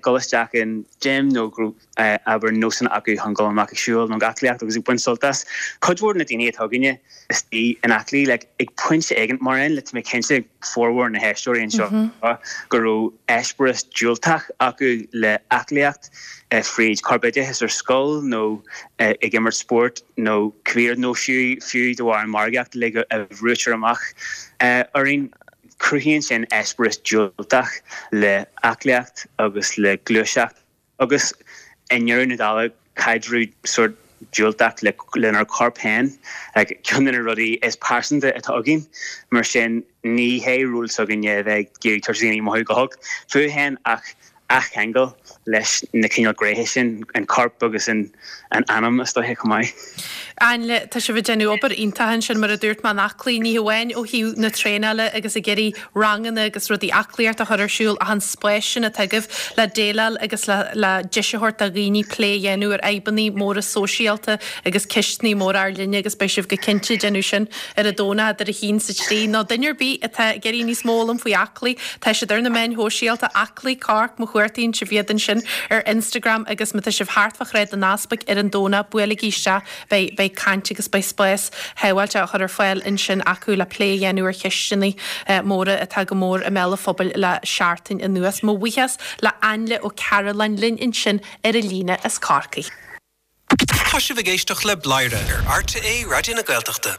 dul isteach in gym nó go raibh abair nósanna acu chun dul amach ag siúl nó ag aclaíocht agus ag baint sult as. Cuid mhór de na daoine atá againne istigh in Aclaí, like, ag pointe éigin, mar aon le, tá mé cinnte, formhór na héisteoirí anseo, go raibh eispéireas diúltach acu le aclaíocht, fríd corpoideachas ar scoil nó ag imirt spóirt nó cibé rud, nó fiú, fiú de bharr an mhargaíocht uilig a bhrúitear amach orainn. Cruthaíonn sin eispéireas diúltach le aclaíocht agus le gluaiseacht. Agus i ndeireadh na dála, caidreamh sórt diúltach lenár corp féin, ceann de na rudaí is pearsanta atá againn. Mar sin, ní hé ról s'againne a bheith ag iarraidh tabhairt daoine mothú go holc fúthu féin ach athcheangal leis na cineál gnéithe sin, an corp agus an anam is dóiche chomh maith. Ainle, tá sibh ag déanamh obair iontach ansin, mar a dúirt mé, in Aclaí, ní hamháin ó thaobh na traenála agus ag iarraidh ranganna agus rudaí aclaíochta a chur ar siúl ach an spás sin atá agaibh le déileáil agus le le deis a thabhairt do dhaoine plé a dhéanamh ar fhadhbanna móra sóisialta agus ceisteanna móra ár linne agus beidh sibh go cinnte ag déanamh sin ar an Domhnach idir a haon 's a trí. Nó duine ar bith atá ag iarraidh níos mó a fhoghlaim faoi Aclaí, tá siad ar na meáin shóisialta, Aclaí Cork, má chuartaíonn sibh iad ansin ar Instagram agus má tá sibh thart fá Shráid an Easpaig ar an Domhnach, buailigí isteach, beidh, beidh caint agus beidh spás shábháilte á chur ar fáil ansin acu le plé a dhéanamh ar cheisteanna móra atá go mór i mbéal an phobail le seachtain anuas. Mo bhuíochas le Ainle Ó Cearúlláin linn ansin ar an líne as Corcaigh. Tá sibh ag éisteacht le Bladhaire ar RTÉ Raidió na Gaeltachta.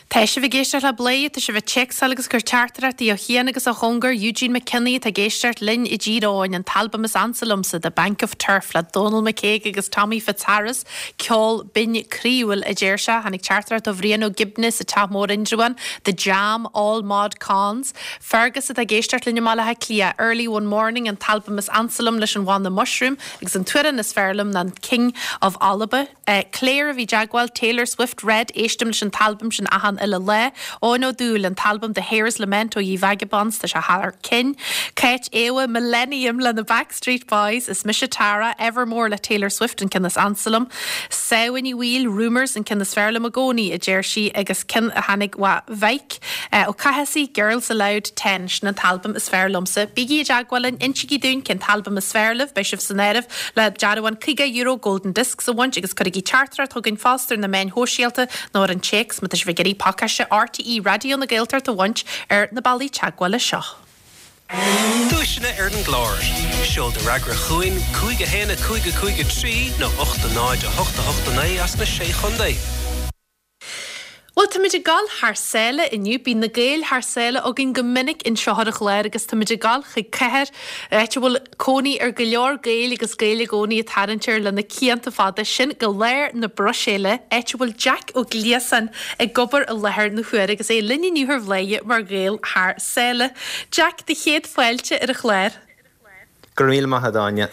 Tá sibh ag éisteacht le Bladhaire, tá sibh ag téacsáil agus ag cur teachtaireachtaí ó chian agus ó chóngar, Eugene McKinney atá ag éisteacht linn i dTír Eoghain, an t-albam is ansa liomsa, The Bank of Turf le Dónal McCague agus Tommy Fitzharris, ceol binn croíúil a deir sé. Tháinig teachtaireacht ó Bhrian Ó Gibne sa Teach Mór Indreabhán, The Jam, All Mod Cons. Fergus atá ag éisteacht linn i mBaile Átha Cliath, Early One Morning, an t-albam is ansa liom leis an bhanna Mushroom agus an t-amhrán is fearr liom ná King of Alba. Claire a bhí i dteagmháil, Taylor Swift, Red, éistim leis an t-albam sin achan uile lá. Eoin Ó Dúill, an t-albam The Hare's Lament ó Ye Vagabonds, tá sé thar cinn. Cáit Éabha, Millennium le na Backstreet Boys, Is mise Tara, Evermore le Taylor Swift, an ceann is ansa liom. Samhain Uí Bhaoill, Rumours, an ceann is fearr liom i gcónaí, a deir sí, agus ceann a tháinig ó Mhaidhc Ó Cathasaigh, Girls Aloud 10, sin an t-albam is fearr liomsa. Bígí i dteagmháil linn, insígí dúinn cén t-albam is fearr libh, beidh sibh san áireamh le dearbhán €50 Golden Discs a bhaint agus cuirigí teachtaireacht chugainn fosta ar na meáin shóisialta nó ar an téacs má tá sibh ag iarraidh pacáiste RTÉ Raidió na Gaeltachta a bhaint ar na bealaí teagmhála seo. Duaiseanna ar an gclár. Seol do fhreagra chugainn, 5 1 5 5 3 nó 8 0 8 8 9 as na Sé Chontae. Bhuel, táimid ag dul thar sáile inniu. Bíonn na Gaeil thar sáile againn go minic anseo ar an chlár agus táimid ag dul chuig cathair, áit a bhfuil cónaí ar go leor Gaeil agus Gaeil i gcónaí ag tarraingt air le na cianta fada, sin go lár na Bruiséile, áit a bhfuil Jack Ó Gliasáin ag obair i láthair na huaire agus é linn inniu ar Bhladhaire mar Ghael thar sáile. Jack, do chéad fáilte ar an chlár. Go raibh míle maith agat, Áine.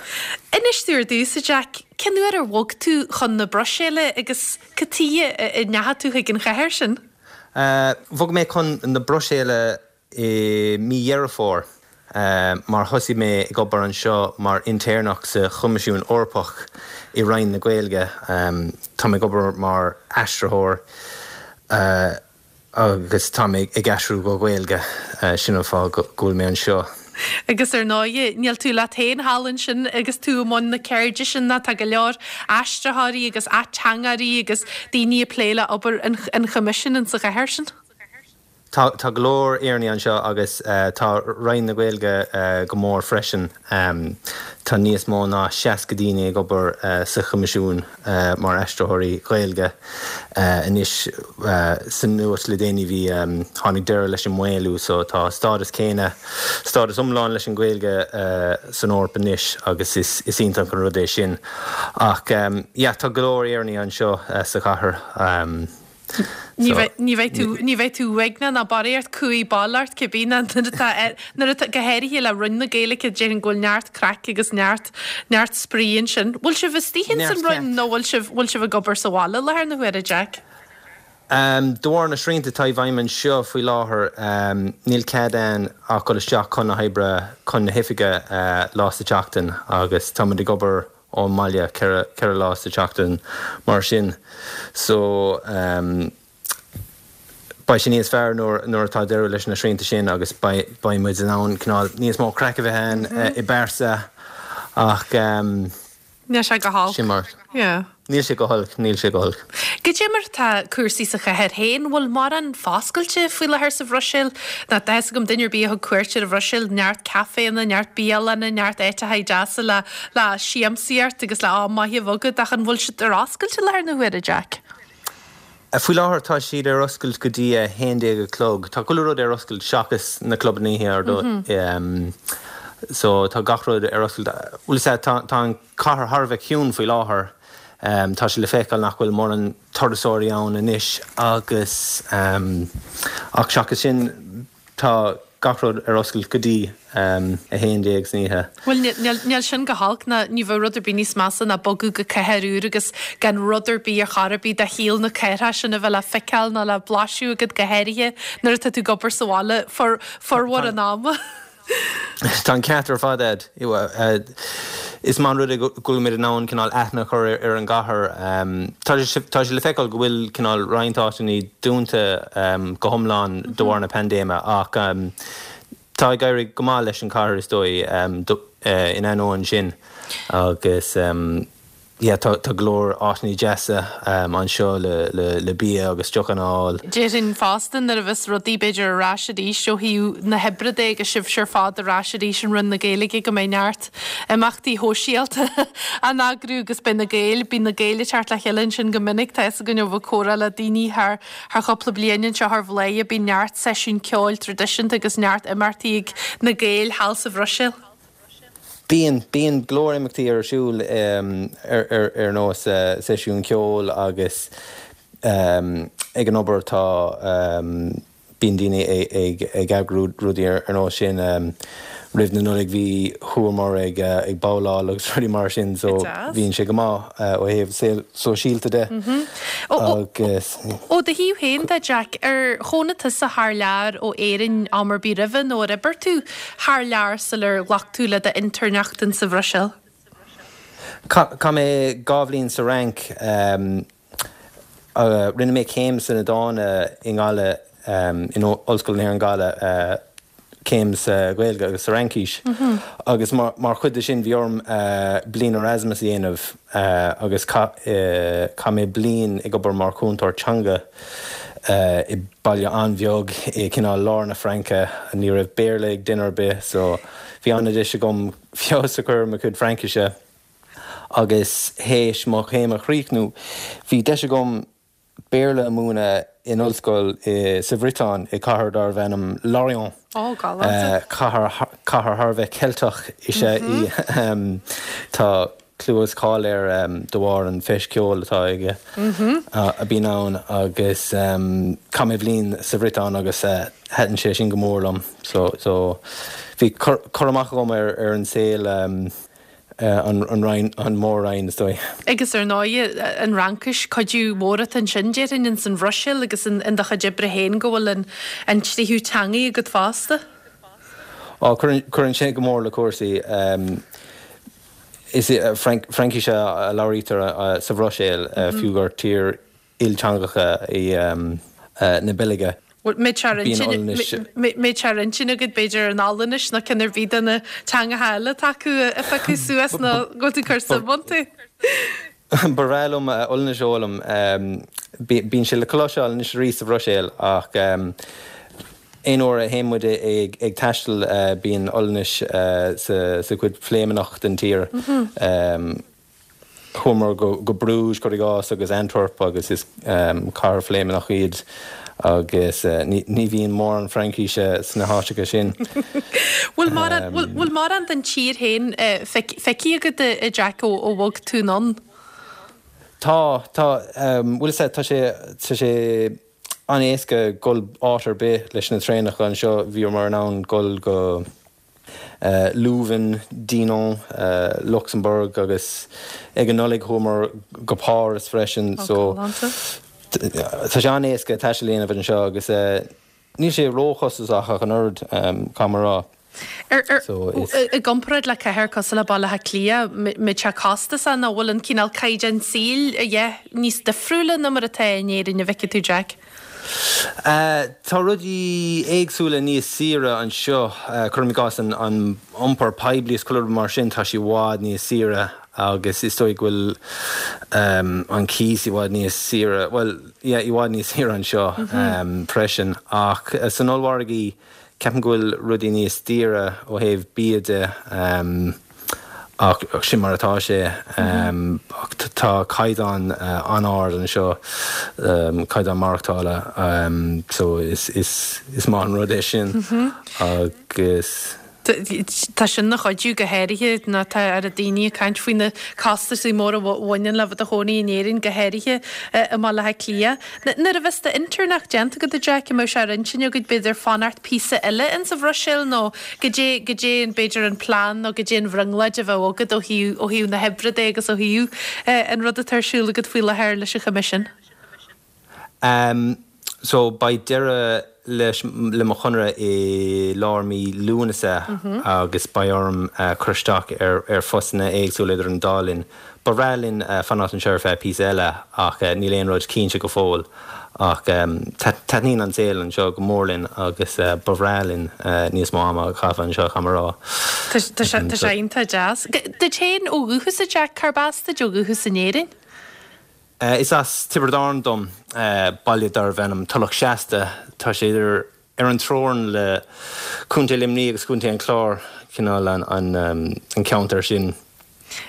Inis dúinn ar dtús, a Jack, cén uair ar bhog tú chun na Bruiséile agus cad tuighe a ndeachaigh tú chuig an chathair sin? Bhog mé chun na Bruiséile i mí Dheireadh Fómhair mar thosaigh mé ag obair anseo mar intéirneach sa Choimisiún Eorpach i Roinn na Gaeilge. Tá mé ag obair mar aistritheoir. Agus tá mé ag aistriú go Gaeilge, sin an fáth go bhfuil mé anseo. Agus ar ndóighe, níl tú leat féin thall ansin agus tú i mbun na ceirde sin ná tá go leor aistritheoirí agus ateangairí agus daoine ag plé le obair an Choimisiúin insa chathair sin. Tá, tá go leor Éireannaigh anseo agus tá Roinn na Gaeilge go mór freisin. Tá níos mó ná 60 daoine ag obair sa Choimisiún mar aistritheoirí Gaeilge anois. Sa nuacht le déanaí bhí, tháinig deireadh leis an maolú so tá stádas céanna, stádas iomlán leis an Ghaeilge san Eoraip anois agus is iontach an rud é sin. Ach yeah tá go leor Éireannaigh anseo sa chathair. Ní bheidh tú, ní bheidh tú uaigneach ná barraíocht cumhaidh bail ort cibé ná nuair atá, nuair atá, go háirithe le Roinn na Gaeilge, déarfainn go bhfuil neart craic agus neart, neart spraoi ansin. Bhfuil sibh istigh ins an Roinn nó bhfuil sibh, bhfuil sibh ag obair sa bhaile i láthair na huaire, Jack? De bharr na srianta atá i bhfeidhm anseo faoi láthair, níl cead a'inn ach dul isteach chun na hoibre, chun na hoifige lá sa tseachtain agus táimid ag obair ón mbaile 4 lá sa tseachtain mar sin so beidh sé níos fearr nuair atá deireadh leis na srianta sin agus beidh muid in ann cineál níos mó craic a bheith ann i bpearsa ach Níl sé go holc. Sin mar. Yeah. Níl sé go holc, níl sé go holc. Goidé mar atá cúrsaí sa chathair féin? Bhfuil mórán foscailte faoi láthair sa Bhruiséil? Ná tá fhios agam duine ar bith a thug cuairt ar an Bhruiséil, neart caiféanna, neart bialanna, neart áiteacha deasa le le siamsaíocht agus le am maith a bheith agat ach an bhfuil siad ar oscailt i láthair na huaire, Jack? Faoi láthair tá siad ar oscailt go dtí a 11 a chlog. Tá chuile rud ar oscailt seachas na clubanna oíche ar ndóigh. So tá gach rud ar oscailt. Bhuel is ea, tá tá an cathair thar a bheith ciúin faoi láthair. Tá sé le feiceáil nach bhfuil mórán turasóirí ann anois agus ach seachas sin tá gach rud ar oscailt go dtí 11 san oíche. Bhuel níl sin go holc ná ní bheadh rud ar bith níos measa ná bogadh go cathair úr agus gan rud ar bith ar chor ar bith de shaol na cathrach sin a bheith le feiceáil ná le blaiseadh agat go háirithe nuair atá tú ag obair sa bhaile formhór an ama. Tá an ceart ar fad a'd. Is maith an rud é go bhfuil muid in ann cineál aithne a chur ar an gcathair. Tá sé le feiceáil go bhfuil cineál roinnt áiteanna dúnta go hiomlán de bharr na paindéime ach tá ag éirí go maith leis an chathair is dóigh in ainneoin sin agus Yeah, tá go leor áiteanna deasa anseo le bia agus deochanna a fháil. Déarfainn fosta nuair a bheas rudaí b'fhéidir ar ais arís ó thaobh na hoibre de agus sibhse ar fad ar ais arís in Roinn na Gaeilge go mbeidh neart imeachtaí shóisialta á n-eagrú agus beidh na Gaeil, bíonn na Gaeil ag teacht le chéile ansin go minic, tá fhios againn ó bheith ag comhrá le daoine thar thar chúpla bliain anseo ar Bhladhaire, bíonn neart seisiún ceoil traidisiúnta agus neart imeachtaí ag na Gaeil thall sa Bhruiséil. Bíonn, bíonn go leor imeachtaí ar siúl ar nós seisiún ceoil agus ag an obair tá, bíonn daoine ag eagrú rudaí ar nós sin. Roimh na Nollag bhí, chuamar ag babhláil agus rudaí mar sin so bíonn sé go maith ó thaobh saol sóisialta de agus. Ó do thaobh féin de, Jack, ar chónaigh tusa thar lear ó Éirinn am ar bith roimhe nó ar oibir tú thar lear sular ghlac tú le d'intéirneacht in sa Bhruiséil? Chaith mé 2 bhliain sa Fhrainc. Rinne mé céim sna Dána i nGaillimh, in Ollscoil na hÉireann Gaillimh, céim sa Ghaeilge agus sa Fhraincis. Agus mar chuid de sin bhí orm bliain Erasmus a dhéanamh agus chaith mé bliain ag obair mar chúntóir teanga. i baile an-bheag i cineál lár na Fraince. Ní raibh Béarla ag duine ar bith so bhí an-deis agam feabhas a chur ar mo chuid Fraincise agus théis mo chéim a chríochnú bhí deis agam. Béarla a mhúineadh in ollscoil sa Bhriotáin, i cathair darbh ainm Lorient. Ó, galánta. Cathair thar a bheith Ceilteach is ea í. Tá clú agus cáil air de bharr an feis ceoil atá aige, a bhíonn ann agus chaith mé bliain sa Bhriotáin agus thaitin sé sin go mór liom. So bhí cur amach agam ar an saol. an Roinn, an Mór-Roinn, is dóigh. Agus ar ndóighe, an Fhraincis, cuidiú mór atá ansin, déarfainn, ins an Bhruiséil agus in do chuid oibre féin go bhfuil an an tríú teangaidh agat fosta. Á, cuireann sé go mór le cúrsaí. Is Fraincis a labhraítear sa Bhruiséil, fiú gur tír ilteangacha í na Beilge. Bhfuil sé ar intinn agat, b'fhéidir, an Ollainnis nó ceann ar bith de na teangacha eile atá acu a phiocadh suas nó go bhfuil tú ag cur suim iontu? Ba bhreá liom Ollainnis a fhoghlaim. Bíonn sé le cloisteáil anois arís sa Bhruiséil ach aon uair a théann muid ag taisteal bíonn Ollainnis sa chuid Phléimeannach den tír. Chuamar go Bruges, cuir i gcás, agus Antwerp agus is cathair Phléimeannach iad agus ní bhíonn mórán Fraincíse sna háiteacha sin. Bhfuil mórán, bhfuil mórán den tír féin feicthe agat a Jack ó bhog tú anonn? Tá, tá. Bhuel is ea, tá sé, tá sé an-éasca dul áit ar bith leis na traenacha anseo. Bhíomar in ann dul go. Leuven, Dinant, Lucsamburg agus ag an Nollaig chuamar go Páras freisin so tá sé an-éasca taisteal a dhéanamh anseo agus níl sé róchostasach ach an oiread, caithfidh mé a rá. So is. I gcomparáid le cathair cosúil le Baile Átha Cliath, mbeadh sé costasach nó bhfuil an cineál caighdeán saoil a dhath níos difriúla ná mar atá in Éirinn, an bhfeiceann tú Jack? Tá rudaí éagsúla níos saoire anseo, cuirim i gcás an iompar poiblí is chuile rud mar sin, tá sé i bhfad níos saoire agus is dóigh go bhfuil an cíos i bhfad níos saoire, bhuel, yeah, i bhfad níos saoire anseo freisin. Ach san ollmhargaí, Ceapaim go bhfuil rudaí níos daoire ó thaobh bia de ach sin mar atá sé. Ach tá caighdeán an-ard anseo, caighdeán maireachtála, so is maith an rud é sin agus. Tá sin ina chuidiú go háirithe nuair atá oiread daoine ag caint faoi na costaisí móra a bhaineann le bheith i do chónaí in Éirinn, go háirithe i mBaile Átha Cliath. Nuair a bheas d'inteirneacht déanta agat, a Jack, an mbeidh sé ar intinn agat, b'fhéidir, fanacht píosa eile insa Bhruiséil nó goidé, goidé an, b'fhéidir, an plean nó goidé an bhrionglóid a bheadh agat ó thaobh, ó thaobh na hoibre de agus ó thaobh an rud atá ar siúl agat faoi láthair leis an Choimisiún? Em so beidh deireadh leis le mo chonradh i lár mí Lúnasa agus beidh orm cur isteach ar ar phostanna éagsúla idir an dá linn. Ba bhreá linn fanacht anseo ar feadh píosa eile ach níl aon rud cinnte go fóill. Ach taitníonn an saol anseo go mór linn agus ba bhreá linn níos mó ama a chaitheamh anseo, caithfidh mé a rá. Tá sé iontach deas. Duit féin ó dhúchas, a Jack, cárb as duit ó dhúchas in Éirinn? Is as Tiobraid Árann dom, baile darbh ainm Tulach Seasta. Tá sé idir ar an teorainn le Contae Luimnigh agus Contae an Chláir, cineál an ceantar sin.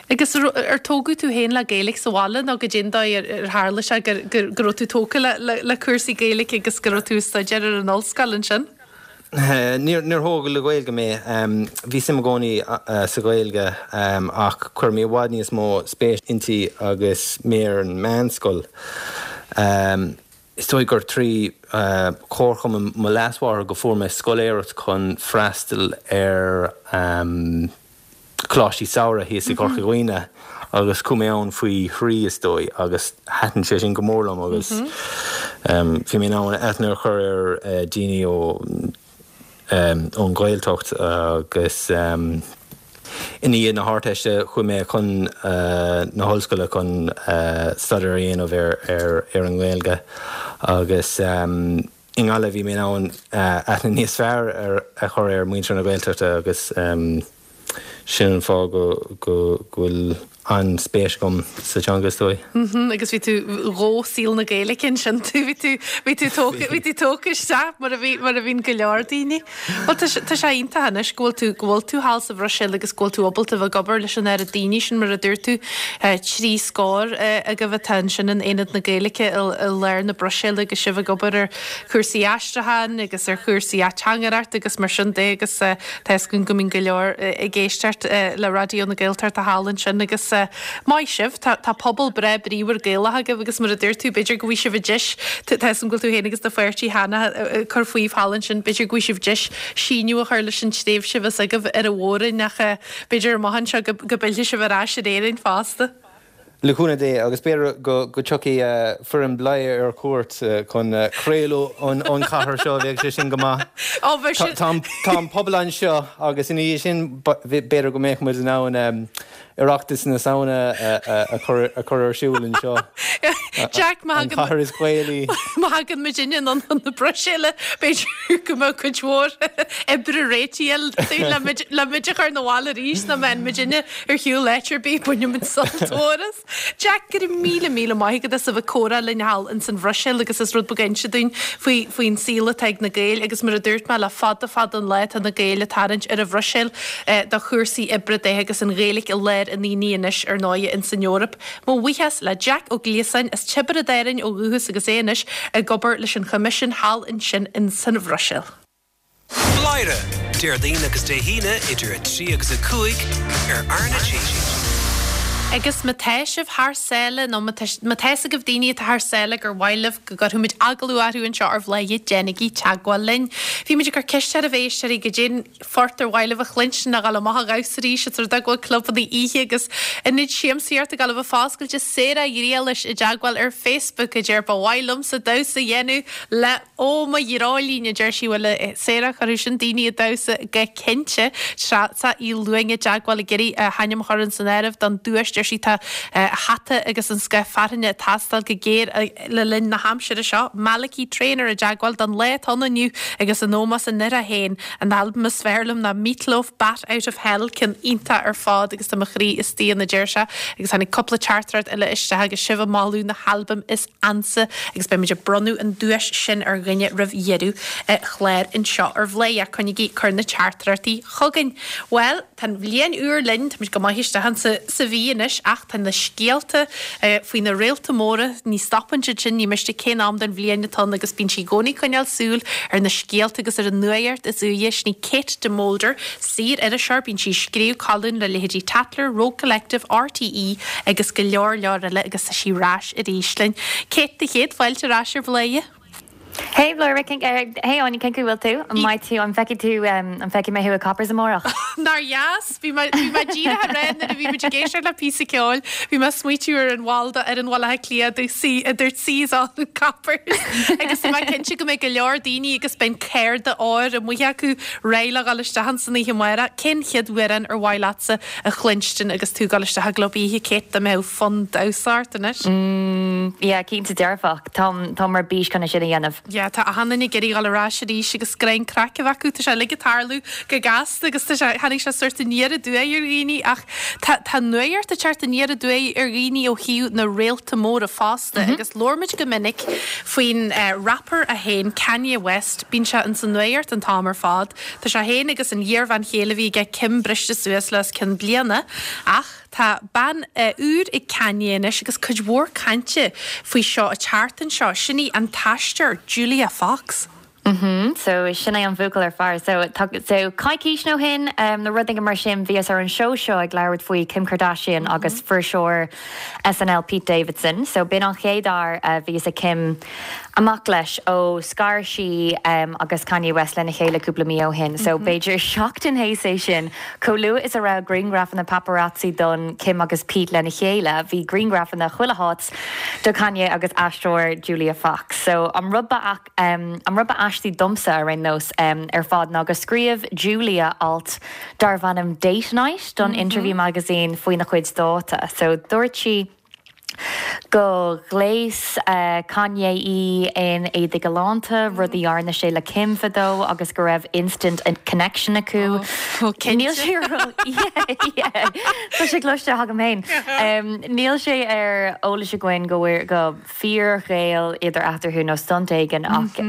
Agus ar tógadh tú féin le Gaeilge sa bhaile nó goidé an dóigh ar tharla sé go raibh tú tógtha le cúrsaí Gaeilge agus go raibh tú ag staidéar ar an ollscoil ansin? Níor thógadh le Gaeilge mé. Bhí suim i gcónaí sa Ghaeilge ach chuir mé i bhfad níos mó spéis inti agus mé ar an meánscoil. Is dóigh gur trí chomharchumann mo leasmháthar go fuair mé scoláireacht chun freastal ar choláistí samhraidh thíos i gCorca Dhuibhne agus chuaigh mé ann faoi thrí is dóigh agus thaitin sé sin go mór liom agus bhí mé in ann aithne a chur ar daoine ó ón Ghaeltacht agus i ndiaidh na hArdteiste chuaigh mé chun na hollscoile chun staidéar a dhéanamh ar ar an nGaeilge agus I nGaillimh bhí mé in ann aithne níos fearr a chur ar mhuintir na Gaeltachta agus sin an fáth go bhfuil. an-spéis agam sa teanga is dóigh. Mhm, agus bhí tú dhó saol na Gaeilge ansin tú, bhí tú, bhí tú tógtha, bhí tú tógtha isteach mar a bhí, mar a bhíonn go leor daoine. Bhuel tá sé, tá sé iontach anois go bhfuil tú, go bhfuil tú thall sa Bhruiséil agus go bhfuil tú ábalta bheith ag obair leis an oiread daoine sin mar a dúirt tú, 3 scór agaibh atá ansin in Aonad na Gaeilge i, i lár na Bruiséile agus sibh ag obair ar chúrsaí aistriúcháin agus ar chúrsaí ateangaireachta agus mar sin de agus tá fhios againn go mbíonn go leor ag éisteacht le Raidió na Gaeltachta thall ansin agus maith sibh, tá tá pobal breá bríomhar Gaelach agaibh agus mar a dúirt tú b'fhéidir go bhfaighidh sibh an deis, tá fhios agam go bhfuil tú féin agus do pháirtí cheana ag cur fúibh thall ansin, b'fhéidir go bhfaighidh sibh deis síneadh a chur leis an tréimhse a bheas agaibh ar an Mhór-Roinn ach b'fhéidir amach anseo go go bpillfidh sibh ar ais ar Éirinn fosta. Le cúnamh Dé, agus b'fhéidir go dtiocfaidh foireann Bladhaire ar cuairt chun craoladh ón chathair seo, bheadh sé sin go maith. Tá an pobal anseo agus ina dhiaidh sin b'fhéidir go mbeadh muid in ann Oireachtas na Samhna a chur ar siúl anseo. Jack, má An chathair is Gaelaí. Má thagann muid anonn chun na Bruiséile, b'fhéidir go mbeadh cuid mhór oibre réitithe le muid a chur 'na bhaile arís, ná mbeidh muidinne ar shiúl áit ar bith, baineann muid sult mhór as. Jack, go raibh míle míle maith agat as a bheith ag comhrá linn thall ins an Bhruiséil agus as rud beag a inse dúinn faoi faoin saol atá ag na Gaeil agus mar a dúirt mé le fada fada an lá tá na Gaeil ag tarraingt ar an Bhruiséil do chúrsaí oibre de agus an Ghaeilge i lár an aonaigh anois ar ndóighe ins an Eoraip. Mo bhuíochas le Jack Ó Gliasáin as Tiobraid Árann ó dhúchas agus é anois ag obair leis an Choimisiún thall ansin ins an Bhruiséil. Bladhaire, Déardaoin agus Dé hAoine idir 3 agus 5 ar RnaG. Agus má tá sibh thar sáile nó má tá má tá fhios agaibh daoine atá thar sáile gur mhaith libh go gcuirfidh muid agallamh orthu anseo ar Bhladhaire, déanaigí teagmháil linn. Bhí muid ag cur ceist oraibh a éisteoirí goidé'n phort ar mhaith libh a chluinstin a dhul amach a dhamhsa arís os rud é go bhfuil clubanna oíche agus ionaid siamsaíochta ag dul a bheith foscailte Sarah Ghriallais i dteagmháil ar Facebook a deir ba mhaith liomsa damhsa a dhéanamh le Ó mo dhreoilín, a deir sí, bhuel, a Sarah, chuirfeadh sin daoine ag damhsa go cinnte. Treasa Uí Luain i dteagmháil ag iarraidh a hainm a chur san áireamh don duais, deir sí, tá hata agus an scoth fearthainne ag teastáil go géar le linn na haimsire seo. Malachy Traynor i dteagmháil don lá atá ann inniu agus in ómós an fhir féin. An albam is fearr liom ná Meat Loaf, Bat Out of Hell, ceann iontach ar fad agus tá mo chroí istigh ann, a deir sé. Agus tháinig cúpla teachtaireacht eile isteach agus sibh ag moladh na halbaim is ansa agus beidh muid ag bronnadh an duais sin ar dhuine roimh dheireadh an chláir anseo ar Bhladhaire. Coinnigí ag cur na teachtaireachtaí chugainn. Bhuel, tá an bhliain úr linn, tá muid go maith isteach insa sa mhí anois ach tá na scéalta faoi na réalta móra, ní stopann siad sin, ní miste cén am den bhliain atá ann agus bíonn sí i gcónaí ag coinneáil súil ar na scéalta agus ar an nuaíocht is úire. Sin í Kate de Molder, saor-iriseoir, bíonn sí ag scríobh colún le leithéidí Tatler, Rogue Collective, RTÉ agus go leor leor eile agus tá sí ar ais arís linn. Kate, do chéad fáilte ar ais ar Bhladhaire. Hey Bladhaire, cén, hey Áine, cén chaoi bhfuil tú? An mbeidh tú, an bhfeicfidh tú, an bhfeicfidh mé thú i Coppers amárach? Nár dheas! Bhí mé, bhí mé díreach ag rá nuair a bhí muid ag éisteacht le píosa ceoil, bhí mé ag smaoitiú ar an bhall d'fhoireann Bhaile Átha Cliath a dúirt a dúirt Seas on in Coppers agus tá mé cinnte go mbeidh go leor daoine agus beidh an cárta óir amuigh acu réidh le dhul isteach ansan oíche amárach. Cén chéad amhrán ar mhaith leatsa a chluinstin agus tú ag dul isteach i gclub oíche, Kate, dá mbeadh fonn damhsa ort anois? Mm, yeah, cinnte dearfach. Táim, táim ar bís chun é sin a dhéanamh. Yeah, tá achan duine ag iarraidh dhul ar ais arís agus greim craic a bheith acu. Tá sé uilig ag tarlú go gasta agus tá sé, tháinig sé sórt aniar aduaidh ar dhaoine ach tá, tá nuaíocht ag teacht aniar aduaidh ar dhaoine ó thaobh na réalta móra fosta agus labhair muid go minic faoin rapper é féin, Kanye West, bíonn sé ins an nuaíocht an t-am ar fad. Tá sé féin agus an iarbhean chéile a bhí aige, Kim, briste suas le os cionn bliana ach tá bean úr ag Kanye anois agus cuid mhór cainte faoi seo an tseachtain seo. Sin í an t-aisteoir Julia Fox. Mhm, so sin é an buachaill ar fear. So tá, so coicís nó shin, nó rud éigin mar sin, bhíos ar an seó seo ag labhairt faoi Kim Kardashian agus fuirseoir SNL Pete Davidson. So b'in an chéad fhear a bhíos ag Kim amach leis ó scar sí agus Kanye West lena chéile cúpla mí ó shin. So b'fhéidir seachtain théis é sin, chomh luath is a raibh grianghrafanna paparazzi don Kim agus Pete lena chéile, bhí grianghrafanna chuile háit do Kanye agus aisteoir Julia Fox. So an rud ba an rud ba aistí domsa ar aon nós ar fad ná go scríobh Julia alt darbh ainm Date Night don Interview Magazine faoina chuid dáta. So dúirt sí. Go ghléas Kanye í in éadaí galánta, rud a dhearna sé le Kim fadó agus go raibh instant connection acu. Níl sé ar yeah, tá sé cloiste agam féin. Níl sé ar eolas againn go go fíorghaol idir eatarthu nó stunt éigin ach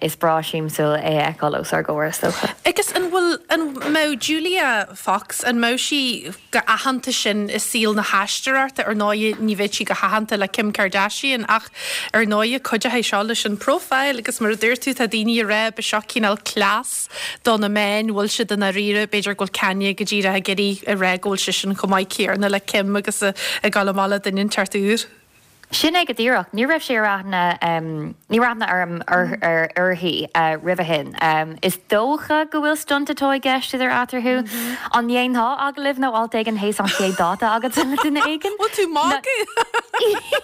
is breá siamsúil é a fheiceáil os ár gcomhair is dócha. Agus an bhfuil, an mbeadh Julia Fox, an mbeadh sí chomh haitheanta sin i saol na haisteoireachta, ar ndóighe ní bheadh sí chomh haitheanta le Kim Kardashian ach ar ndóighe cuideoidh seo leis an profile agus mar a dúirt tú tá daoine ag rá ba seo cineál cleas do na meáin, bhfuil siad i ndáiríre, b'fhéidir go bhfuil Kanye go díreach ag iarraidh a rá go bhfuil seisean chomh maith céarna le Kim agus ag dul amach le duine inteacht úr. Sin é go díreach. Ní raibh sé ar aithne, ní raibh aithne orm uirthi roimhe shin. Is dócha go bhfuil stunt atá i gceist idir eatarthu. An ndéanfá agallamh nó alt éigin théis an chéad dáta agatsa le duine éigin? Bhfuil tú magadh?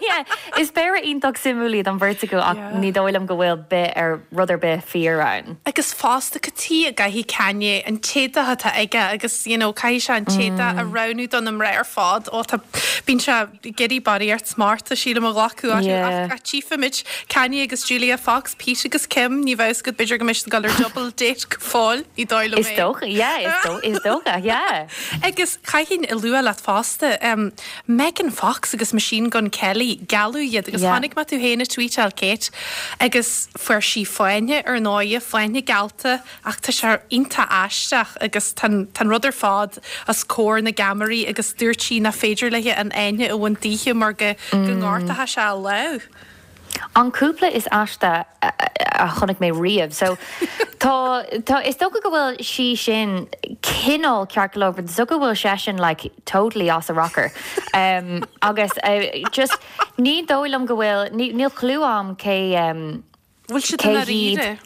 Yeah. Is péire iontach suimiúil iad an bheirt acu ach ní dóigh liom go bhfuil bith ar rud ar bith fíor ann. Agus fosta, cad chuige a gcaithfidh Kanye an t-éadach atá aige agus you know caithfidh sé an t-éadach a roghnú do na mná ar fad. Ó tá, bíonn sé. ag iarraidh barraíocht smachta sílim a ghlacadh orthu ach ach tchífimid Kanye agus Julia Fox, Pete agus Kim, ní bheadh fhios agat b'fhéidir go mbeidh siad ag dul ar double date go fóill, ní dóigh liom é. Is dócha, yeah, is dó, is dócha, yeah. Agus caithfinn a lua leat fosta, um, Megan Fox agus Machine Gun Kelly, gealladh iad agus yeah. chonaic mé tú féin ag tweetáil Kate agus fuair sí fáinne ar ndóighe, fáinne geallta Ach tá sé iontach aisteach agus tá an rud ar fad os comhair na gceamaraí agus dúirt sí nach féidir léi an fháinne a bhaint daoithe mar go ngortódh sé a lámh. An cúpla is aiste a chonaic mé riamh. So tá, tá, is dócha go bhfuil sí sin cineál ceart go leor but is dócha go bhfuil seisean like totally as a rocker. Um, agus uh, just ní dóigh liom go bhfuil, níl clue a'm cé um, Bhfuil siad i ndáiríre?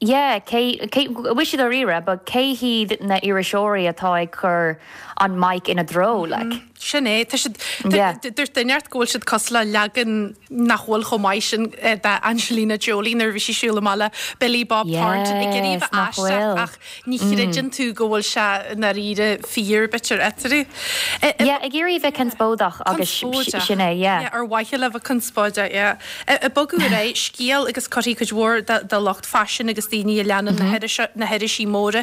Yeah, cé, cé, bhfuil siad dáiríre, but cé hiad na iriseoirí atá ag cur an mic ina dtreo, like? Sin é, tá siad, Yeah. dúirt duine inteacht go bhfuil siad cosúil le leagan nach bhfuil chomh maith sin de Angelina Jolie nuair a bhí sí ag siúl amach le Billy Bob Thornton ag iarraidh a Yes, bheith nach aisteach bhfuil. ach Ní chreideann tú go bhfuil sé i ndáiríre fíor, b'fhéidir, eatarthu. Yeah, ag iarraidh a bheith conspóideach agus sin é, yeah. Yeah, ar mhaithe le bheith conspóideach, yeah. Ag bogadh ar aghaidh, scéal agus cuirfidh cuid mhór de lucht faisin agus daoine a leanann na hirisí móra,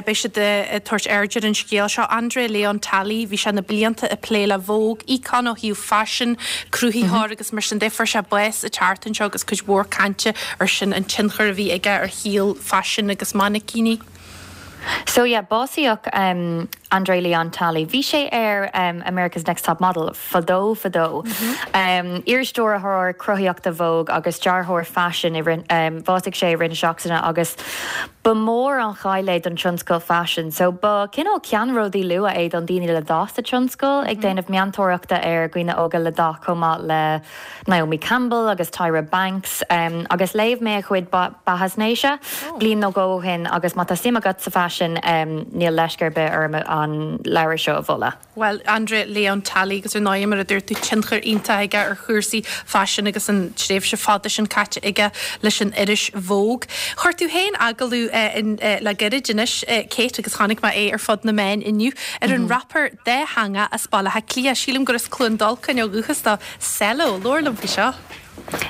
beidh siad ag tabhairt aird ar an scéal seo. André Leon Talley, bhí sé na blianta ag plé le Vogue, íocón ó thaobh faisin, cruthaitheoir agus mar sin de. Fuair sé bás an tseachtain seo agus cuid mhór cainte ar sin, an tionchar a bhí aige ar shaol faisin agus mainicíní. So yeah, básaíodh André Leon Talley. Bhí sé ar America's Next Top Model fadó fadó. Iar-stiúrthóir cruthaíochta Vogue agus dearthóir faisin i rith, bhásaigh sé i rith na seachtaine agus ba mhór an chaill é don tionscal faisin. So ba cineál ceannródaí luath é don daoine le dath sa tionscal, ag déanamh meantóireachta ar dhaoine óga le dath chomh maith le Naomi Campbell agus Tyra Banks agus léigh mé a chuid beathaisnéise bliain nó dhó ó shin agus má tá suim agat sa bhfaisean níl leisce ar bith orm an leabhar seo a mholadh. Bhuel, André Leon Talley agus ar ndóigh mar a dúirt tú tionchar iontach aige ar chúrsaí faisin agus an tréimhse fada sin caite aige leis an iris Vogue. Chuir tú féin agallamh le gairid anois, Kate, agus chonaic mé é ar fud na meán inniu, ar an rapper dátheangach as Baile Átha Cliath, sílim gur as Cluain Dolcáin ó dhúchas dó, Selo, labhair liom faoi seo.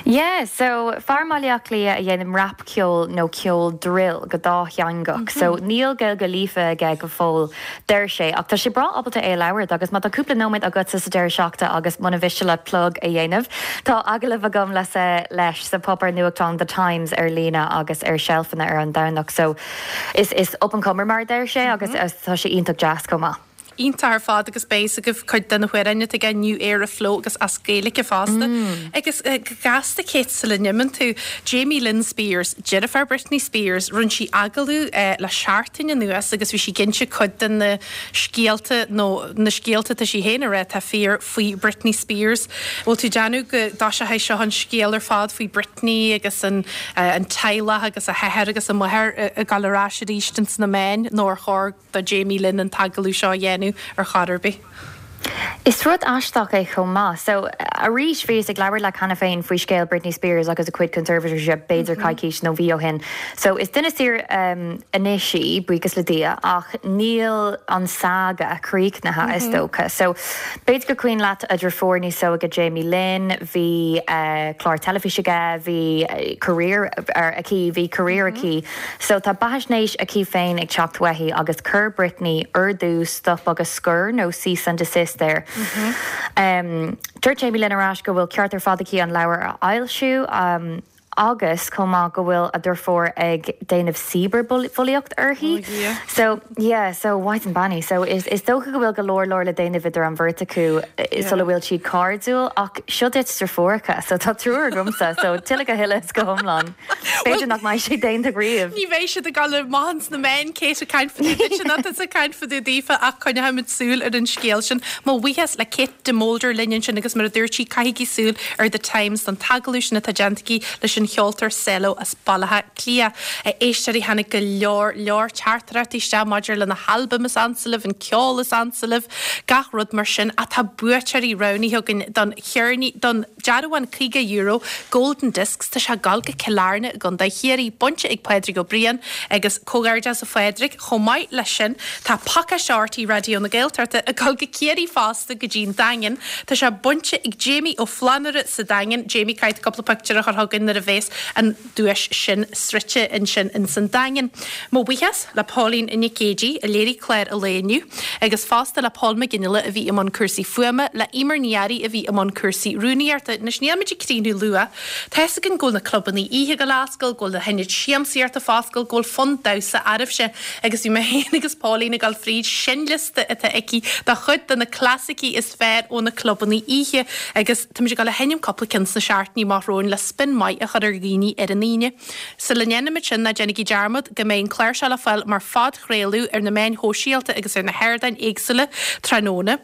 Yeah, so fear i mBaile Átha Cliath a dhéanann rapcheol nó ceol drill go dátheangach. So níl Gaeilge líofa aige go fóill, deir sé, ach tá sé breá ábalta é a labhairt agus má tá cúpla nóiméad agatsa sa deireadh seachtaine agus muna mhiste leat plug a dhéanamh, tá agallamh agam le leis sa páipéar nuachtáin The Times ar líne agus ar seilfeanna ar an Domhnach. So is is up and comer mar a deir sé agus tá sé iontach deas chomh maith. Iontach ar fad agus beidh fhios agaibh cuid de na hamhráin atá aige, New Era Flow agus as Gaeilge fosta. Agus go gasta Kate sula n-imíonn tú, Jamie Lynn Spears, deirfiúr Britney Spears, rinne sí agallamh le seachtain anuas agus bhí sí ag inse cuid de na scéalta nó na scéalta atá sí féin a rá atá fíor faoi Britney Spears. Bhfuil tú ag déanamh go dtoiseochaidh seo an scéal ar fad faoi Britney agus an an teaghlach agus a hathair agus a máthair ag dul ar ais arís ins na meáin nó ar chóir do Jamie Lynn an t-agallamh seo a dhéanamh ar chor ar bith. Is rud aisteach é chomh maith. So, arís, bhíos ag labhairt leat cheana féin faoi scéal Britney Spears agus a cuid conservatorship b'fhéidir coicís nó mhí ó shin. So, is duine saor anois í, buíochas le Dia, ach níl an saga críochnaithe, is dócha. So, b'fhéidir gur cuimhin leat a deirfiúr níos óige Jamie Lynn, bhí clár teilifíse aige, bhí career aici, bhí career aici. So tá beathaisnéis aici féin ag teacht uaithi agus chuir Britney ordú stop agus scor nó cease and desist air. Dúirt Jamie Lynn ar ais go bhfuil ceart ar fad aici an leabhar a fhoilsiú agus chomh maith go bhfuil a deirfiúr ag déanamh cibearbhulaíocht uirthi. So yeah, so mhaighdean beannaithe. So is is dócha go bhfuil go leor leor le déanamh idir an bheirt acu sula bhfuil siad cairdiúil ach seo duit deirfiúracha so tá triúr agamsa so tuilleadh go huile is go hiomlán. B'fhéidir nach mbeidh sé déanta riamh. Ní bheidh siad ag dul amach ins na meáin, Kate ag caint fá dtaobh duitse, ná tusa ag caint fá dtaobh daofa ach coinneoimid súil ar an scéal sin. Mo bhuíochas le Kate de Molder linn ansin agus mar a dúirt sí, caithigí súil ar The Times don t-agallamh sin atá déanta aici leis an cheoltóir Selo as Baile Átha Cliath. A éisteoirí, tháinig go leor, leor teachtaireachtaí isteach maidir le na halbaim is ansa libh, an ceol is ansa libh, gach rud mar sin ach tá buaiteoirí roghnaithe againn don cheirnín, don. Dearbhán €50, Golden Discs, tá sé ag dul go Cill Airne i gContae Chiarraí, bainte ag Pádraig Ó Briain agus comhghairdeas a Phádraig. Chomh maith leis sin, tá pacáiste RTÉ Raidió na Gaeltachta ag dul go Ciarraí fosta go dtí'n Daingean. Tá sé bainte ag Jamie Ó Flannúra sa Daingean. Jamie, caithfidh tú cúpla pictiúr a chur chugainn nuair a bhéas an duais sin sroichte ansin ins an Daingean. Mo bhuíochas le Póilín Nic Géidigh a léirigh clár an lae inniu agus fosta le Pól Mac Fhionnghaile a bhí i mbun cúrsaí fuaime, le Emer Ní Fhearraigh a bhí i mbun cúrsaí rúnaíochta. Anois níl muid ag críochnú luath. Tá's againn go bhfuil na clubannaí oíche ag dul a oscailt, go bhfuil na hionaid siamsaíochta ag foscailt, go bhfuil fonn damhsa oraibhse agus bhí mé féin agus Póilín ag dul fríd seinnliosta atá aici de chuid de na clasaicí is fearr ó na clubannaí oíche agus Táimid ag dul a sheinm cúpla ceann sna seachtainí amach romhainn le spin maith a chur ar dhaoine ar an Aoine. Sula ndéanaimid sin, ná déanaigí dearmad go mbeidh an clár seo le fáil mar phodchraoladh ar na meáin shóisialta agus ar na hardáin éagsúla tráthnóna.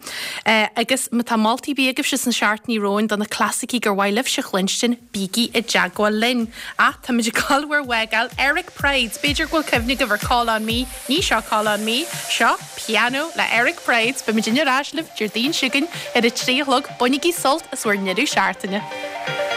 Agus má tá moltaí ar bith agaibhse sna seachtainí romhainn do na clasaicí gur mhaith libhse a chluinstin, bígí i dteagmháil linn. Ach táimid ag dul bhur bhfágáil. Eric Prydz, b'fhéidir go bhfuil cuimhne agaibh ar Call On Me. Ní seo Call On Me, seo Piano le Eric Prydz. Beimid ar ais libh Déardaoin seo chugainn ar a 3 a chlog. Bainigí sult as bhur ndeireadh seachtaine.